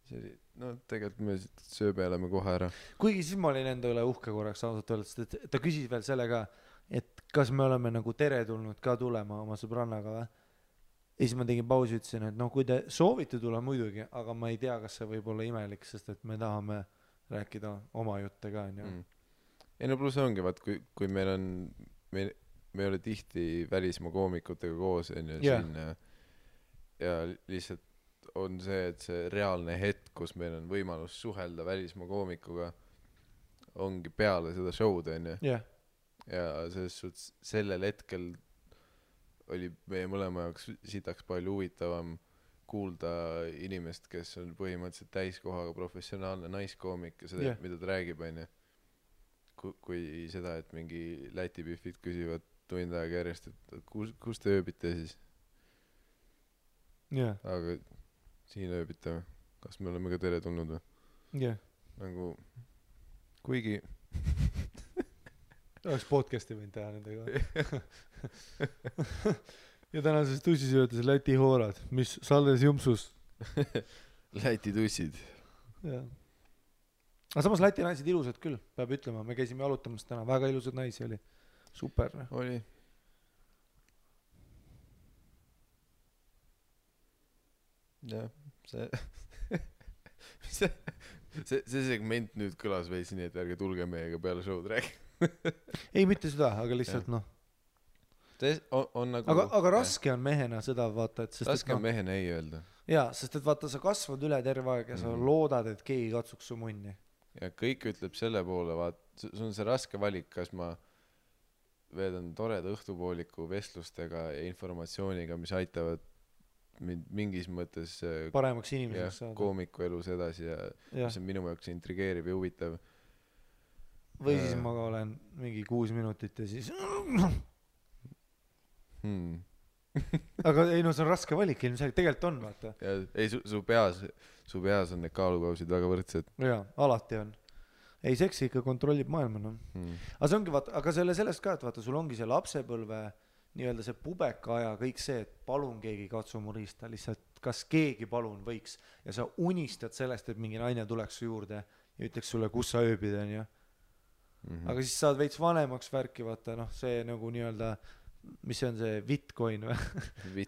see oli no tegelikult me sööbe oleme kohe ära kuigi siis ma olin enda üle uhke korraks ausalt öeldes et ta küsis veel selle ka et kas me oleme nagu teretulnud ka tulema oma sõbrannaga või ja siis ma tegin pausi ütlesin et noh kui te soovite tulla muidugi aga ma ei tea kas see võib olla imelik sest et me tahame rääkida oma jutte ka onju ei no pluss ongi vaat kui meil on me ei ole tihti välismaa koomikutega koos onju siin ja lihtsalt on see et see reaalne hetk kus meil on võimalus suhelda välismaa koomikuga ongi peale seda show'd onju ja selles suhtes sellel hetkel oli meie mõlema jaoks sitaks palju huvitavam kuulda inimest kes on põhimõtteliselt täiskohaga professionaalne naiskoomik ja seda mida ta räägib onju kui seda et mingi Läti pihvid küsivad tund aega järjest et kus te ööbite siis aga siin ööbite või kas me oleme ka teretulnud või nagu kuigi oleks podcast'i võinud teha nendega ja tänases tussisöödes Läti hoorad mis Salles Jumpsus Läti tussid jah aga samas Läti naised ilusad küll peab ütlema me käisime jalutamas täna väga ilusad naisi oli super oli jah see segment nüüd kõlas veits nii et ärge tulge meiega peale show'd rääkima ei mitte seda aga lihtsalt noh on nagu aga raske on mehena seda vaata et raske on mehena ei öelda jaa sest et vaata sa kasvad üle terve aeg ja sa loodad et keegi katsuks su munni ja kõik ütleb selle poole vaat sul on see raske valik kas ma veedan toreda õhtupooliku vestlustega ja informatsiooniga mis aitavad mind mingis mõttes paremaks inimeseks saada koomiku elus edasi ja mis on minu jaoks intrigeeriv ja huvitav või siis ma olen mingi 6 minutit ja siis aga ei no see on raske valik ilmselt tegelikult on vaata ja ei su peas on need kaalukausid väga võrdsed jaa alati on ei seksi ikka kontrollib maailma noh aga see ongi vaata aga sellest ka et vaata sul ongi see lapsepõlve nii-öelda see pubeka aja kõik see et palun keegi katsu mu riista lihtsalt kas keegi palun võiks ja sa unistad sellest et mingi naine tuleks su juurde ja ütleks sulle kus sa ööbid onju aga siis saad veits vanemaks värki vaata noh see nagu nii-öelda mis see on see Bitcoin või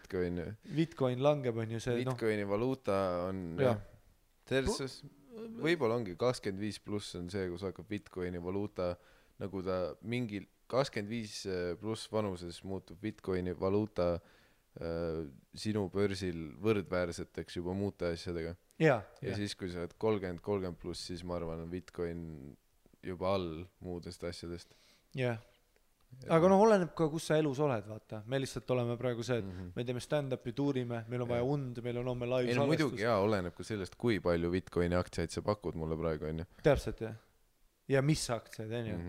Bitcoin langeb onju see Bitcoini valuuta on selles võib-olla ongi 25 pluss on see kus hakkab Bitcoini valuuta nagu ta mingil 25 pluss vanuses muutub Bitcoini valuuta sinu börsil võrdväärseteks juba muuta asjadega ja siis kui sa oled 30 pluss siis ma arvan on Bitcoin juba all muudest asjadest aga noh oleneb ka kus sa elus oled vaata me lihtsalt oleme praegu see et me teeme stand-up'i tuurime meil on vaja und meil on homme live salvestus muidugi oleneb ka sellest kui palju Bitcoini aktsiaid sa pakud mulle praegu onju täpselt ja mis aktsiaid onju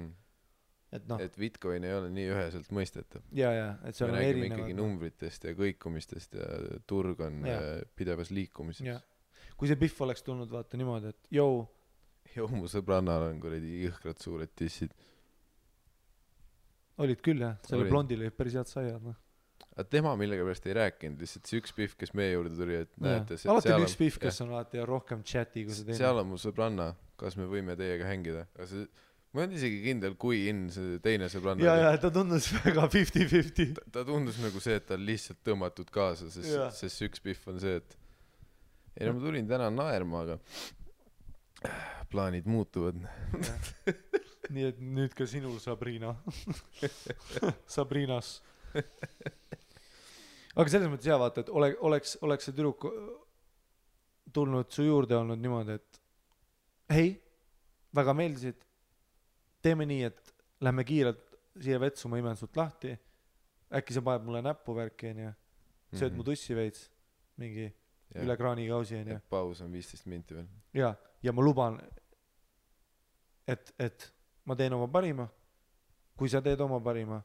et noh et Bitcoin ei ole nii üheselt mõistetav ja et see on erinevad ikkagi numbritest ja kõikumistest ja turg on pidevas liikumises kui see Pihv oleks tulnud vaata niimoodi et mu sõbrannal on kuradi jõhkrad suured tissid olid küll jah selle blondil olid päris head saiad noh aga tema millegipärast ei rääkinud lihtsalt see üks Pihv kes meie juurde tuli et näete alati on üks Pihv kes on alati rohkem chati kui see teine seal on mu sõbranna kas me võime teiega hängida aga see ma ei olnud isegi kindel kui see teine sõbranna ja ta tundus väga 50-50 ta tundus nagu see et ta on lihtsalt tõmmatud kaasa sest see üks Pihv on see et ei no ma tulin täna naerma aga plaanid muutuvad nii et nüüd ka sinul Sabrina Sabrinas aga selles mõttes hea vaata et oleks see tüdruk tulnud su juurde olnud niimoodi et hei väga meeldisid teeme nii et lähme kiirelt siia vetsu ma imen sult lahti äkki sa paned mulle näppu värki onju sööd mu tussi veits mingi üle kraanikausi onju paus on 15 minti veel ja ma luban et ma teen oma parima kui sa teed oma parima,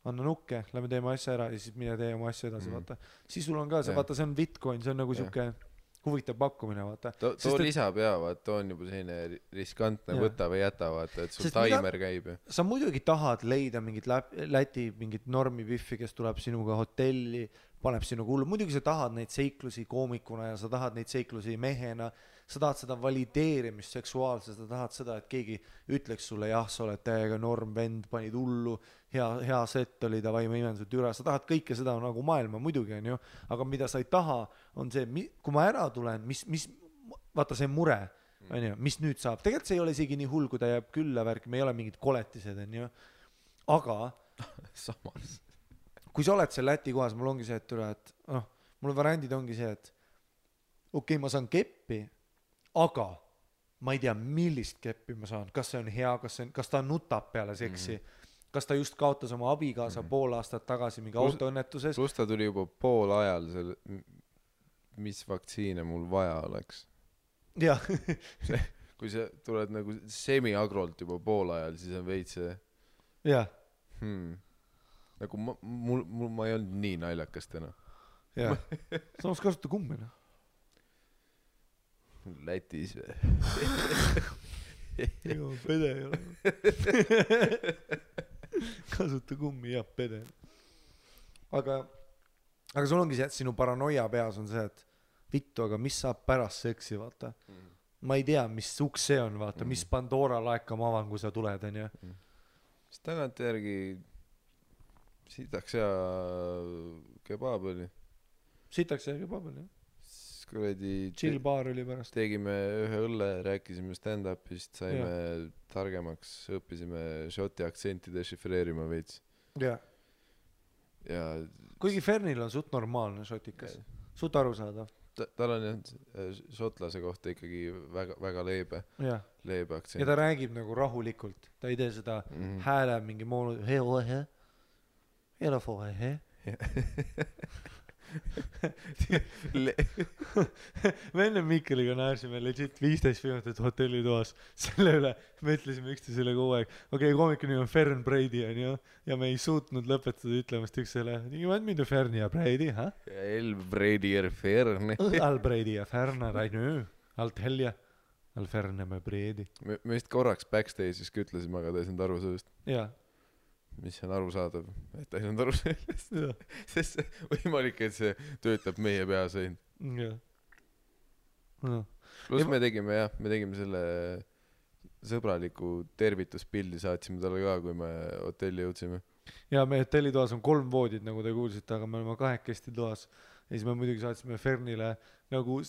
anna nukke, lähme teeme asja ära ja siis mine tee oma asja edasi, vaata. Siis sul on ka see, vaata, see on Bitcoin, see on nagu siuke huvitav pakkumine, vaata. too lisab vaata, on juba selline riskantne, võta või jäta, vaata, et sul taimer käib. Sa muidugi tahad leida mingit Läti, mingit normipiffi, kes tuleb sinuga hotelli, paneb sinuga hullu, muidugi sa tahad neid seiklusi koomikuna ja sa tahad neid seiklusi mehena, sa tahad seda valideerimist seksuaalselt, sa tahad seda, et keegi ütleks sulle, jah, sa oled täiega norm vend, panid hullu, hea set oli, davai, ma imen sult üle, sa tahad kõike seda nagu maailma, muidugi on ju, aga mida sa ei taha, on see, kui ma ära tulen, vaata see mure, on ju, mis nüüd saab, tegelikult see ei ole isegi nii hull, kui ta jääb külla värk, me ei ole mingid koletised, on ju, aga samas kui sa oled seal Läti kohas, mul ongi see, et üle, et mul variandid ongi see, et okei, ma saan keppi, aga ma ei tea, millist keppi ma saan, kas see on hea, kas ta nutab peale seksi, kas ta just kaotas oma abikaasa pool aastat tagasi mingi autoõnnetuses. Plus ta tuli juba pool ajal selle, mis vaktsiine mul vaja oleks. Jah. Kui sa tuled nagu semi-agrolt juba pool ajal, siis on veits see. Jah. Nagu ma ei olnud nii naljakas täna. Jah. Samas kasuta kummi, noh. Lätis või? Joo, pede ei ole. Kasuta kummi, jah, pede. Aga sul ongi see, et sinu paranoia peas on see, et vittu, aga mis saab pärast seksi, vaata. Ma ei tea, mis uks see on, vaata, mis Pandora laeka ma avan, kui sa tuled, on ju. Mis tagant järgi sitaks ja kebab oli. Sitaks ja kebab oli, jah. Chill baar oli pärast. Tegime ühe õlle, rääkisime stand-upist, saime targemaks, õppisime šoti aktsenti dešifreerima veits. Ja kuigi Fernil on suht normaalne šotikas, suht aru saada. Tal on šotlase kohta ikkagi väga leebe aktsent. Ja ta räägib nagu rahulikult, ta ei tee seda hääle mingi moonu me enne Mikkeliga näärsime legit 15 minutit hotellitoas selle üle, me ütlesime üksteisele kogu aeg, okei, koomiku nimi on Fern Brady on ju, ja me ei suutnud lõpetada ütlemast üksteisele, mida Fern ja Brady, ha? El Brady ja Fern. Al Brady ja Fern, Al Telja, Al Fern ja Brady. Me vist korraks backstage'is ütlesime, aga ta ei saanud aru sellest. Jaa. Mis on arusaadav, et ta ei saanud aru sellest. Sest see võimalik, et see töötab meie peas ainult. Jah. Plus me tegime selle sõbraliku tervituspildi, saatsime talle ka, kui me hotelli jõudsime. Ja me hotellitoas on 3 voodid, nagu te kuulsite, aga me oleme 2 toas. Ja siis me muidugi saatsime Fernile nagu...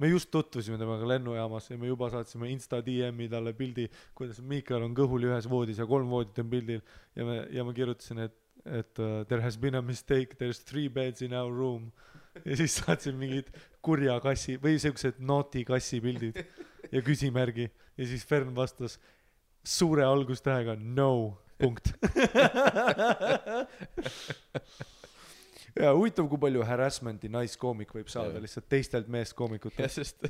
me just tutvusime temaga lennujaamas ja me juba saatsime Insta DM-i talle pildi, kuidas Miikal on kõhuli ühes voodis ja 3 voodit on pildil ja ma kirjutasin, et there has been a mistake, there's 3 beds in our room ja siis saatsin mingid kurja kassi või sellised naughty kassi pildid ja küsimärgi ja siis Fern vastas suure algustähega no, punkt. Ja huvitav, kui palju harassmenti naiskoomik võib saada lihtsalt teistelt meeskoomikutelt. Ja sest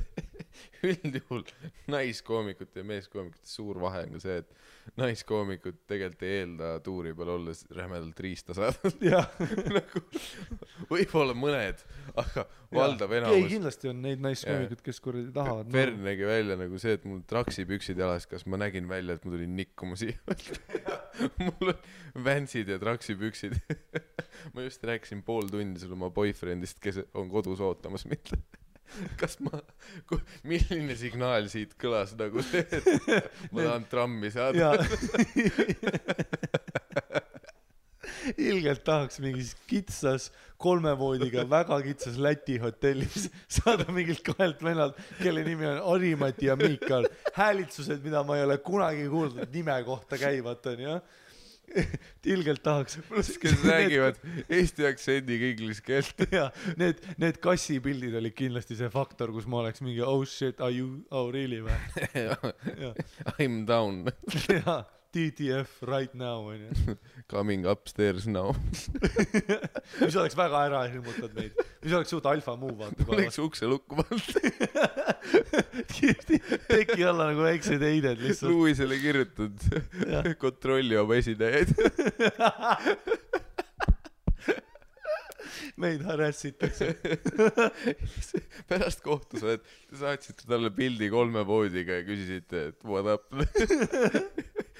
üldjuhul naiskoomikute ja meeskoomikute suur vahe on ka see, et naiskoomikud tegelikult ei eelda tuuri peal olles rämedalt riista saada. Nagu, võib-olla mõned, aga valdav enamus. Ei, kindlasti on neid naiskoomikud, kes kuradi tahavad. Fern nägi välja nagu see, et mul traksipüksid jalas, kas ma nägin välja, et ma tulin nikkuma siia. Mul on vänsid ja traksipüksid. Ma just rääkisin pool tundi sulle oma boyfriendist, kes on kodus ootamas mitte. Kas milline signaal siit kõlas nagu see, et ma tahan trammi saada? Ilgelt tahaks mingis kitsas 3 voodiga väga kitsas Läti hotellis saada mingilt 2 vennalt, kelle nimi on Ari-Mati ja Miikal. Häälitsused, mida ma ei ole kunagi kuulnud nime kohta käivad, on ju. Ilgelt tahaks. Kes räägivad eesti aktsendiga inglise keelt. Ja, need kassipildid oli kindlasti see faktor, kus ma oleks mingi oh shit, are you, oh really või? I'm down. Ja, TTF right now onju. Coming upstairs now. mis oleks väga ära hirmutad meid, mis oleks suht alfa move vaata Oleks ukse lukku pannud. teki alla nagu väiksed heided lihtsalt. Luisele kirjutad kontrolli oma esinejaid. meid harassitakse. Pärast kohtu sa saatsite talle pildi 3 voodiga ja küsisite, et what up.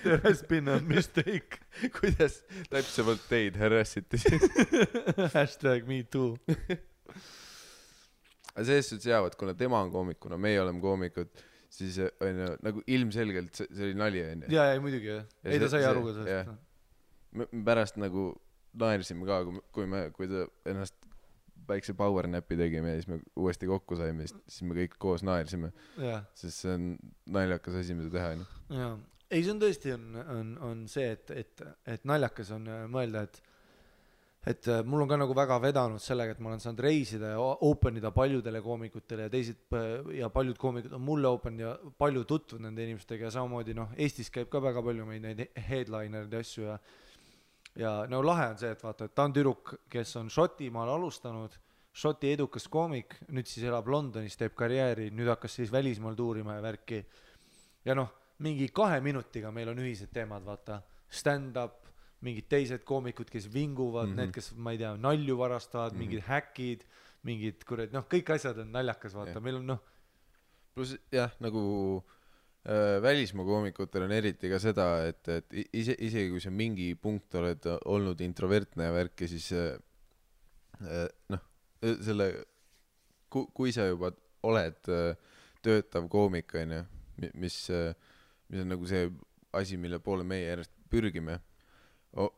There has been a mistake. Kuidas täpsemalt teid harassiti? Hashtag me too. Aga selles suhtes jäävad, kuna tema on koomikuna, meie oleme koomikud, siis on ju, nagu ilmselgelt see oli nali on ju. Ja muidugi jah. Ei ta sai aru ka sellest. Me pärast nagu naersime ka, kui ta ennast väikse power napi tegime ja siis me uuesti kokku saime, siis me kõik koos naersime. Sest see on naljakas asi, mida teha. Jaa. Ei, see on tõesti on see, et naljakas on mõelda, et mul on ka nagu väga vedanud sellega, et ma olen saanud reisida ja openida paljudele koomikutele ja paljud koomikud on mulle open ja palju tutvunud nende inimestega ja samamoodi Eestis käib ka väga palju meid neid headlinerid ja asju ja no lahe on see, et vaata, et ta on tüdruk, kes on Šotimaal alustanud, Šoti edukas koomik, nüüd siis elab Londonis, teeb karjääri, nüüd hakkas siis välismaal tuurima ja värki ja mingi 2 minutiga meil on ühised teemad, vaata, stand-up, mingid teised koomikud, kes vinguvad, need, kes, ma ei tea, nalju varastavad, mingid häkid, mingid kurat, kõik asjad on naljakas, vaata, meil on Plus jah, nagu välismaa koomikutel on eriti ka seda, et isegi kui sa mingi punkt oled olnud introvertne ja värki, siis selle, kui sa juba oled töötav koomik, mis on nagu see asi, mille poole meie järjest pürgime,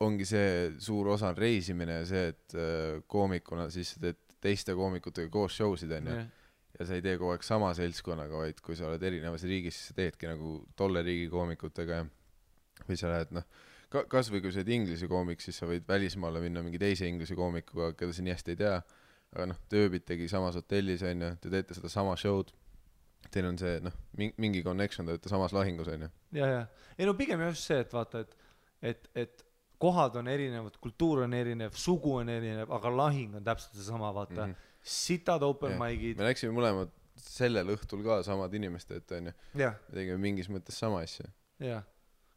ongi see suur osa reisimine ja see, et koomikuna siis teed teiste koomikutega koos showsid ja sa ei tee kogu aeg sama seltskonnaga, vaid kui sa oled erinevas riigis, siis sa teedki nagu tolle riigi koomikutega või sa lähed, kas või kui sa oled inglise koomik, siis sa võid välismaale minna mingi teise inglise koomikuga, keda sa nii hästi ei tea, aga te ööbitegi samas hotellis, te teete seda sama show'd, teil on see, mingi connection, te olete samas lahingus, Ja. Ei pigem just see, et vaata, et kohad on erinevad, kultuur on erinev, sugu on erinev, aga lahing on täpselt see sama, vaata. Sitad open mic'id. Me läksime mõlemad sellel õhtul ka samad inimesed, me tegime mingis mõttes sama asja. Jah,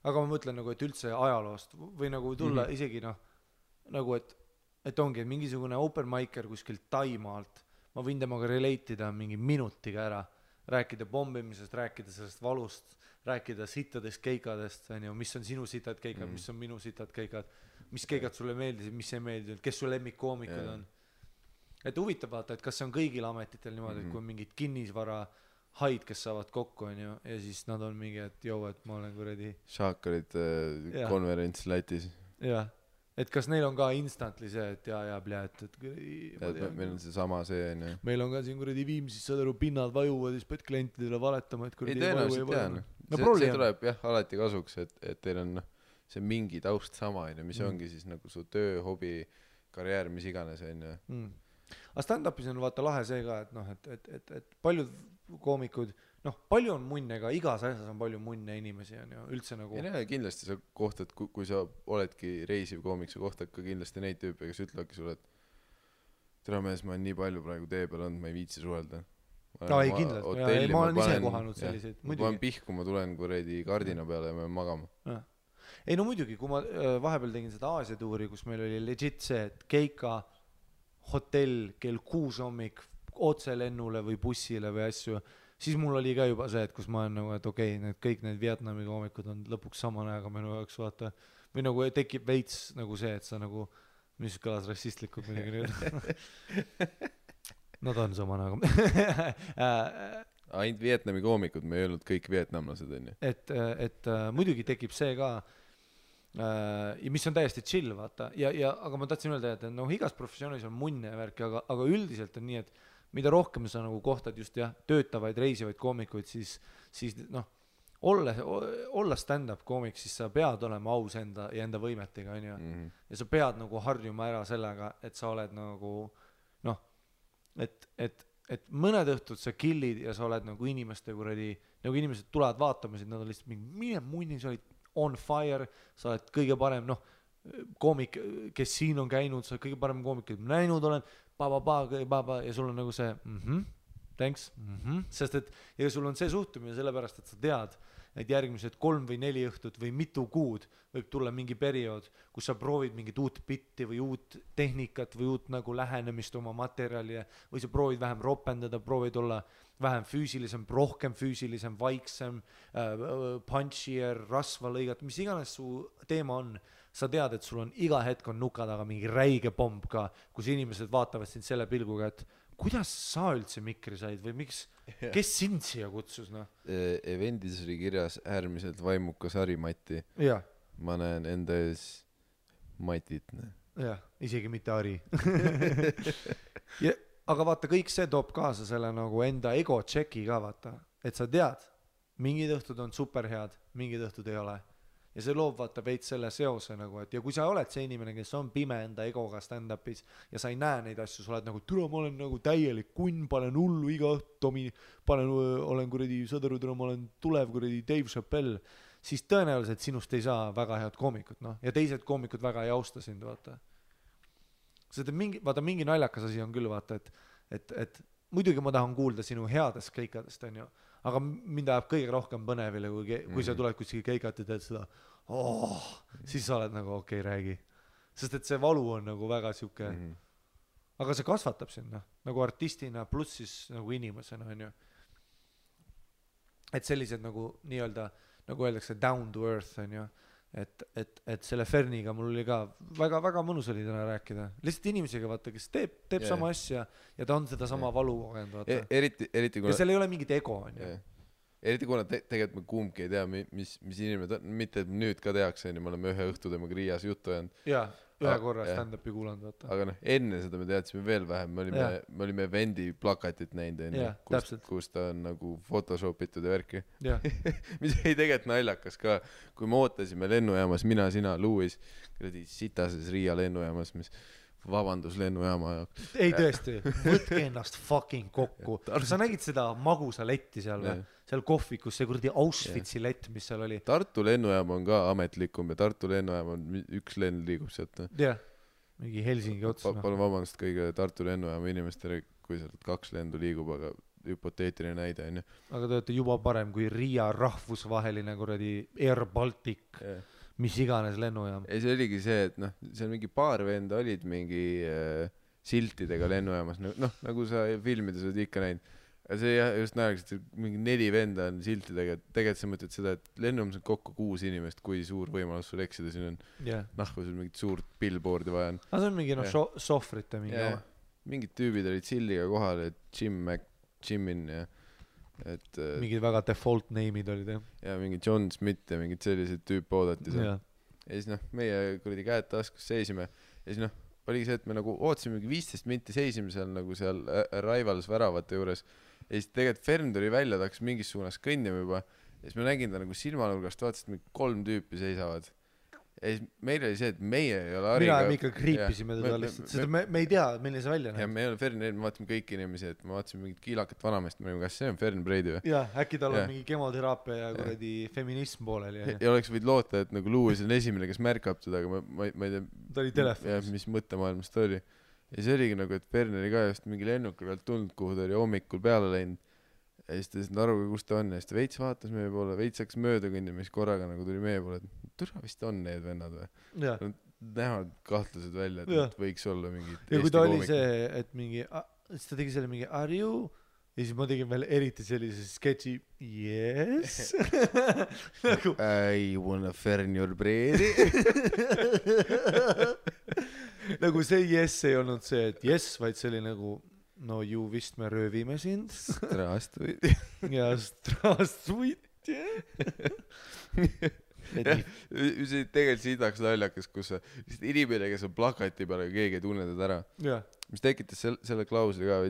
aga ma mõtlen nagu, et üldse ajaloost või nagu tulla isegi nagu, et ongi mingisugune open micer kuskil Taimaalt, ma võin temaga relate'ida mingi minutiga ära, rääkida pommimisest, rääkida sellest valust, rääkida sittadest keikadest, mis on sinu sitad keikad, mis on minu sitad keikad, mis keikad sulle meeldisid, mis ei meeldinud, kes su lemmikkoomikud on. Et huvitav vaata, et kas see on kõigil ametitel niimoodi, et kui on mingid kinnisvara haid, kes saavad kokku ja siis nad on mingi, et et ma olen kuradi Šaakarid konverents Lätis. Jah, et kas neil on ka instantly see, et meil on see sama see meil on ka siin kuradi Viimsis, saad aru, pinnad vajuvad ja siis pead klientidele valetama, et kuradi tõenäoliselt tean. See tuleb alati kasuks, et teil on see mingi taust sama, mis ongi siis nagu su töö, hobi, karjäär, mis iganes aga stand-upis on vaata lahe see ka, et paljud koomikud, palju on munne ka, igas asjas on palju munne inimesi üldse nagu kindlasti sa kohtad, kui sa oledki reisiv koomik, sa kohtad ka kindlasti neid tüüpe, kes ütlevadki sulle, et tere mees, ma olen nii palju praegu tee peal olnud, ma ei viitsi suhelda. Ei kindlasti, ma olen ise kohanud selliseid ma olen pihku, ma tulen kuredi kardina peale ja ma olen magama. Ei muidugi, kui ma vahepeal tegin seda Aasia tuuri, kus meil oli legit see, et keika hotell kell 6 hommik otse lennule või bussile või asju, siis mul oli ka juba see, et kus ma olen nagu, et okei, kõik need Vietnami koomikud on lõpuks sama näega minu jaoks, vaata, või nagu tekib veits nagu see, et sa nagu, mis kõlas rassistlikult midagi nüüd. Nad on sama näega. Ainult Vietnami koomikud, me ei öelnud kõik vietnamlased, Et muidugi tekib see ka, ja mis on täiesti chill, vaata, aga ma tahtsin öelda, et igas professioonis on munne ja värki, aga üldiselt on nii, et mida rohkem sa nagu kohtad just töötavaid, reisivaid koomikuid, siis olla stand-up koomik, siis sa pead olema aus enda võimetega, ja sa pead nagu harjuma ära sellega, et sa oled nagu et mõned õhtud sa killid ja sa oled nagu inimeste kuradi, nagu inimesed tulevad vaatama, nad on lihtsalt mingi, mine munni, sa olid on fire, sa oled kõige parem, noh, koomik, kes siin on käinud, sa oled kõige parem koomik, kes ma näinud olen, ja sul on nagu see thanks, sest et ja sul on see suhtumine sellepärast, et sa tead, et järgmised 3 või 4 õhtut või mitu kuud võib tulla mingi periood, kus sa proovid mingit uut bitti või uut tehnikat või uut nagu lähenemist oma materjali või sa proovid vähem ropendada, proovid olla vähem füüsilisem, rohkem füüsilisem, vaiksem, punchier, rasva lõigata, mis iganes su teema on. Sa tead, et sul on iga hetk on nuka taga mingi räige pomb ka, kus inimesed vaatavad sind selle pilguga, et kuidas sa üldse mikri said või miks, kes sind siia kutsus, noh? Evendis oli kirjas äärmiselt vaimukas Harimati. Jah. Ma näen enda ees Matit. Jah, isegi mitte Hari. Aga vaata, kõik see toob kaasa selle nagu enda ego tšeki ka, vaata. Et sa tead, mingid õhtud on superhead, mingid õhtud ei ole. Ja see loob vaata veits selle seose nagu, et ja kui sa oled see inimene, kes on pime enda egoga stand-upis ja sa ei näe neid asju, sa oled nagu, türa, ma olen nagu täielik kunn, panen hullu iga õhtu, olen kuradi, saad aru, türa, ma olen tulev kuradi Dave Chappelle, siis tõenäoliselt sinust ei saa väga head koomikut, noh, ja teised koomikud väga ei austa sind, vaata. Sest mingi naljakas asi on küll, vaata, et muidugi ma tahan kuulda sinu headest keikadest, on ju, aga mind ajab kõige rohkem põnevile, kui sa tuled kuskil keikat ja teed seda, siis sa oled nagu okei, räägi. Sest et see valu on nagu väga siuke, aga see kasvatab sinna, nagu artistina pluss siis nagu inimesena, on ju. Et sellised nagu nii-öelda, nagu öeldakse down to earth, on ju. Et selle Ferniga mul oli ka väga mõnus oli täna rääkida. Lihtsalt inimesega, vaata, kes teeb sama asja ja ta on seda sama valu kogenud, vaata. Eriti kuna... Ja seal ei ole mingit ego, on ju. Eriti kuna tegelikult me kumbki ei tea, mis inimene ta... Mitte, et nüüd ka tehakse, me oleme ühe õhtu temaga Riias juttu jäänud. Jaa, ühe korra stand-upi kuulanud, vaata. Aga noh, enne seda me teadsime veel vähem. Me olime Vendi plakatit näinud, kus ta on nagu photoshopitud ja värki. Mis ei tegelikult naljakas ka, kui me ootasime lennujaamas, mina, sina, Louis, sitases Riia lennujaamas, mis vabandus lennujaama jaoks. Ei tõesti, võtke ennast fucking kokku. Sa nägid seda magusa letti seal või? Seal kohvikus, see kurdi Auschwitzi lett, mis seal oli. Tartu lennujaam on ka ametlikum ja Tartu lennujaam on üks lend liigub sealt. Jah, mingi Helsingi ots. Palun vabandust kõige Tartu lennujaama inimestele, kui sealt 2 lendu liigub, aga hüpoteetiline näide on ju. Aga te olete juba parem kui Riia rahvusvaheline kuradi Air Baltic, mis iganes lennujaam. Ei, see oligi see, et noh, seal mingi paar venda olid mingi siltidega lennujaamas, noh, nagu sa filmides oled ikka näinud. Ja see just näeks, et mingi 4 venda on siltidega, tegelikult sa mõtled seda, et lennujaamas on kokku 6 inimest, kui suur võimalus sul eksida, siin on nahku sul mingit suurt billboardi vaja on. Aga see on mingi sohvrite mingi oma. Mingid tüübid olid silliga kohal, et Jimin ja et mingid väga default name'id olid, jah. Ja mingi John Smith ja mingid sellised tüüp oodati seal. Ja siis noh, meie kuradi käed taskus seisime ja siis noh, oligi see, et me nagu ootasime 15 minti seisime seal nagu seal Arrivals väravate juures ja siis tegelikult Fern tuli välja, ta hakkas mingis suunas kõnnima juba ja siis me nägin ta nagu silmanurgast, vaatasid, et 3 tüüpi seisavad ja siis meil oli see, et meie ei ole Hariga mina ikka kriipisime teda lihtsalt, seda me ei tea, milline see välja näeb ja me ei ole Fern, me vaatasime kõik inimesi, et me vaatasime mingit kiilakat vanamest, me olime, kas see on Fern Breidi või? Jah, äkki tal on mingi kemoteraapia ja kuradi feminism pooleli ja oleks võid loota, et nagu Louis on esimene, kes märkab teda, aga ma ei tea ta oli telefonis mis mõttemaailmas ta oli ja see oligi nagu, et Fern oli ka just mingi lennuka pealt tulnud, kuhu ta oli hommikul peale läinud ja siis ta ei aru, kus ta on ja siis ta veits vaatas meie poole, veits hakkas mööda kõndima, siis korraga nagu tuli meie poole, et türa vist on need vennad või näevad kahtlased välja, et võiks olla mingi ja kui ta oli see, et mingi siis ta tegi selle mingi are you ja siis ma tegin veel eriti sellise sketši yes nagu I wanna Fern your breedi nagu see yes ei olnud see, et yes, vaid see oli nagu no ju vist me röövime sind. Straastuid. Ja straastuid, See tegelikult siidaks naljakas, kus inimene, kes on plakati peale, keegi ei tunne teda ära. Mis tekitas selle klausli ka,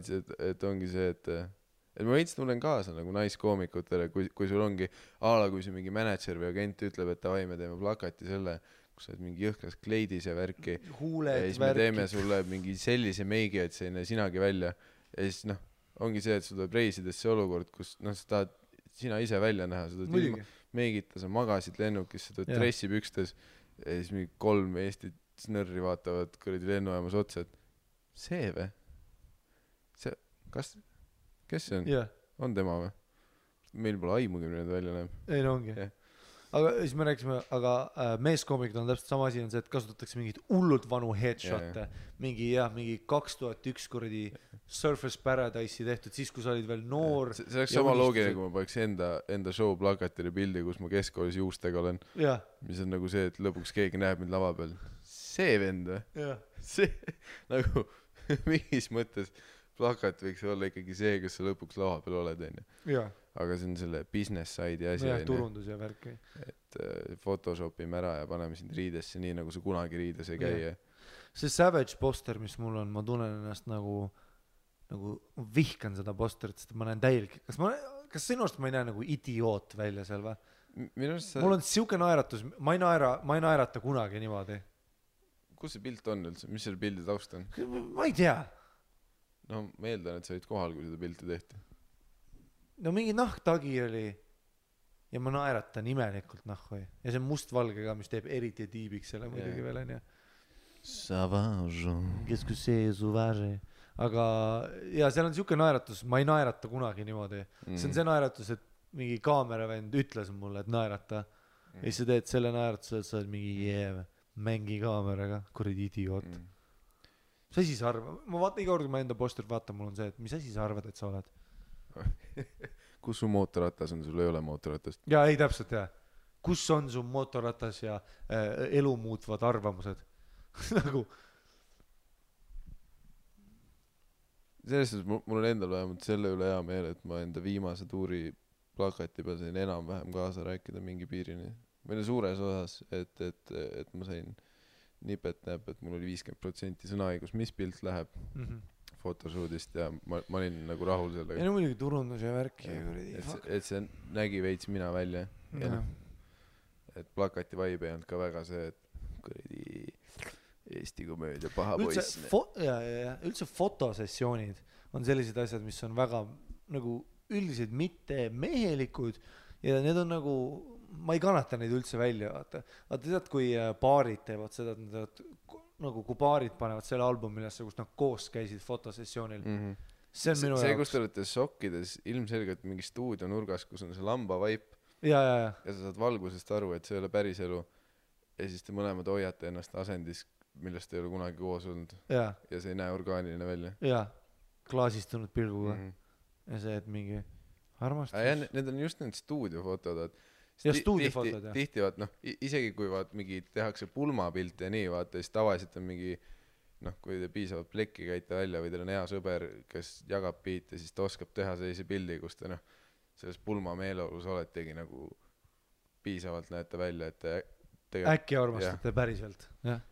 et ongi see, et ma veits tunnen kaasa nagu naiskoomikutele, kui sul ongi kui see mingi manager või agent ütleb, et davai, me teeme plakati selle, kus sa oled mingi jõhkas kleidis ja värki huuled, ja siis me teeme sulle mingi sellise meigi, et see ei näe sinagi välja ja siis noh, ongi see, et sul tuleb reisides see olukord, kus noh, sa tahad sina ise välja näha, sa tahad Meegita, sa magasid lennukis, sa tuled Jah. dressipükstes ja siis mingi 3 Eesti snõrri vaatavad kuradi lennujaamas otsa, et see või? See, kes see on? jah , On tema või? Meil pole aimugi, milline ta välja näeb. ei no ongi Jah. aga siis me rääkisime, aga meeskoomikul on täpselt sama asi on see, et kasutatakse mingeid hullult vanu headshot'e, mingi 2001 kuradi Surface Paradise'i tehtud, siis kui sa olid veel noor. See oleks sama loogiline, kui ma paneks enda show plakatile pildi, kus ma keskkoolis juustega olen, jah , mis on nagu see, et lõpuks keegi näeb mind lava peal. See vend või? jah , See nagu mingis mõttes plakat võiks olla ikkagi see, kus sa lõpuks lava peal oled, onju. jah , Aga see on selle business side'i asi, jah , turundus ja värk . et photoshopime ära ja paneme sind riidesse nii, nagu sa kunagi riides ei käi. see Savage poster, mis mul on, ma tunnen ennast nagu vihkan seda posterit, sest ma näen täielik, kas sinu arust ma ei näe nagu idioot välja seal või? Minu arust Mul on siuke naeratus, ma ei naerata kunagi niimoodi. kus see pilt on üldse, mis selle pildi taust on? Ma ei tea. No ma eeldan, et sa olid kohal, kui seda pilti tehti. No mingi nahktagi oli ja ma naeratan imelikult nahku ja see on mustvalge ka, mis teeb eriti tiibiks selle muidugi veel onju. Savage. Qu'est-ce que c'est sauvage? Aga ja seal on siuke naeratus, ma ei naerata kunagi niimoodi. See on see naeratus, et mingi kaameravend ütles mulle, et naerata ja siis sa teed selle naeratuse, et sa oled mingi mängi kaameraga, kuradi idioot. Mis asi sa arvad? Ma vaatan iga kord, kui ma enda posterit vaatan, mul on see, et mis asi sa arvad, et sa oled? Kus su mootorratas on, sul ei ole mootorratast? Jaa, ei täpselt jah. Kus on su mootorratas ja elu muutvad arvamused? Nagu selles suhtes mul on endal vähemalt selle üle hea meel, et ma enda viimase tuuri plakati peal sain enam-vähem kaasa rääkida mingi piirini. Või suures osas, et ma sain nipet-näp, et mul oli 50% sõnaõigus, mis pilt läheb photoshootist ja ma olin nagu rahul sellega. ja no muidugi turundus ja värk ja et see nägi veits mina välja ja noh, et plakati vibe ei olnud ka väga see, et kuradi Eesti komöödia paha poiss. Üldse fotosessioonid on sellised asjad, mis on väga nagu üldiselt mitte mehelikud ja need on nagu, ma ei kannata neid üldse välja, vaata tead, kui paarid teevad seda, et nad nagu kui paarid panevad selle albumilesse, kus nad koos käisid fotosessioonil. See on minu see, jaoks. kus te olete sokkides ilmselgelt mingi stuudio nurgas, kus on see lamba vaip ja sa saad valgusest aru, et see ei ole päris elu ja siis te mõlemad hoiate ennast asendis, millest ei ole kunagi koos olnud ja see ei näe orgaaniline välja. klaasistunud pilguga ja see, et mingi armastus. Need on just need stuudiofotod, ja stuudiofotod, jah. Tihti vaat, noh, isegi kui vaat mingi tehakse pulmapilt ja nii, vaata, siis tavaliselt on mingi, noh, kui te piisavalt plekki käite välja või teil on hea sõber, kes jagab biite, siis ta oskab teha sellise pildi, kus te, noh, selles pulma meeleolus oletegi nagu piisavalt näete välja, et te äkki armastate päriselt, jah.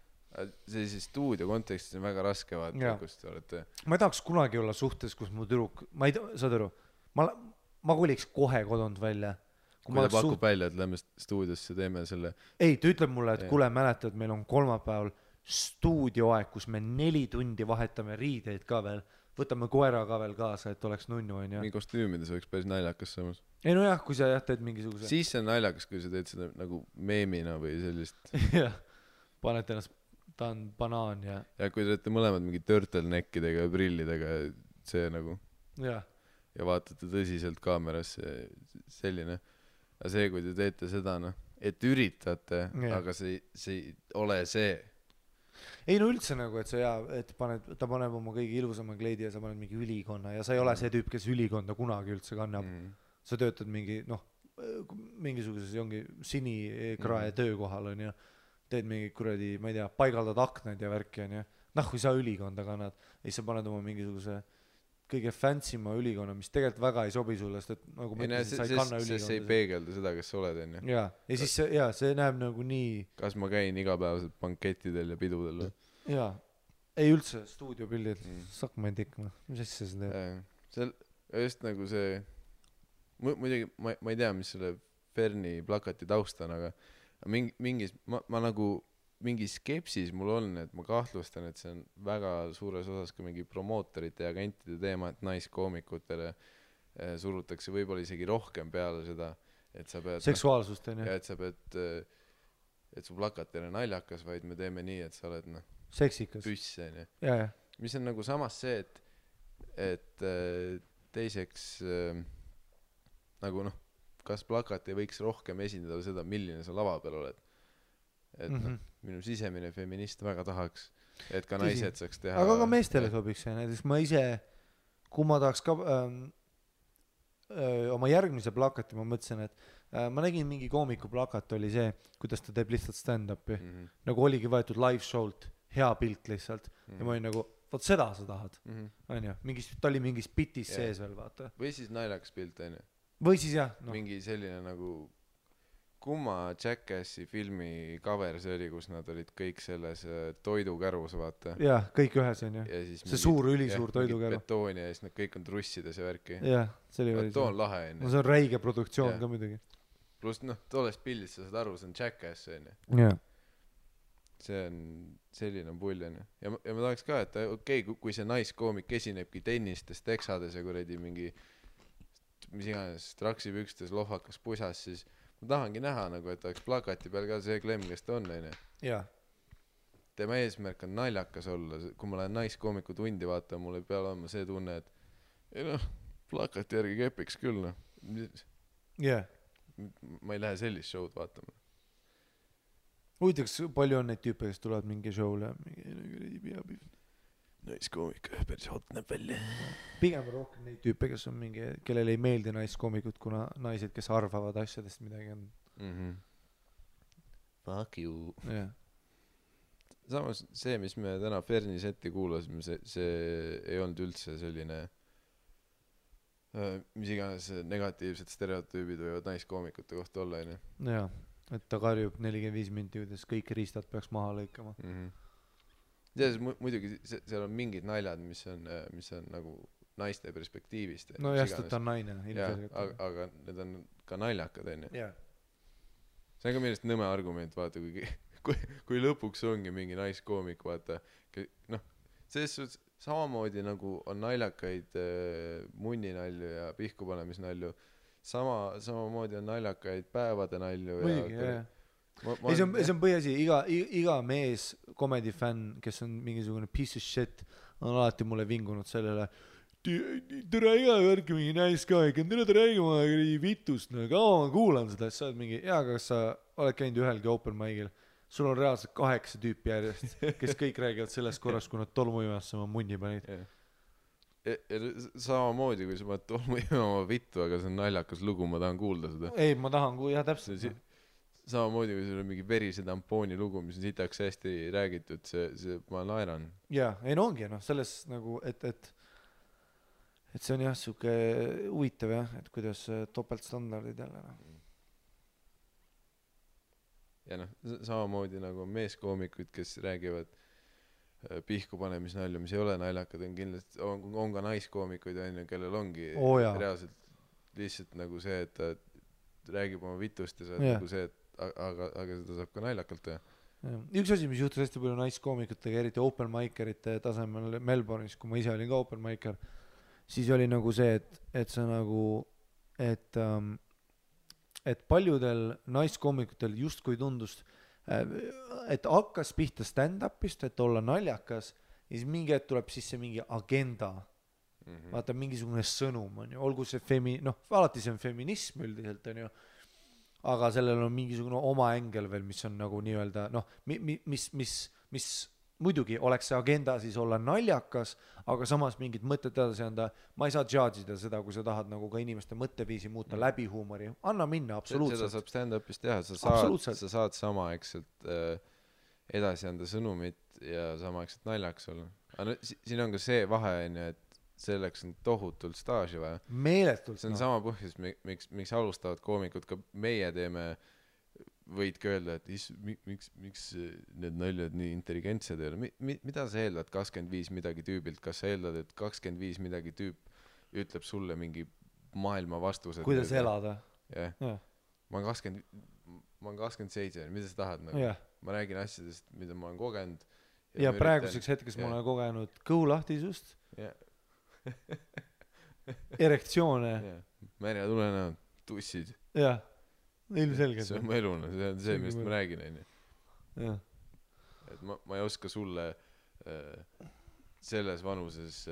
See siis stuudio kontekstis on väga raske vaata, kus te olete. Ma ei tahaks kunagi olla suhtes, kus mu tüdruk, ma ei tea, saad aru, ma koliks kohe kodunt välja. Kui ta pakub välja, et lähme stuudiosse, teeme selle. Ei, ta ütleb mulle, et kuule, mäletad, meil on kolmapäeval stuudioaeg, kus me 4 tundi vahetame riideid ka veel, võtame koera ka veel kaasa, et oleks nunnu, on ju. Mingi kostüümides oleks päris naljakas samas. Ei no jah, kui sa teed mingisuguse. Siis see on naljakas, kui sa teed seda nagu meemina või sellist. Jah, paned ennast, ta on banaan ja kui te olete mõlemad mingi turtleneckidega ja prillidega, see nagu. Ja vaatate tõsiselt kaamerasse, selline. Aga see, kui te teete seda, noh, et üritate, aga see ei ole see. Ei no üldse nagu, et sa et ta paneb oma kõige ilusama kleidi ja sa paned mingi ülikonna ja sa ei ole see tüüp, kes ülikonda kunagi üldse kannab. Sa töötad mingi, noh, mingisuguses ongi sinikrae töökohal, on ju. Teed mingi kuradi, ma ei tea, paigaldad aknad ja värki, on ju. Noh, kui sa ülikonda kannad, siis sa paned oma mingisuguse kõige fancyma ülikonna, mis tegelikult väga ei sobi sulle, sest et nagu ma ütlesin, sa ei kanna ülikonda. See ei peegelda seda, kes sa oled, on ju. Ja siis see näeb nagu nii. Kas ma käin igapäevaselt bankettidel ja pidudel? Jaa, ei üldse stuudiopildid, sakma ei tikma, mis asja sa teed? Seal just nagu see, muidugi ma ei tea, mis selle Ferni plakati taust on, aga mingis, ma nagu mingi skepsis mul on, et ma kahtlustan, et see on väga suures osas ka mingi promootorite ja agentide teema, et naiskoomikutele surutakse võib-olla isegi rohkem peale seda, et sa pead seksuaalsust on ju ja et sa pead et su plakat ei ole naljakas, vaid me teeme nii, et sa oled seksikas püss onju, ja mis on nagu samas see, et teiseks nagu kas plakat ei võiks rohkem esindada seda, milline sa lava peal oled, et minu sisemine feminist väga tahaks, et ka naised saaks teha, aga ka meestele sobiks see, näiteks ma ise, kui ma tahaks ka oma järgmise plakati, ma mõtlesin, et ma nägin mingi koomiku plakat oli see, kuidas ta teeb lihtsalt stand-up'i nagu oligi võetud live show'lt, hea pilt lihtsalt ja ma olin nagu, vot seda sa tahad onju, ta oli mingis bitis sees veel vaata või siis naljakas pilt onju, või siis jah mingi selline nagu kumma Jackassi filmi cover see oli, kus nad olid kõik selles toidukärus vaata jah, kõik ühes onju, see suur ülisuur toidukäru betooni ja siis nad kõik on trussides ja värki jah, see oli too on lahe onju, no see on räige produktsioon ka muidugi pluss tollest pildist sa saad aru, see on Jackass onju jah, see on selline pull onju ja ma tahaks ka, et okei, kui see naiskoomik esinebki tennistes, teksades ja kuradi mingi mis iganes traksipükstes, lohvakas pusas, siis ma tahangi näha nagu, et oleks plakati peal ka see klemm, kes ta on onju jah, tema eesmärk on naljakas olla, kui ma lähen naiskoomiku tundi vaatama, mul ei pea olema see tunne, et ei plakati järgi kepiks küll jah ma ei lähe sellist show'd vaatama. Huvitaks, palju on neid tüüpe, kes tulevad mingi show'le ja naiskoomik, päris hot näeb välja. Pigem rohkem neid tüüpe, kes on mingi, kellel ei meeldi naiskoomikud, kuna naised, kes arvavad asjadest midagi on. Fuck you. Yeah. Samas see, mis me täna Ferni seti kuulasime, see ei olnud üldse selline mis iganes negatiivsed stereotüübid võivad naiskoomikute kohta olla onju. Jaa, et ta karjub 45 minti, kuidas kõik riistad peaks maha lõikama. Selles muidugi seal on mingid naljad, mis on nagu naiste perspektiivist. No jah, ta on naine. Aga need on ka naljakad onju. Jaa. See on ka millest nõme argument, vaata, kui lõpuks ongi mingi naiskoomik, vaata, selles suhtes samamoodi nagu on naljakaid munninalju ja pihkupanemisnalju, samamoodi on naljakaid päevade nalju. Muidugi, jah. Ei, see on põhiasi, iga mees komedifänn, kes on mingisugune piece of shit, on alati mulle vingunud sellele, tere iga värki mingi nice guy, tere räägima vitust, kaua ma kuulan seda, sa oled mingi, kas sa oled käinud ühelgi open mic'il, sul on reaalselt 8 tüüpi järjest, kes kõik räägivad sellest korrast, kui nad tolmuimasse oma munni panid. Samamoodi, kui sa paned tolmuimama vittu, aga see on naljakas lugu, ma tahan kuulda seda. Ei, ma tahan jah, täpselt. Samamoodi, kui sul on mingi verise tampooni lugu, mis on sitaks hästi räägitud, ma naeran. Jaa, ei no ongi, selles nagu, et see on jah, siuke huvitav jah, et kuidas topeltstandardid jälle. Ja samamoodi nagu meeskoomikud, kes räägivad pihkupanemisnalju, mis ei ole naljakad, on kindlasti, on ka naiskoomikuid onju, kellel ongi reaalselt lihtsalt nagu see, et ta räägib oma vitust ja see nagu see, aga seda saab ka naljakalt teha. Üks asi, mis juhtus hästi palju naiskoomikutega, eriti open micerite tasemel Melbourne'is, kui ma ise olin ka open micer, siis oli nagu see, et see nagu, et paljudel naiskoomikutel justkui tundus, et hakkas pihta stand-upist, et olla naljakas ja siis mingi hetk tuleb sisse mingi agenda, vaata mingisugune sõnum on ju, olgu see alati see on feminism üldiselt on ju, aga sellel on mingisugune oma ängel veel, mis on nagu nii-öelda mis muidugi oleks see agenda siis olla naljakas, aga samas mingid mõtted edasi anda, ma ei saa judge'ida seda, kui sa tahad nagu ka inimeste mõtteviisi muuta läbi huumori, anna minna, absoluutselt. Seda saab stand-upis teha, sa saad samaaegselt edasi anda sõnumit ja samaaegselt naljaks olla. Aga siin on ka see vahe, et selleks on tohutult staaži vaja. Meeletult. See on sama põhjus, miks alustavad koomikud, ka meie teeme, võidki öelda, et miks need naljad nii intelligentsed ei ole. Mida sa eeldad 25 midagi tüübilt? Kas sa eeldad, et 25 midagi tüüp ütleb sulle mingi maailma vastused? Kuidas elada? Jah. Ma olen 27, mida sa tahad? Ma räägin asjadest, mida ma olen kogenud. Ja praeguseks hetkes ma olen kogenud kõhulahtisust, erektsioone. Märja tulenäod, tussid. Jah. ilmselgelt see on mu elu, see on see, millest ma räägin, onju. jah. Et ma ei oska sulle selles vanuses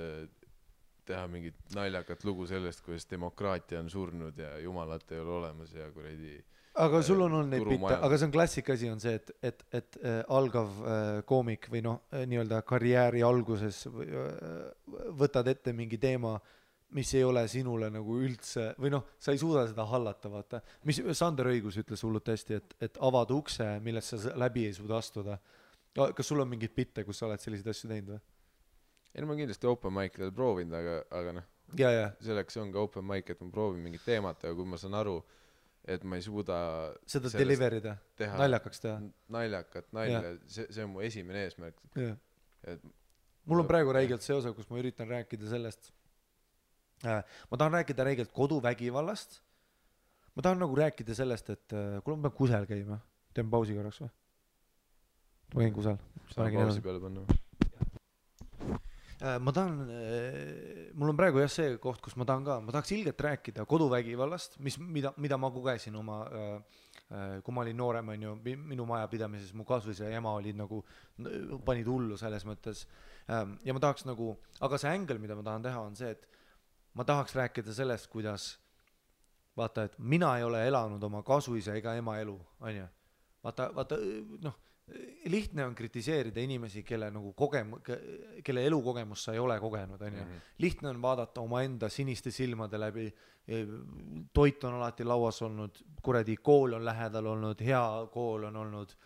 teha mingit naljakat lugu sellest, kuidas demokraatia on surnud ja jumalat ei ole olemas ja kuradi aga sul on olnud neid bitte, turumajandus. aga see on klassika asi on see, et algav koomik või noh, nii-öelda karjääri alguses võtad ette mingi teema, mis ei ole sinule nagu üldse või noh, sa ei suuda seda hallata, vaata. Mis Sander Õigus ütles hullult hästi, et avad ukse, millest sa läbi ei suuda astuda. Kas sul on mingid bitte, kus sa oled selliseid asju teinud või? ei, ma kindlasti open mic'idel proovinud, aga noh, ja. selleks on ka open mic, et ma proovin mingit teemat, aga kui ma saan aru, et ma ei suuda seda deliverida, naljakaks teha. Naljakat nalja, see on mu esimene eesmärk. Et mul on praegu räigelt see osa, kus ma üritan rääkida sellest, ma tahan rääkida räigelt koduvägivallast, ma tahan nagu rääkida sellest, et kuule ma pean kusel käima, teen pausi korraks või? Ma käin kusel. Saan pausi peale panna. Ma tahan, mul on praegu jah see koht, kus ma tahaks ilgelt rääkida koduvägivallast, mida ma kogesin oma, kui ma olin noorem, on ju, minu majapidamises, mu kasvõisa ja ema olid nagu, panid hullu selles mõttes. Ja ma tahaks nagu, aga see ängel, mida ma tahan teha, on see, et ma tahaks rääkida sellest, kuidas, vaata, et mina ei ole elanud oma kasvõisa ega ema elu, on ju. Vaata, noh, lihtne on kritiseerida inimesi, kelle elukogemus sa ei ole kogenud, on ju. Lihtne on vaadata omaenda siniste silmade läbi, toit on alati lauas olnud, kuradi kool on lähedal olnud, hea kool on olnud,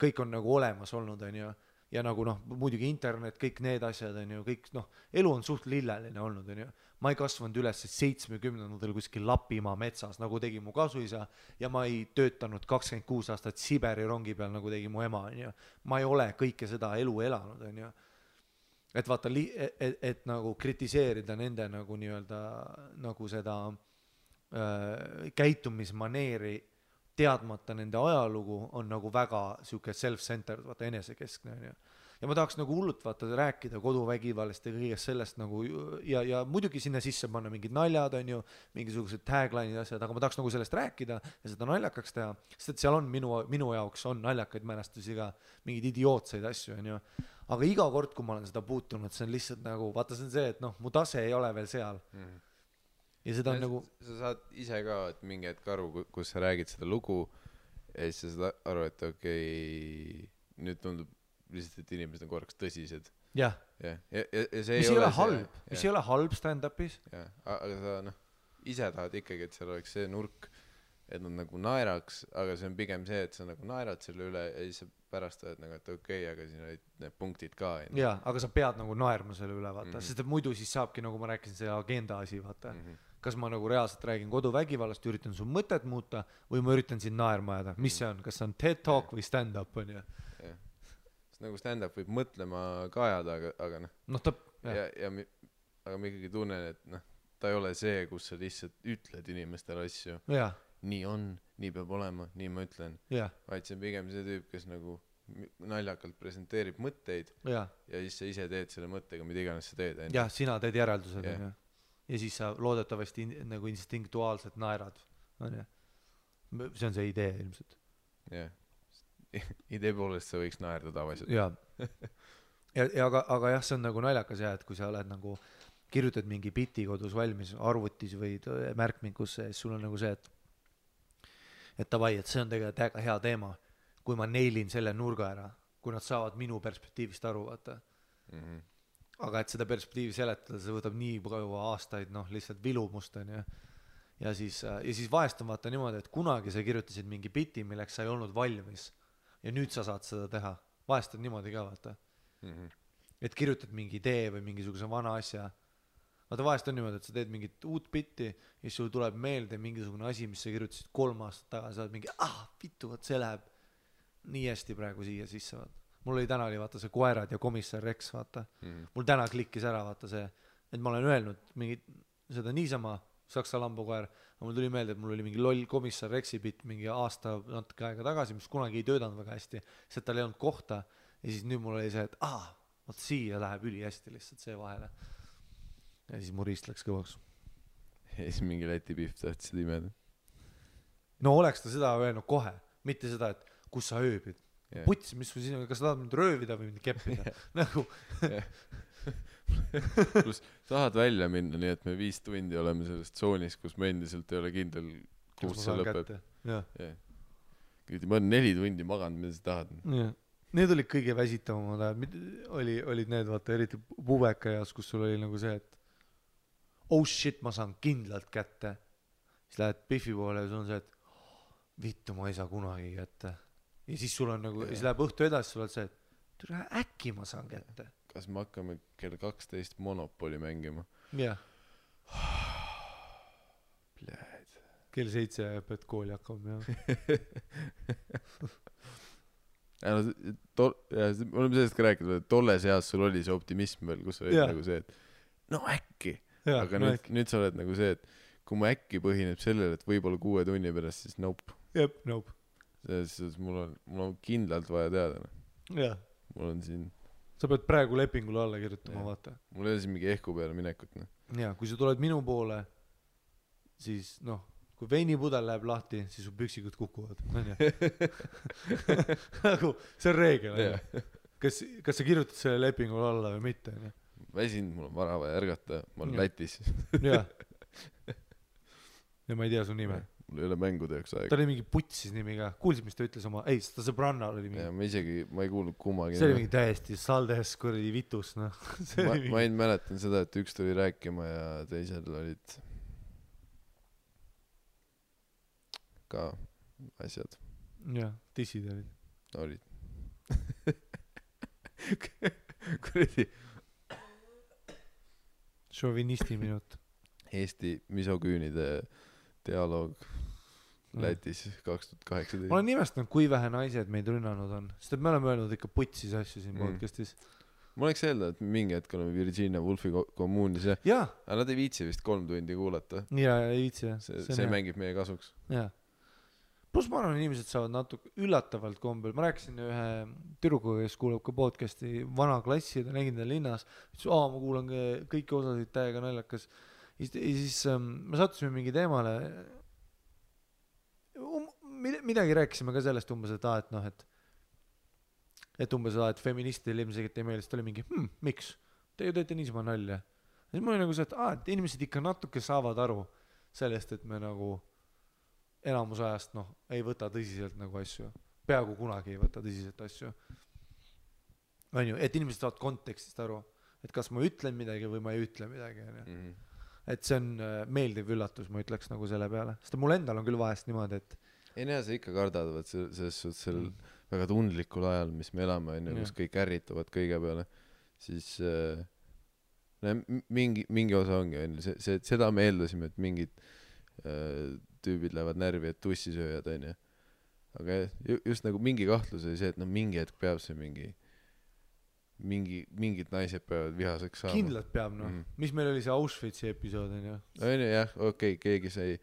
kõik on nagu olemas olnud, on ju. Ja nagu noh, muidugi internet, kõik need asjad on ju, kõik noh, elu on suht lilleline olnud, on ju. Ma ei kasvanud üles 70-ndatel kuskil Lapimaa metsas, nagu tegi mu kasuisa, ja ma ei töötanud 26 aastat Siberi rongi peal, nagu tegi mu ema, on ju. Ma ei ole kõike seda elu elanud, on ju. Et vaata, et nagu kritiseerida nende nagu nii-öelda nagu seda käitumismaneeri teadmata nende ajalugu on nagu väga siuke self-centered, vaata enesekeskne, on ju. Ja ma tahaks nagu hullult vaata rääkida koduvägivallast ja kõigest sellest nagu ja muidugi sinna sisse panna mingid naljad, on ju, mingisugused tagline'id asjad, aga ma tahaks nagu sellest rääkida ja seda naljakaks teha, sest et seal on minu jaoks on naljakaid mälestusi ka, mingid idiootseid asju, on ju. Aga iga kord, kui ma olen seda puutunud, see on lihtsalt nagu, vaata see on see, et noh, mu tase ei ole veel seal. Ja seda on nagu... Sa saad ise ka, et mingi hetk aru, kus sa räägid seda lugu ja siis sa saad aru, et okei, nüüd tundub lihtsalt, et inimesed on korraks tõsised. Jah. Ja see mis ei ole halb, mis ei ole halb stand-upis. Ja, aga sa noh, ise tahad ikkagi, et seal oleks see nurk, et nad nagu naeraks, aga see on pigem see, et sa nagu naerad selle üle ja siis sa pärast oled nagu, et okei, aga siin olid need punktid ka. Jaa, aga sa pead nagu naerma selle üle, vaata, sest et muidu siis saabki, nagu ma rääkisin, see agenda asi, vaata. Kas ma nagu reaalselt räägin koduvägivallast, üritan su mõtet muuta või ma üritan siin naerma ajada. Mis see on? Kas see on TED Talk või stand-up, on ju? Nagu stand-up võib mõtlema ka ajada, aga noh. Aga ma ikkagi tunnen, et noh, ta ei ole see, kus sa lihtsalt ütled inimestele asju. Nii on, nii peab olema, nii ma ütlen. Vaid see on pigem see tüüp, kes nagu naljakalt presenteerib mõtteid ja siis sa ise teed selle mõttega, mida iganes sa teed. Jah, sina teed järeldused, on ju. Ja siis sa loodetavasti nagu instinktuaalselt naerad. See on see idee ilmselt. Jah. Idee poolest sa võiks naerda tavaliselt. Aga jah, see on nagu naljakas jah, et kui sa oled nagu kirjutad mingi biti kodus valmis arvutis või märkmingusse, siis sul on nagu see, et tavai, et see on tegelikult väga hea teema, kui ma neilin selle nurga ära, kui nad saavad minu perspektiivist aru, vaata. Aga et seda perspektiivi seletada, see võtab nii palju aastaid, noh, lihtsalt vilumust on ju. Ja siis vahest on vaata niimoodi, et kunagi sa kirjutasid mingi biti, milleks sa ei olnud valmis ja nüüd sa saad seda teha. Vahest on niimoodi ka, vaata. Et kirjutad mingi idee või mingisuguse vana asja. Vaata vahest on niimoodi, et sa teed mingit uut bitti ja siis sul tuleb meelde mingisugune asi, mis sa kirjutasid 3 aastat tagasi, sa oled mingi, vittu, vaat see läheb nii hästi praegu siia sisse, vaata. Mul oli täna oli vaata see Koerad ja komissar Rex, vaata. Mul täna klikkis ära, vaata see, et ma olen öelnud mingit, seda niisama Saksa lambukoer, aga mul tuli meelde, et mul oli mingi loll komissar Rexi bitt mingi aasta natuke aega tagasi, mis kunagi ei töötanud väga hästi, sest tal ei olnud kohta ja siis nüüd mul oli see, et vaat siia läheb üli hästi lihtsalt see vahele. Ja siis mu riist läks kõvaks. Ja siis mingi Läti pihv tahtsid imeda. no oleks ta seda öelnud kohe, mitte seda, et kus sa ööbid. Yeah. Puts, mis sul siin on, kas sa tahad mind röövida või mind keppida? Nagu pluss tahad välja minna, nii et me 5 tundi oleme selles tsoonis, kus me endiselt ei ole kindel, kus see lõpeb. Yeah. Ma olen 4 tundi maganud, mida sa tahad. Yeah. Need olid kõige väsitavamad ajad, olid need, vaata, eriti pubeka eas, kus sul oli nagu see, et oh shit, ma saan kindlalt kätte. Siis lähed Biffi poole ja sul on see, et vittu, ma ei saa kunagi kätte. Ja siis sul on nagu, siis läheb õhtu edasi, sul on see, et äkki ma saan kätte. Kas me hakkame kell 12 Monopoly mängima? Jah. Pljääd. Kell 7 pead kooli hakkama, jah. Me oleme sellest ka rääkinud, et tolles eas sul oli see optimism veel, kus oli nagu see, et no äkki. Aga nüüd sa oled nagu see, et kui mu äkki põhineb sellele, et võib-olla 6 tunni pärast, siis nope. Jep, nope. Siis mul on kindlalt vaja teada. Jah. Mul on siin... Sa pead praegu lepingule alla kirjutama, vaata. Mul ei ole siin mingi ehku peale minekut. Ja, kui sa tuled minu poole, siis kui veinipudel läheb lahti, siis su püksikud kukuvad. Nagu, see on reegel. Kas sa kirjutad selle lepingule alla või mitte? Väsinud, mul on vara vaja ärgata, ma olen Lätis. Jah. Ja ma ei tea su nime. Mul ei ole mängude jaoks aega. Ta oli mingi Putsis nimi ka. Kuulsid, mis ta ütles oma... Ei, ta sõbranna oli mingi... Ja ma ei kuulnud kummagi. See oli mingi täiesti saldes kuradi vitus, no. Ma ei mäletan seda, et üks tuli rääkima ja teisel olid ka asjad. Jah, tissid olid. Olid. Kuradi. Šovinisti minut. Eesti misoküünide dialoog Lätis 2018. Ma olen nimestanud, kui vähe naised meid rünnanud on. Sest et me oleme öelnud ikka putsis asju siin podcastis. Ma oleks öelda, et mingi hetk oleme Virginia Woolfi kommuunis ja aga nad ei viitsi vist 3 tundi kuulata. Ja ei viitsi, jah. See mängib meie kasuks. Jah. Plus ma arvan, inimesed saavad natuke üllatavalt kombel. Ma rääkisin ühe tüdrukuga, kes kuulab ka podcasti vana klassi, ta nägin ta linnas. Ma kuulan kõiki osasid täiega naljakas. Ja siis me sattusime mingi teemale. Midagi rääkisime ka sellest umbes, et umbes, et feministidel ilmselt ei meelest oli mingi, miks? Te ju teete niisama nalja. Ja siis mul oli nagu see, et inimesed ikka natuke saavad aru sellest, et me nagu enamus ajast ei võta tõsiselt nagu asju. Peaaegu kunagi ei võta tõsiselt asju. On ju, et inimesed saavad kontekstist aru, et kas ma ütlen midagi või ma ei ütle midagi. Et see on meeldiv üllatus, ma ütleks nagu selle peale. Sest mul endal on küll vahest niimoodi, et ei näe, sa ikka kardavad selles suhtes sel väga tundlikul ajal, mis me elame, kus kõik ärritavad kõige peale, siis mingi osa ongi, seda me eeldasime, et mingid tüübid lähevad närvi, et tussisööjad, on ju. Aga just nagu mingi kahtlus oli see, et mingi hetk peab see mingid naised peavad vihaseks saama. Kindlalt peab, Mis meil oli see Auschwitzi episood, on ju? On ju, jah, okei, keegi sai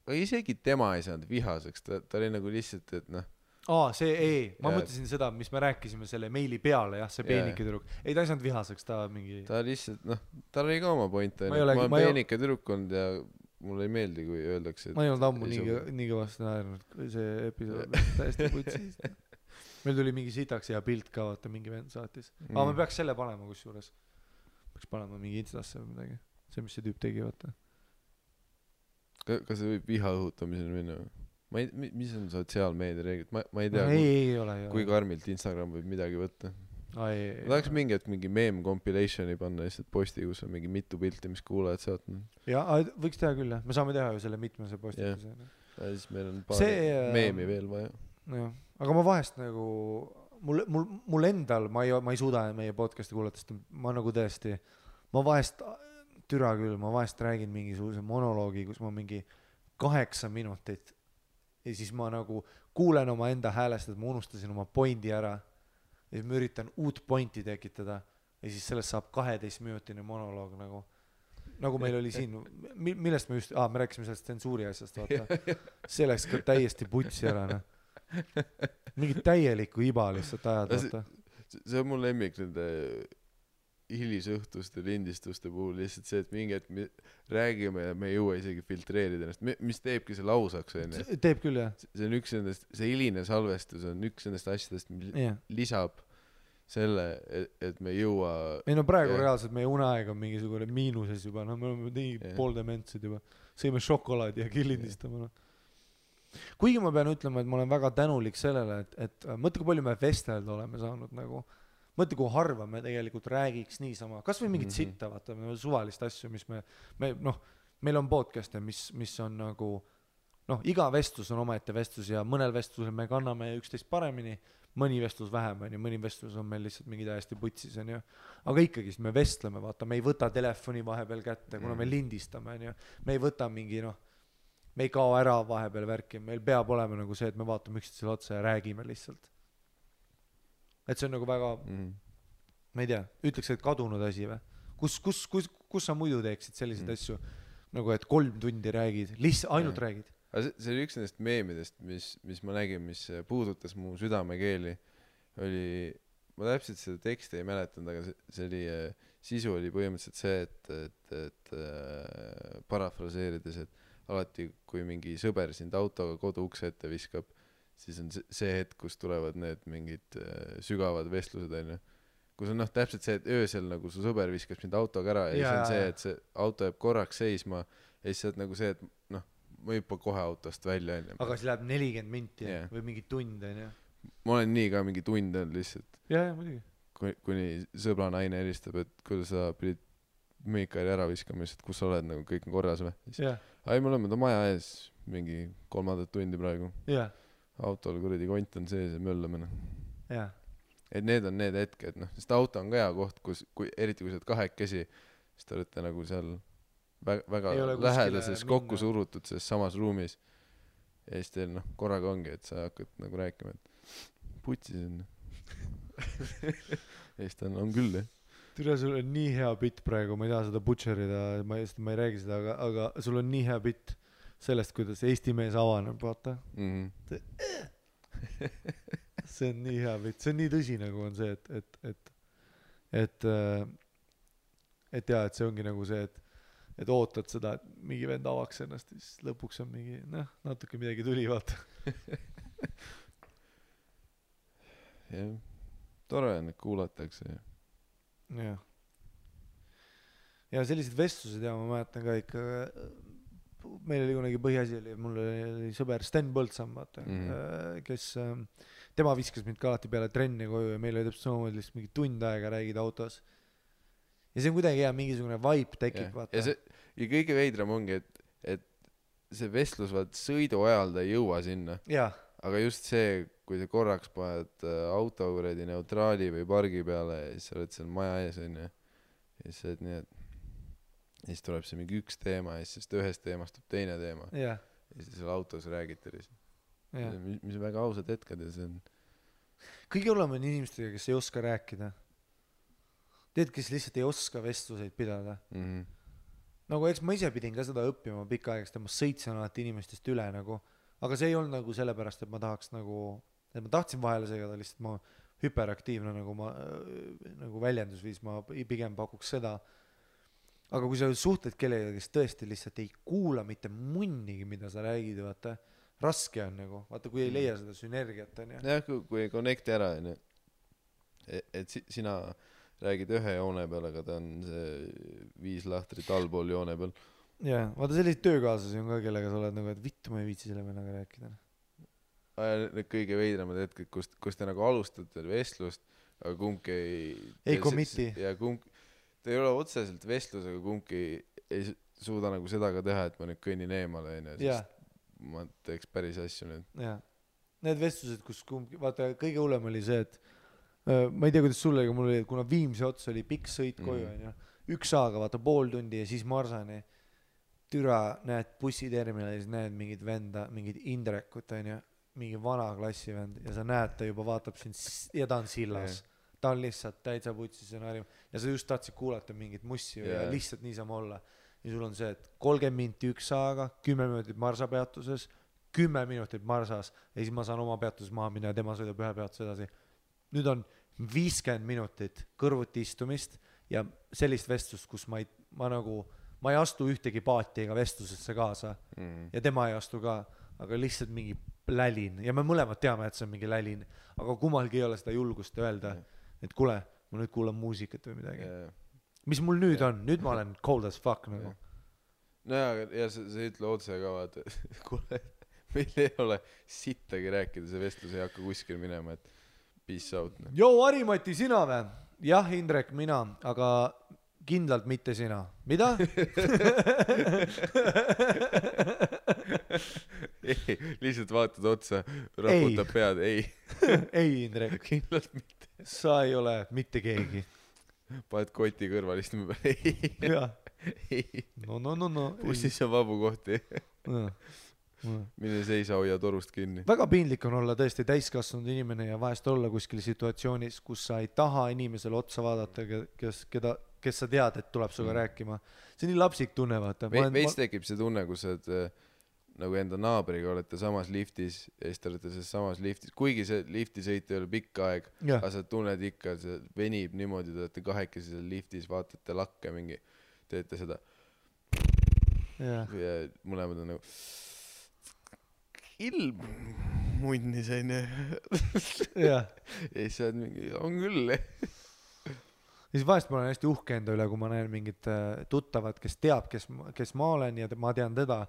aga isegi tema ei saanud vihaseks, ta oli nagu lihtsalt, et ma mõtlesin seda, mis me rääkisime selle meili peale, jah, see peenike tüdruk. Ei, ta ei saanud vihaseks, ta mingi... Ta lihtsalt, tal oli ka oma point, ma olen peenike tüdruk olnud ja mulle ei meeldi, kui öeldakse... Ma ei olnud ammu nii kõvasti naernud, see episood täiesti putsis. Meil tuli mingi sitaks hea pilt ka, vaata, mingi vend saatis. Aga me peaks selle panema kusjuures. Peaks panema mingi instasse või midagi. See, mis see tüüp tegi, vaata. Kas see võib viha õhutamiseni minna? Mis on sotsiaalmeedia reeglid? Ma ei tea, kui karmilt Instagram võib midagi võtta. Ma tahaks mingi hetk mingi meme compilationi panna lihtsalt posti, kus on mingi mitu pilti, mis kuulajad saatnud. Jaa, võiks teha küll, jah. Me saame teha ju selle mitmese postituse. Ja siis meil on paar meemi veel vaja. Aga ma vahest nagu... Mul endal, ma ei suuda meie podcasti kuulatast, ma nagu tõesti... Ma vahest... Türa küll, ma vahest räägin mingisuguse monoloogi, kus ma mingi 8 minutit ja siis ma nagu kuulen oma enda häälest, et ma unustasin oma pointi ära ja siis ma üritan uut pointi tekitada ja siis sellest saab 12-minutine monoloog nagu meil oli siin, millest me just, me rääkisime sellest tsensuuri asjast, vaata. See läks ka täiesti putsi ära, Mingi täielikku iba lihtsalt ajad, vaata. See on mul lemmik nende hilisõhtuste lindistuste puhul lihtsalt see, et mingi hetk me räägime ja me ei jõua isegi filtreerida ennast, mis teebki selle ausaks, onju. teeb küll, jah. See on üks nendest, see hiline salvestus on üks nendest asjadest, mis lisab selle, et me ei jõua. Ei no praegu reaalselt meie uneaeg on mingisugune miinuses juba, no me oleme nii pooldementsed juba. Sõime šokolaadi ja killindistame, no. Kuigi ma pean ütlema, et ma olen väga tänulik sellele, et mõtle, kui palju me vestelda oleme saanud nagu, mõtle, kui harva me tegelikult räägiks niisama, kas või mingit sitta, vaata, suvalist asju, mis me noh, meil on podcast'e, mis on nagu, noh, iga vestlus on omaette vestlus ja mõnel vestlusel me kanname üksteist paremini, mõni vestlus vähem, on ju, mõni vestlus on meil lihtsalt mingi täiesti putsis, on ju, aga ikkagi me vestleme, vaata, me ei võta telefoni vahepeal kätte, kuna me lindistame, on ju, me ei võta mingi, noh, me ei kao ära vahepeal värki, meil peab olema nagu see, et me vaatame üksteisele otsa ja räägime lihtsalt. Et see on nagu väga, ma ei tea, ütleks, et kadunud asi või? Kus sa muidu teeksid selliseid asju, nagu et 3 tundi räägid, ainult räägid? See oli üks nendest meemidest, mis ma nägin, mis puudutas mu südamekeeli, oli, ma täpselt seda teksti ei mäletanud, aga see oli, sisu oli põhimõtteliselt see, et parafraseerides, et alati, kui mingi sõber sind autoga kodu ukse ette viskab, siis on see hetk, kus tulevad need mingid sügavad vestlused, on ju. Kus on täpselt see, et öösel nagu su sõber viskas mind autoga ära ja siis on see, et see auto jääb korraks seisma ja siis on nagu see, et noh, ma hüppa kohe autost välja. Aga siis läheb 40 minti või mingi tund, on ju? Ma olen nii ka mingi tund on lihtsalt. Jaa, muidugi. Kuni sõbra naine helistab, et kuidas sa pidid Miikali ära viskama, et kus sa oled, nagu kõik on korras või? Ai, me oleme ta maja ees mingi 3 tundi praegu. Autol kuradi kont on sees ja möllame. Et need on need hetked, noh, sest auto on ka hea koht, eriti kui sa oled 2 siis te olete nagu seal väga lähedases kokku surutud selles samas ruumis ja siis teil korraga ongi, et sa hakkad nagu rääkima, et putsis on. Ja siis ta on küll, jah. Türa, sul on nii hea bitt praegu, ma ei taha seda butcherida, ma ei räägi seda, aga sul on nii hea bitt sellest, kuidas Eesti mees avaneb, vaata. See on nii hea bitt, see on nii tõsi nagu on see, et see ongi nagu see, et ootad seda, et mingi vend avaks ennast ja siis lõpuks on mingi, natuke midagi tuli, vaata. Jah, tore on, et kuulatakse. Ja sellised vestlused ja ma mäletan ka ikka, meil oli kunagi põhiasi oli, mul oli sõber Sten Põldsam, vaata, kes, tema viskas mind ka alati peale trenni koju ja meil oli täpselt samamoodi lihtsalt mingi tund aega räägid autos. Ja see on kuidagi hea, mingisugune vibe tekib, vaata. Ja kõige veidram ongi, et see vestlus, vaat sõidu ajal ta ei jõua sinna. Aga just see, kui sa korraks paned auto kuredi neutraali või pargi peale ja siis sa oled seal maja ees, on ju. Ja siis oled nii, et siis tuleb see mingi üks teema ja siis ühest teemast tuleb teine teema. Ja siis seal autos räägite lihtsalt. Mis on väga ausad hetked ja see on... Kõige olema on inimestega, kes ei oska rääkida. Teed, kes lihtsalt ei oska vestluseid pidada. Nagu eks ma ise pidin ka seda õppima pikka aegast ja ma sõitsin alati inimestest üle nagu. Aga see ei olnud nagu sellepärast, et ma tahaks nagu, et ma tahtsin vahele segada, lihtsalt ma hüperaktiivne nagu väljendusviis, ma pigem pakuks seda. Aga kui sa suhtled kellega, kes tõesti lihtsalt ei kuula mitte munnigi, mida sa räägid, vaata, raske on nagu, vaata, kui ei leia seda sünergiat, on ju. Jah, kui ei connecti ära, on ju. Et sina räägid ühe joone peal, aga ta on see 5 lahtrit allpool joone peal. Jah, vaata selliseid töökaaslasi on ka, kellega sa oled nagu, et vittu ma ei viitsi selle vennaga rääkida. Need kõige veidramad hetked, kus te nagu alustate vestlust, aga kumbki ei committi. Ja ta ei ole otseselt vestlus, aga kumbki ei suuda nagu seda ka teha, et ma nüüd kõnnin eemale, sest ma teeks päris asju nüüd. Jah, need vestlused, kus kumbki, vaata kõige hullem oli see, et ma ei tea, kuidas sulle, aga mul oli, kuna Viimsi ots oli pikk sõit koju, on ju, 1 saaga, vaata 0,5 tundi ja siis Marsani. Türa, näed bussiterminalis, näed mingid venda, mingid Indrekut, on ju, mingi vana klassi vend ja sa näed, ta juba vaatab sind ja ta on sillas. Ta on lihtsalt täitsa putsis ja sa just tahtsid kuulata mingit mussi ja lihtsalt niisama olla. Ja sul on see, et 30 minti 1 saaga, 10 minutit Marsa peatuses, 10 minutit Marsas ja siis ma saan oma peatuses maha minna ja tema sõidab ühe peatuses edasi. Nüüd on 50 minutit kõrvuti istumist ja sellist vestlust, kus ma ei astu ühtegi paati ega vestlusesse kaasa ja tema ei astu ka, aga lihtsalt mingi lälin ja me mõlemad teame, et see on mingi lälin, aga kummalgi ei ole seda julgust öelda, et kuule, ma nüüd kuulan muusikat või midagi. Mis mul nüüd on? Nüüd ma olen cold as fuck nagu. No ja sa ütle otse ka vaata, kuule, meil ei ole sittagi rääkida, see vestlus ei hakka kuskil minema, et peace out. Joo, Harimati, sina või? Jah, Indrek, mina, aga kindlalt mitte sina. Mida? Ei, lihtsalt vaatad otsa, raputab pead, ei. Ei, Indrek. Kindlalt mitte. Sa ei ole mitte keegi. Paned koti kõrval istume peale, ei. Jah. Ei. No. Bussis on vabu kohti. Mille seisa hoia torust kinni. Väga piinlik on olla tõesti täiskasvanud inimene ja vahest olla kuskil situatsioonis, kus sa ei taha inimesele otsa vaadata, kes sa tead, et tuleb suga rääkima. See on nii lapsik tunne, vaata. Veits tekib see tunne, kus sa nagu enda naabriga olete samas liftis ja siis te olete selles samas liftis, kuigi see liftisõit ei ole pikk aeg, aga sa tunned ikka, see venib niimoodi, te olete kahekesi seal liftis, vaatate lakke mingi, teete seda ja mõlemad on nagu ilm munnis onju ja siis sa oled mingi, on küll ja siis vahest ma olen hästi uhke enda üle, kui ma näen mingit tuttavat, kes teab, kes ma olen ja ma tean teda,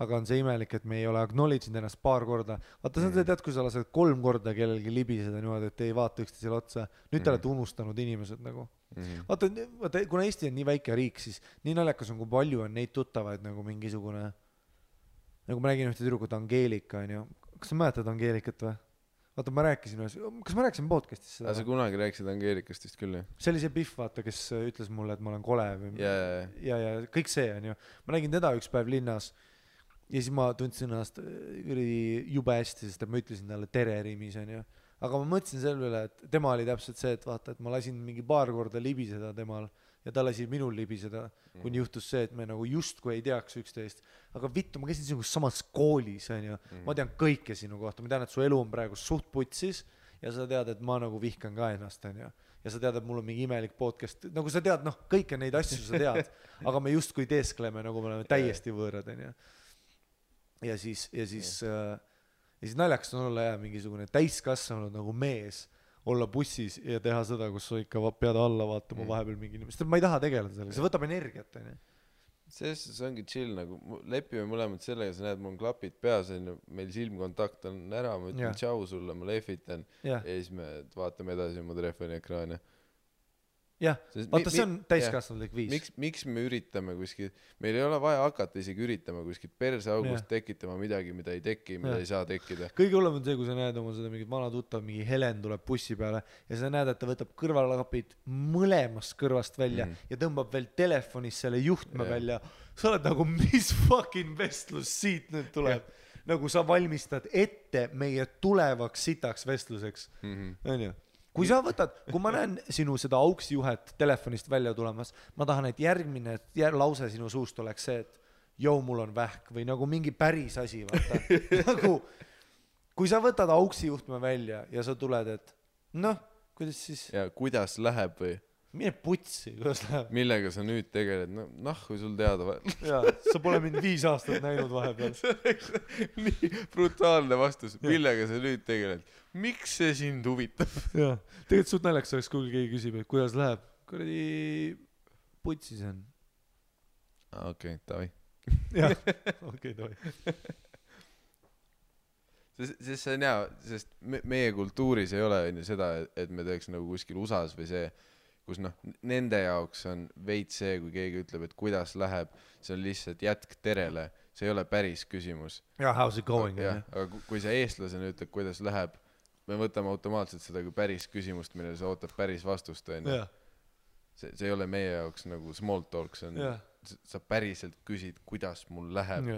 aga on see imelik, et me ei ole acknowledge'inud ennast paar korda. Vaata, see on see tead, kui sa lased 3 korda kellelgi libiseda niimoodi, et ei vaata üksteisele otsa. Nüüd te olete unustanud inimesed nagu. Vaata, kuna Eesti on nii väike riik, siis nii naljakas on, kui palju on neid tuttavaid nagu mingisugune, nagu ma räägin ühte tüdrukut Angeelika, on ju. Kas sa mäletad Angeelikat või? Vaata, ma rääkisin, kas ma rääkisin podcastis seda? Sa kunagi rääkisid Angeelikast vist küll, jah? See oli see Pihv, vaata, kes ütles mulle, et ma olen kole või ja kõik see on ju. Ma nägin teda üks päev linnas ja siis ma tundsin ennast jube hästi, sest ma ütlesin talle tere rimis, on ju. Aga ma mõtlesin selle üle, et tema oli täpselt see, et vaata, et ma lasin mingi paar korda libiseda temal ja ta lasi minul libiseda, kuni juhtus see, et me nagu justkui ei teaks üksteist. Aga vittu, ma käisin sinuga samas koolis, on ju. Ma tean kõike sinu kohta, ma tean, et su elu on praegu suht putsis ja sa tead, et ma nagu vihkan ka ennast, on ju. Ja sa tead, et mul on mingi imelik podcast, nagu sa tead, noh, kõike neid asju sa tead, aga me justkui teeskleme, nagu me oleme täiesti võõrad, on ju. Ja siis naljakas on olla mingisugune täiskasvanud nagu mees, olla bussis ja teha seda, kus sa ikka pead alla vaatama vahepeal mingi inimest. Ma ei taha tegeleda sellega, see võtab energiat. See ongi chill, nagu lepime mõlemad sellega, sa näed, mul on klapid peas, meil silmkontakt on ära, ma ütlen tšau sulle, ma lehvitan ja siis me vaatame edasi mu telefoni ekraani. Jah, vaata see on täiskasvanud viis. Miks me üritame kuskil, meil ei ole vaja hakata isegi üritama kuskil perseaugust tekitama midagi, mida ei teki, mida ei saa tekkida. Kõige hullem on see, kui sa näed oma seda mingit vana tuttav, mingi Helen tuleb bussi peale ja sa näed, et ta võtab kõrvalklapid mõlemast kõrvast välja ja tõmbab veel telefonis selle juhtme välja. Sa oled nagu, mis fucking vestlus siit nüüd tuleb. Nagu sa valmistad ette meie tulevaks sitaks vestluseks. On ju? Kui sa võtad, kui ma näen sinu seda auksjuhet telefonist välja tulemas, ma tahan, et järgmine lause sinu suust oleks see, et joo, mul on vähk või nagu mingi päris asi, vaata. Nagu, kui sa võtad auksijuhtme välja ja sa tuled, et noh, kuidas siis? Ja kuidas läheb või? Mine putsi, kuidas läheb? Millega sa nüüd tegeled? Kui sul teada Jaa, sa pole mind 5 aastat näinud vahepeal. See oleks nii brutaalne vastus. Millega sa nüüd tegeled? Miks see sind huvitab? Jaa, tegelikult suht naljaks oleks, kui keegi küsib, et kuidas läheb? Kuradi putsi see on. Okei, davai. Jah, okei, davai. Sest see on hea, sest meie kultuuris ei ole seda, et me teeks nagu kuskil USAs või see, kus nende jaoks on veits see, kui keegi ütleb, et kuidas läheb, see on lihtsalt jätk terele, see ei ole päris küsimus. Yeah, how's it going? Aga kui see eestlasena ütleb, kuidas läheb, me võtame automaatselt seda kui päris küsimust, millele sa ootad päris vastust. See ei ole meie jaoks nagu small talk, sa päriselt küsid, kuidas mul läheb,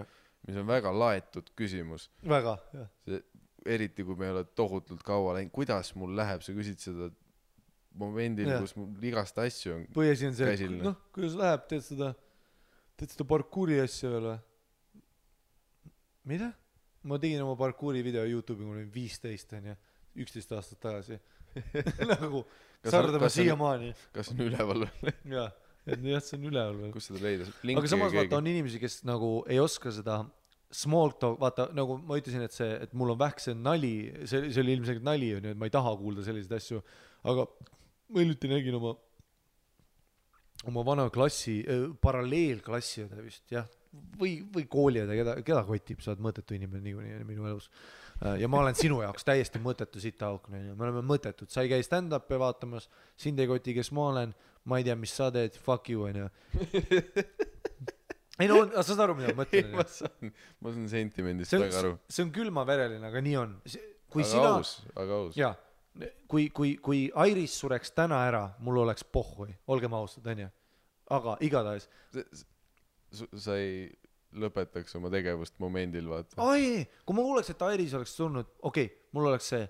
mis on väga laetud küsimus. Väga, jah. Eriti, kui me ei ole tohutult kaua läinud, kuidas mul läheb, sa küsid seda momendil, kus mul igast asju on põhiasi on see, kuidas läheb, teed seda parkuuri asja veel või? Mida? Ma tegin oma parkuuri video YouTube'i, mul oli 15, 11 aastat tagasi. Nagu, Sardama siiamaani. Kas on üleval veel? Jah, see on üleval veel. Kus seda leida? Aga samas vaata on inimesi, kes nagu ei oska seda small talk, vaata nagu ma ütlesin, et mul on vähk see nali, see oli ilmselgelt nali, et ma ei taha kuulda selliseid asju, aga ma hiljuti nägin oma vana klassi, paralleelklassi vist, jah, või kooliõde, keda kotib, sa oled mõttetu inimene niikuinii minu elus. Ja ma olen sinu jaoks täiesti mõttetu sitaauk, me oleme mõttetud, sa ei käi stand-up'i vaatamas, sind ei koti, kes ma olen, ma ei tea, mis sa teed, fuck you, on ju. Ei no, sa saad aru, mida ma mõtlen? Ma saan sentimendist väga aru. See on külmavereline, aga nii on. Aga aus. Jaa, kui Iris sureks täna ära, mul oleks pohhui, olgem ausad, on ju. Aga igatahes. Sa ei lõpetaks oma tegevust momendil, vaata. Ai, kui ma kuuleks, et Iris oleks tulnud, okei, mul oleks see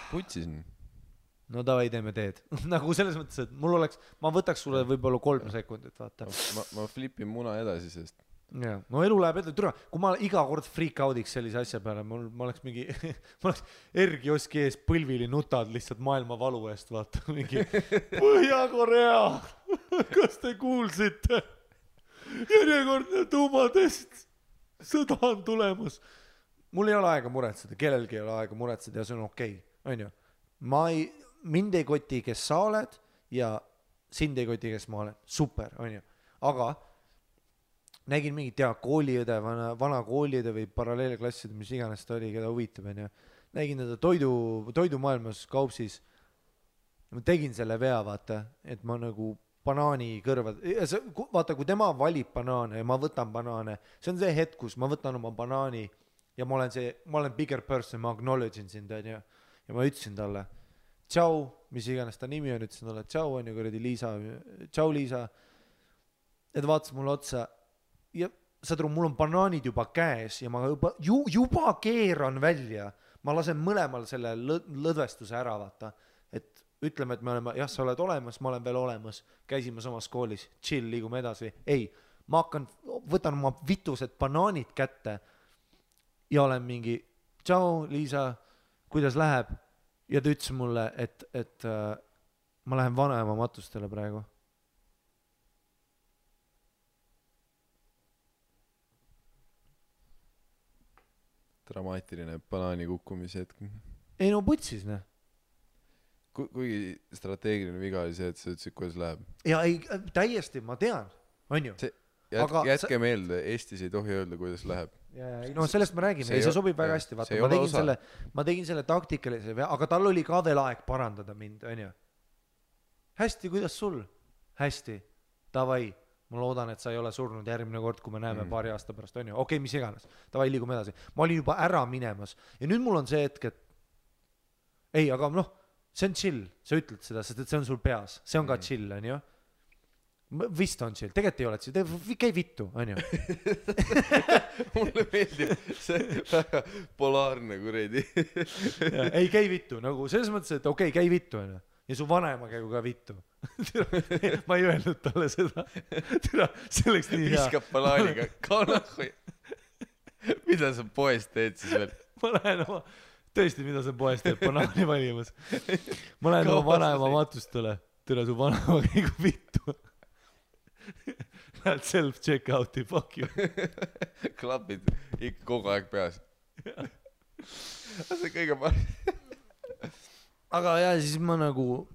Putsin. No davai, teeme teed. Nagu selles mõttes, et mul oleks, ma võtaks sulle võib-olla 3 sekundit, vaata. Ma flipin muna edasi, sest ja, no elu läheb edasi, kui ma iga kord freak out'iks sellise asja peale, ma oleks mingi ma oleks R-kioski ees põlvili nutad lihtsalt maailma valu eest, vaata mingi Põhja-Korea kas te kuulsite? Järjekordne tuumatest, sõda on tulemas. Mul ei ole aega muretseda, kellelgi ei ole aega muretseda ja see on okei, on ju. Mind ei koti, kes sa oled ja sind ei koti, kes ma olen. Super, on ju. Aga nägin mingit kooliõde, vana kooliõde või paralleelklasside, mis iganes ta oli, keda huvitab, on ju. Nägin teda toidumaailmas kaupsis. Ma tegin selle vea, vaata, et ma nagu banaani kõrvad, vaata, kui tema valib banaane ja ma võtan banaane, see on see hetk, kus ma võtan oma banaani ja ma olen bigger person, ma acknowledge'in sind, on ju, ja ma ütlesin talle, tšau, mis iganes ta nimi on, ütlesin talle, tšau, on ju, kuradi Liisa, tšau, Liisa, et vaatas mulle otsa ja saad aru, mul on banaanid juba käes ja ma juba keeran välja, ma lasen mõlemal selle lõdvestuse ära, vaata, et ütleme, et me oleme, jah, sa oled olemas, ma olen veel olemas, käisime samas koolis, chill, liigume edasi. Ei, ma võtan oma vitused banaanid kätte ja olen mingi, tšau, Liisa, kuidas läheb? Ja ta ütles mulle, et ma lähen vanaema matustele praegu. Dramaatiline banaani kukkumise hetk. Ei no putsis, ne? Kuigi strateegiline viga oli see, et sa ütlesid, kuidas läheb. Ja ei, täiesti, ma tean, on ju. Jätke meelde, Eestis ei tohi öelda, kuidas läheb. No sellest me räägime, see sobib väga hästi, vaata, ma tegin selle taktikalise, aga tal oli ka veel aeg parandada mind, on ju. Hästi, kuidas sul? Hästi, davai, ma loodan, et sa ei ole surnud järgmine kord, kui me näeme paari aasta pärast, on ju. Okei, mis iganes, davai, liigume edasi. Ma olin juba ära minemas ja nüüd mul on see hetk, et ei, aga noh, see on chill, sa ütled seda, sest et see on sul peas, see on ka chill, on ju. Vist on chill, tegelikult ei ole chill, käi vittu, on ju. Mulle meeldib see väga polaarne kuredi. Ei, käi vittu, nagu selles mõttes, et okei, käi vittu, on ju. Ja su vanaema käigu ka vittu. Ma ei öelnud talle seda. See oleks nii hea. Viskab banaaniga, kanahoi. Mida sa poest teed siis veel? Ma lähen oma, tõesti, mida sa poest teed, banaani valimas. Ma lähen oma vanaema matustele. Tule su vanaema käigu vittu. Lähed self-check-out'i, fuck you. Klapid ikka kogu aeg peas. See kõige parem. Aga jah, siis ma nagu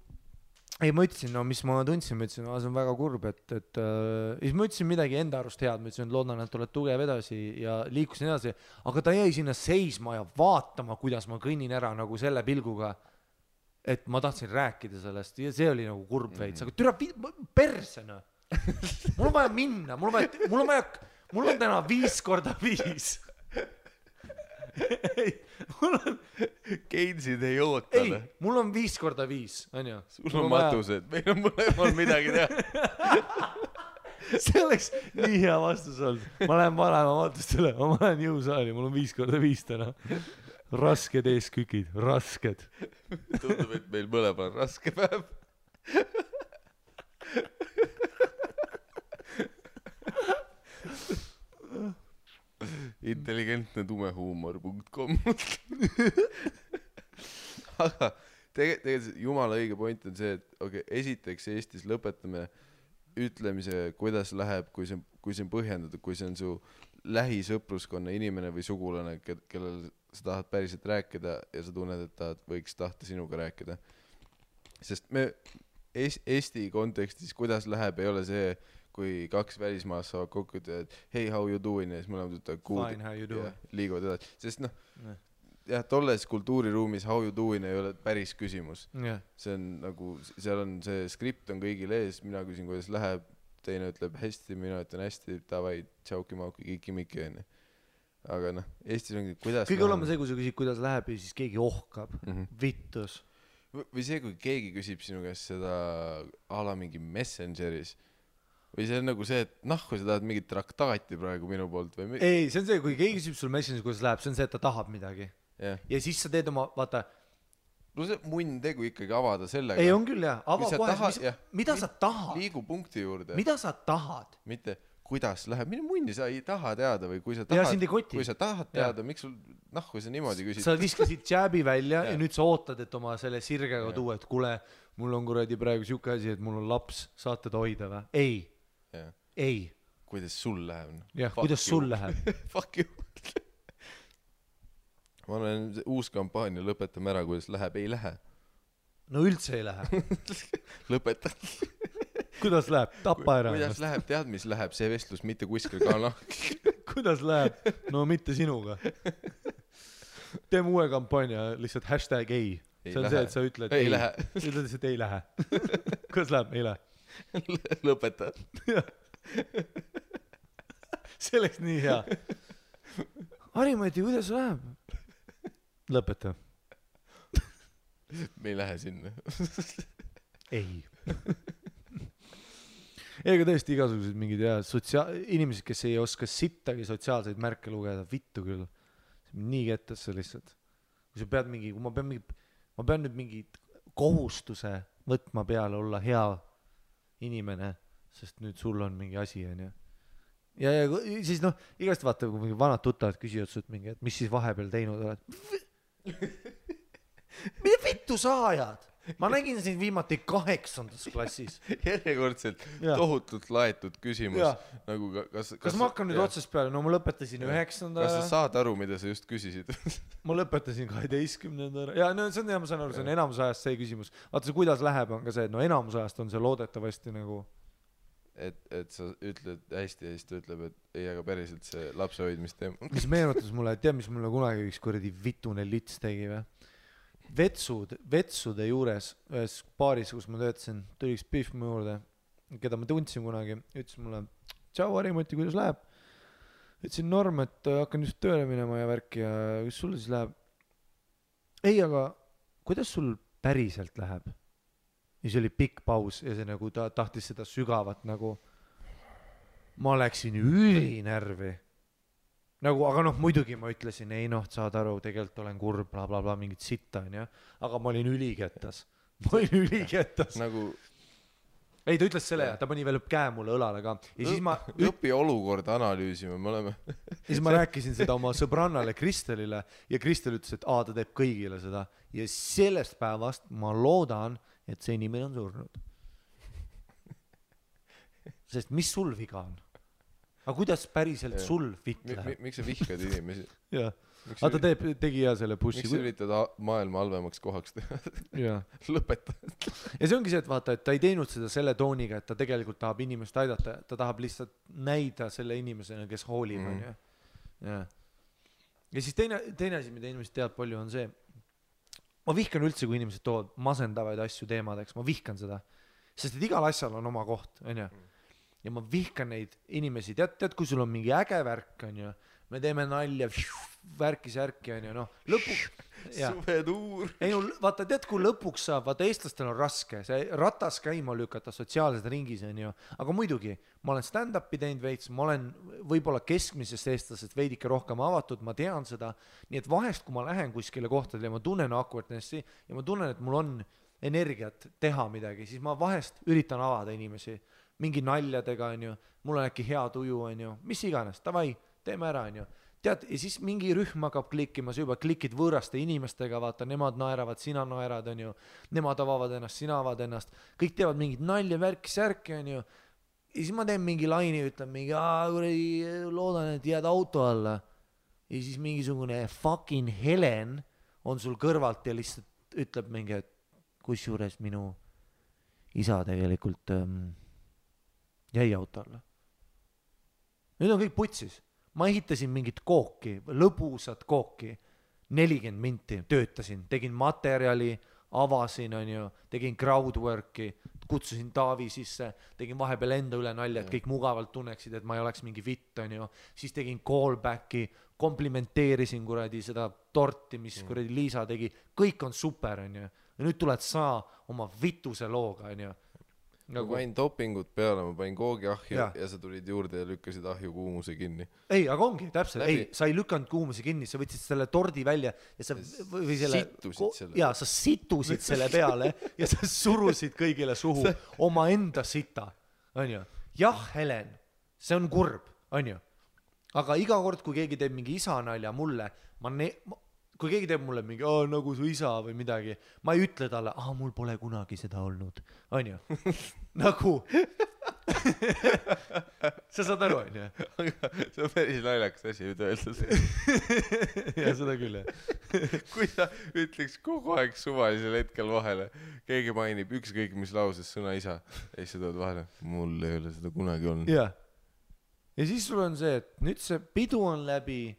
ei, ma ütlesin, no mis ma tundsin, ma ütlesin, see on väga kurb, et siis ma ütlesin midagi enda arust head, ma ütlesin, et loodan, et oled tugev edasi ja liikusin edasi, aga ta jäi sinna seisma ja vaatama, kuidas ma kõnnin ära nagu selle pilguga, et ma tahtsin rääkida sellest ja see oli nagu kurb veits, aga türa persena. Mul on vaja minna, mul on täna 5x5. Ei, mul on Keinsid ei oota. Ei, mul on 5x5, on ju. Sul on matused, meil on mõlemal midagi teha. See oleks nii hea vastus olnud. Ma lähen vanema matustele, ma lähen jõusaali, mul on 5x5 täna. Rasked eeskükid, rasked. Tundub, et meil mõlemal on raske päev. intelligentne tumehuumor.com. Aga tegelikult jumala õige point on see, et okei, esiteks Eestis lõpetame ütlemise, kuidas läheb, kui see on põhjendatud, kui see on su lähisõpruskonna inimene või sugulane, kellel sa tahad päriselt rääkida ja sa tunned, et ta võiks tahta sinuga rääkida. Sest me Eesti kontekstis, kuidas läheb, ei ole see, kui kaks välismaast saavad kokku, et hey, how you doing, ja siis mõlemad ütlevad Fine, how you doing. Liiguvad edasi. Sest jah, tolles kultuuriruumis how you doing ei ole päris küsimus. See on nagu, seal on see skript on kõigil ees, mina küsin, kuidas läheb, teine ütleb hästi, mina ütlen hästi, davai, tšauki-mauki, kiki-miki, onju. Aga Eestis ongi, kuidas kõige olema see, kui sa küsid, kuidas läheb ja siis keegi ohkab, vittus. Või see, kui keegi küsib sinu käest seda ala mingi Messengeris või see on nagu see, et kui sa tahad mingit traktaati praegu minu poolt või ei, see on see, kui keegi küsib sul Messengeris, kuidas läheb, see on see, et ta tahab midagi ja siis sa teed oma, vaata no see munn tegu ikkagi avada sellega ei, on küll jah, ava kohe, mida sa tahad liigu punkti juurde mida sa tahad mitte kuidas läheb, mine munni, sa ei taha teada või kui sa tahad teada, miks sul kui sa niimoodi küsid sa viskasid jääbi välja ja nüüd sa ootad, et oma selle sirgega tuua, et kuule, mul on kuradi praegu siuke asi, et mul on laps, saate ta hoida või? Ei kuidas sul läheb jah, kuidas sul läheb fuck you ma olen uus kampaania, lõpetame ära, kuidas läheb, ei lähe no üldse ei lähe lõpeta kuidas läheb, tapa ära kuidas läheb, tead mis läheb, see vestlus mitte kuskil ka kuidas läheb, no mitte sinuga teeme uue kampaania, lihtsalt hashtag ei see on see, et sa ütled ei lähe ütled lihtsalt ei lähe kuidas läheb, ei lähe lõpeta see oleks nii hea Harimati, kuidas läheb? Lõpeta me ei lähe sinna ei ega tõesti igasugused mingid inimesed, kes ei oska sittagi sotsiaalseid märke lugeda, vittu küll nii kettasse lihtsalt kui sa pead mingi, kui ma pean nüüd mingi kohustuse võtma peale olla hea inimene, sest nüüd sul on mingi asi onju ja siis igast vaata, kui mingi vanad tuttavad küsivad sult mingi, et mis siis vahepeal teinud oled mida vittu sa ajad? Ma nägin sind viimati 8. klassis. Järjekordselt tohutult laetud küsimus. Nagu kas ma hakkan nüüd otsast peale? No ma lõpetasin 9. Kas sa saad aru, mida sa just küsisid? Ma lõpetasin 12. Ja no see on hea, ma saan aru, see on enamus ajast see küsimus. Vaata see, kuidas läheb, on ka see, et no enamus ajast on see loodetavasti nagu et sa ütled hästi ja siis ta ütleb, et ei, aga päriselt see lapse hoidmist teema. Mis meenutas mulle, et tead, mis mulle kunagi üks kuradi vitune lits tegi või? Vetsude juures ühes baaris, kus ma töötasin, tuli üks pihv mu juurde, keda ma tundsin kunagi, ütles mulle, tšau Harimati, kuidas läheb? Ütlesin norm, et hakkan just tööle minema ja värki ja kus sul siis läheb? Ei, aga kuidas sul päriselt läheb? Ja see oli pikk paus ja see nagu ta tahtis seda sügavat nagu ma läksin ülinärvi nagu, aga muidugi ma ütlesin ei saad aru, tegelikult olen kurb bla bla bla mingit sitta onju, aga ma olin ülikettas nagu ei, ta ütles selle ja ta pani veel käe mulle õlale ka ja siis ma õpi olukorda analüüsime, me oleme ja siis ma rääkisin seda oma sõbrannale Kristelile ja Kristel ütles, et ta teeb kõigile seda ja sellest päevast ma loodan, et see inimene on surnud. Sest mis sul viga on? Aga kuidas päriselt sul fit läheb? Miks sa vihkad inimesi? Jah. Aga ta tegi hea selle pushi. Miks sa üritad maailma halvemaks kohaks teha? Lõpeta. Ja see ongi see, et vaata, et ta ei teinud seda selle tooniga, et ta tegelikult tahab inimest aidata. Ta tahab lihtsalt näida selle inimesena, kes hoolib. Ja siis teine asi, mida inimesed teavad palju, on see, ma vihkan üldse, kui inimesed toovad masendavaid asju teemadeks, ma vihkan seda, sest et igal asjal on oma koht, onju. Ja ma vihkan neid inimesi, tead, kui sul on mingi äge värk, onju, me teeme nalja, värki, onju, lõpuks. Suvetuur. Ei, vaata, tead, kui lõpuks saab, vaata, eestlastel on raske, see ratas käima lükata sotsiaalsed ringis, onju, aga muidugi, ma olen stand-upi teinud veits, ma olen võib-olla keskmisest eestlasest veidike rohkem avatud, ma tean seda, nii et vahest, kui ma lähen kuskile kohtadele ja ma tunnen awkwardnessi ja ma tunnen, et mul on energiat teha midagi, siis ma vahest üritan avada inimesi mingi naljadega, onju, mul on äkki hea tuju, onju, mis iganes, davai, teeme ära, onju. tead, ja siis mingi rühm hakkab klikkima, sa juba klikid võõraste inimestega, vaata, nemad naeravad, sina naerad, on ju, nemad avavad ennast, sina avad ennast, kõik teevad mingit nalja, värki, särki, on ju, ja siis ma teen mingi laini, ütlen mingi, loodan, et jääd auto alla, ja siis mingisugune fucking Helen on sul kõrvalt ja lihtsalt ütleb mingi, et kusjuures minu isa tegelikult jäi auto alla. Nüüd on kõik putsis. Ma ehitasin mingit kooki, lõbusat kooki, 40 minti töötasin, tegin materjali, avasin, on ju, tegin crowdworki, kutsusin Taavi sisse, tegin vahepeal enda üle nalja, et kõik mugavalt tunneksid, et ma ei oleks mingi vitt, on ju, siis tegin callbacki, komplimenteerisin kuradi seda torti, mis kuradi Liisa tegi, kõik on super, on ju, ja nüüd tuled sa oma vituse looga, on ju. Ma panin dopingut peale, ma panin koogi ahju ja sa tulid juurde ja lükkasid ahju kuumuse kinni. Ei, aga ongi, täpselt, ei, sa ei lükanud kuumuse kinni, sa võtsid selle tordi välja ja sa või selle, ja sa situsid selle peale ja sa surusid kõigile suhu oma enda sita, on ju. Jah, Helen, see on kurb, on ju. Aga iga kord, kui keegi teeb mingi isa nalja mulle, kui keegi teeb mulle mingi, nagu su isa või midagi, ma ei ütle talle, mul pole kunagi seda olnud, on ju, nagu, sa saad aru, on ju. Aga see on päris naljakas asi nüüd öeldud. Ja seda küll, jah. Kui sa ütleks kogu aeg suvalisel hetkel vahele, keegi mainib ükskõik mis lauses sõna isa, ja siis sa tood vahele, mul ei ole seda kunagi olnud. Ja siis sul on see, et nüüd see pidu on läbi,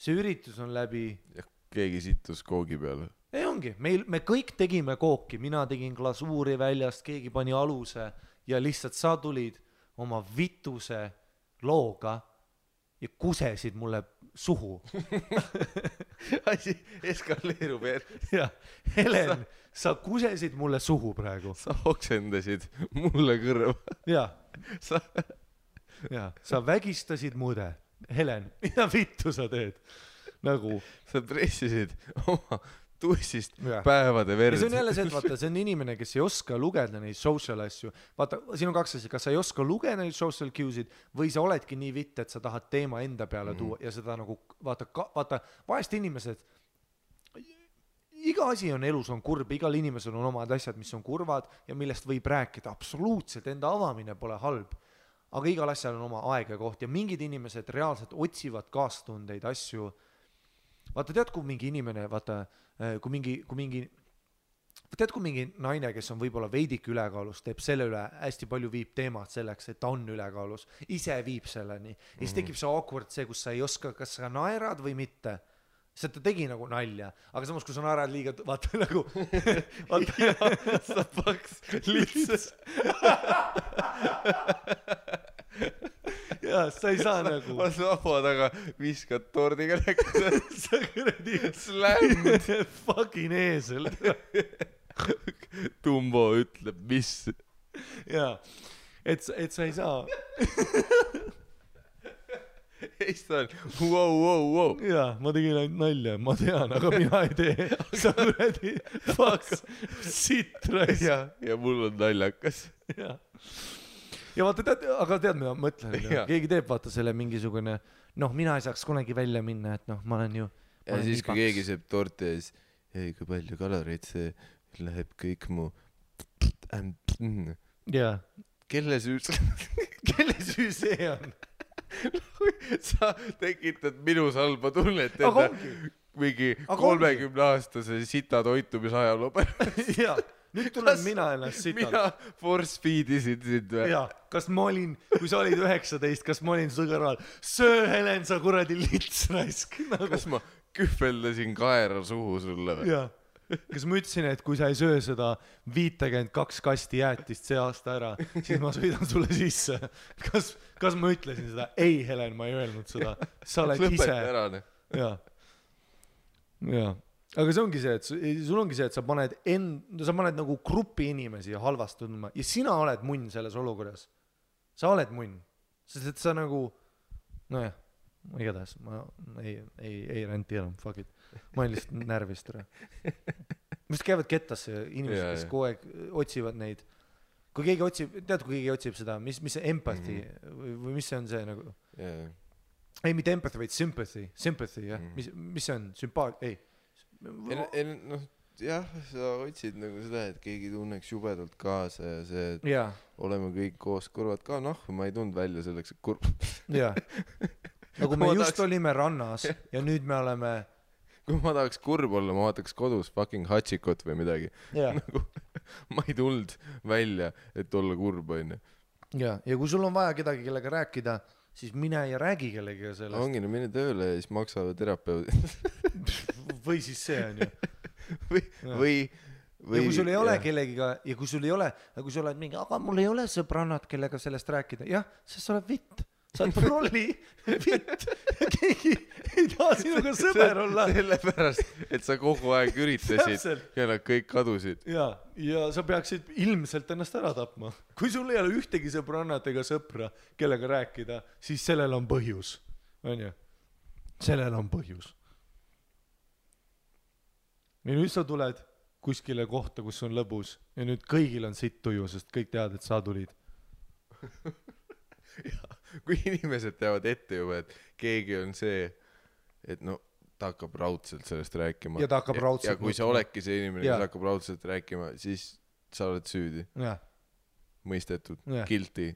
see üritus on läbi. Ja keegi sittus koogi peale. Ei ongi, me kõik tegime kooki, mina tegin glasuuri väljast, keegi pani aluse ja lihtsalt sa tulid oma vituse looga ja kusesid mulle suhu. Asi eskaleerub ja Helen, sa kusesid mulle suhu praegu. Sa oksendasid mulle kõrva. Sa vägistasid mude. Helen, mida vittu sa teed? Nagu sa pressisid oma tussist päevade verd. Ja see on jälle see, et vaata, see on inimene, kes ei oska lugeda neid social asju. Vaata, siin on kaks asja, kas sa ei oska lugeda neid social cue'sid või sa oledki nii vitt, et sa tahad teema enda peale tuua ja seda nagu, vaata, vahest inimesed, iga asi on elus on kurb, igal inimesel on omad asjad, mis on kurvad ja millest võib rääkida. Absoluutselt, enda avamine pole halb. Aga igal asjal on oma aeg ja koht ja mingid inimesed reaalselt otsivad kaastundeid asju. Vaata, tead, kui mingi inimene, vaata, kui mingi naine, kes on võib-olla veidik ülekaalus, teeb selle üle hästi palju viib teemad selleks, et ta on ülekaalus, ise viib selleni. Ja siis tekib see awkward see, kus sa ei oska, kas sa naerad või mitte. See ta tegi nagu nalja, aga samas, kui sa naerad liiga, vaata nagu sa paks lihtsalt ja sa ei saa nagu ma laua taga viskad tordiga näkku sa kuradi slämmid fucking eesel Tumbo ütleb mis ja et sa ei saa Eestal, wow. Jaa, ma tegin ainult nalja, ma tean, aga mina ei tee. Sa kuradi fuck sitrais. Ja mul on naljakas. Ja vaata, aga tead, mida ma mõtlen. Keegi teeb, vaata selle mingisugune, mina ei saaks kunagi välja minna, et ma olen ju... Ja siis, kui keegi seeb torti ja siis, ei, kui palju kaloreid see läheb kõik mu... Jaa. Kelle süü see on? Sa tekitad minus halba tunnet enda mingi 30-aastase sita toitumisajaloo pärast. Jaa, nüüd tulen mina ennast sitalt. Mina force feedisin sind või? Jaa, kas ma olin, kui sa olid 19, kas ma olin su kõrval? Söö, Helen, sa kuradi lits raisk. Kas ma kühveldasin kaera suhu sulle või? Jaa. Kas ma ütlesin, et kui sa ei söö seda 52 kasti jäätist see aasta ära, siis ma sõidan sulle sisse. Kas ma ütlesin seda? Ei, Helen, ma ei öelnud seda. Sa oled ise. Lõpeta ära. Jaa. Aga see ongi see, et sul ongi see, et sa paned nagu grupi inimesi halvast tundma ja sina oled munn selles olukorras. Sa oled munn. Sest et sa nagu, nojah, igatahes, ma ei renti enam, fuck it. Ma olen lihtsalt närvist ära. Mis käivad kettasse inimesed, kes kogu aeg otsivad neid. Kui keegi otsib, tead, kui keegi otsib seda, mis see empathy või mis see on see nagu? ei mitte empathy vaid sympathy jah mis see on ei noh jah sa otsid nagu seda et keegi tunneks jubedalt kaasa ja see et oleme kõik koos kurvad ka ma ei tundnud välja selleks et kurb jaa nagu me just olime rannas ja nüüd me oleme kui ma tahaks kurb olla ma vaataks kodus fucking Hachikot või midagi nagu ma ei tulnud välja et olla kurb onju ja kui sul on vaja kedagi kellega rääkida siis mine ja räägi kellegagi sellest ongi no mine tööle ja siis maksavad terapeudi või siis see on ju või ja kui sul ei ole kellegiga ja kui sul ei ole kui sa oled mingi aga mul ei ole sõbrannad kellega sellest rääkida jah sest sa oled vitt sa oled prolli vitt keegi ei taha sinuga sõber olla sellepärast et sa kogu aeg üritasid ja nad kõik kadusid ja sa peaksid ilmselt ennast ära tapma kui sul ei ole ühtegi sõbrannat ega sõpra kellega rääkida siis sellel on põhjus onju sellel on põhjus ja nüüd sa tuled kuskile kohta kus on lõbus ja nüüd kõigil on sitt tuju sest kõik teavad et sa tulid kui inimesed teavad ette juba et keegi on see et no ta hakkab raudselt sellest rääkima ja ta hakkab raudselt ja kui sa oledki see inimene kes hakkab raudselt rääkima siis sa oled süüdi mõistetud guilty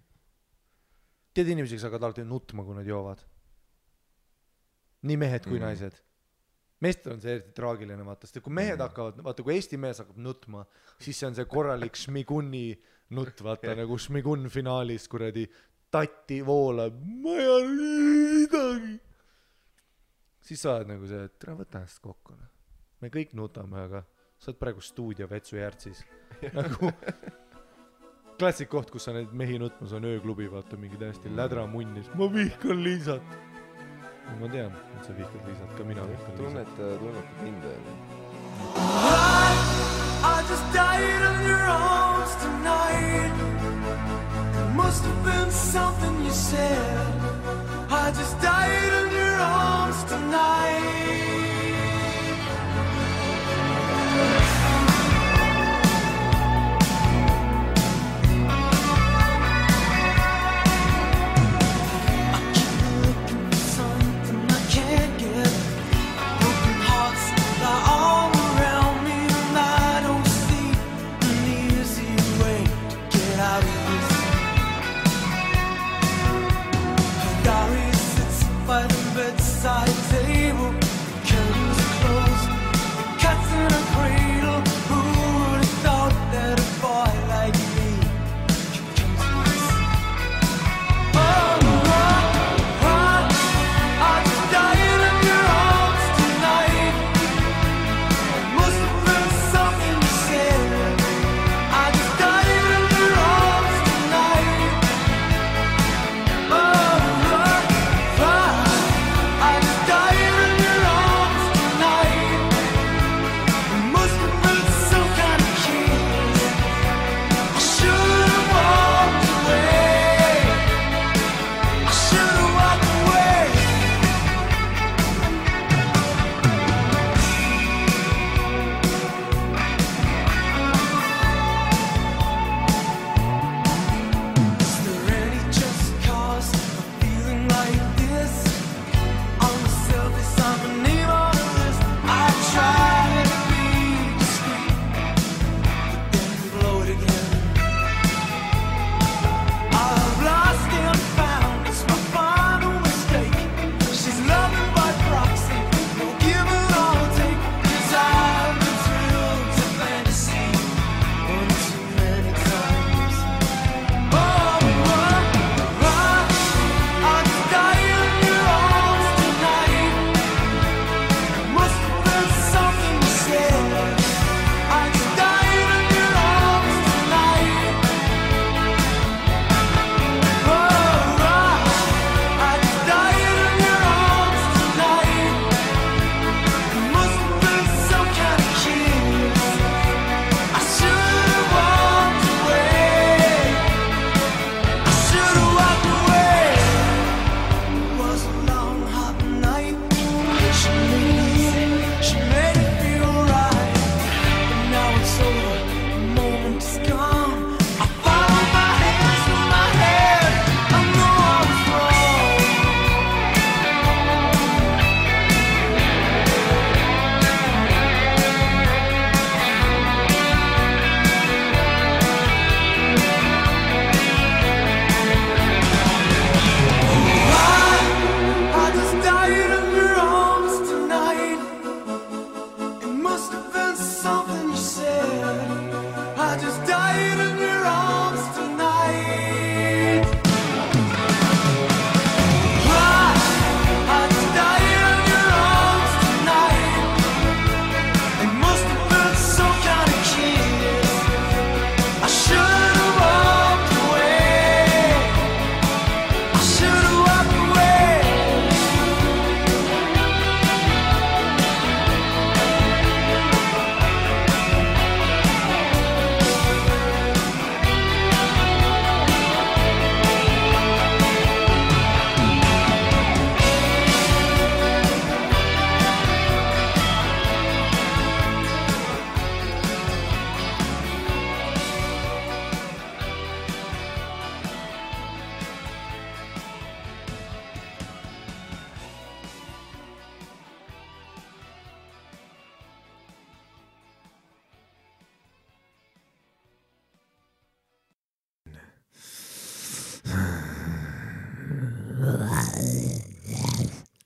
tead inimesed kes hakkavad alati nutma kui nad joovad nii mehed kui naised meestel on see eriti traagiline vaata sest kui mehed hakkavad vaata kui Eesti mees hakkab nutma siis see on see korralik Šmiguni nutt vaata nagu Šmigun finaalis kuradi tatti voolab ma ei ole midagi siis sa oled nagu see et tere võta ennast kokku me kõik nutame aga sa oled praegu stuudio Vetsujärtsis nagu klassik koht kus sa neid mehi nutmas on ööklubi vaata mingi täiesti lädramunnis ma vihkan Liisat ma tean et sa vihkad Liisat ka mina vihkan Liisat tunnetad mind I just died of your arms tonight Must have been something you said I just died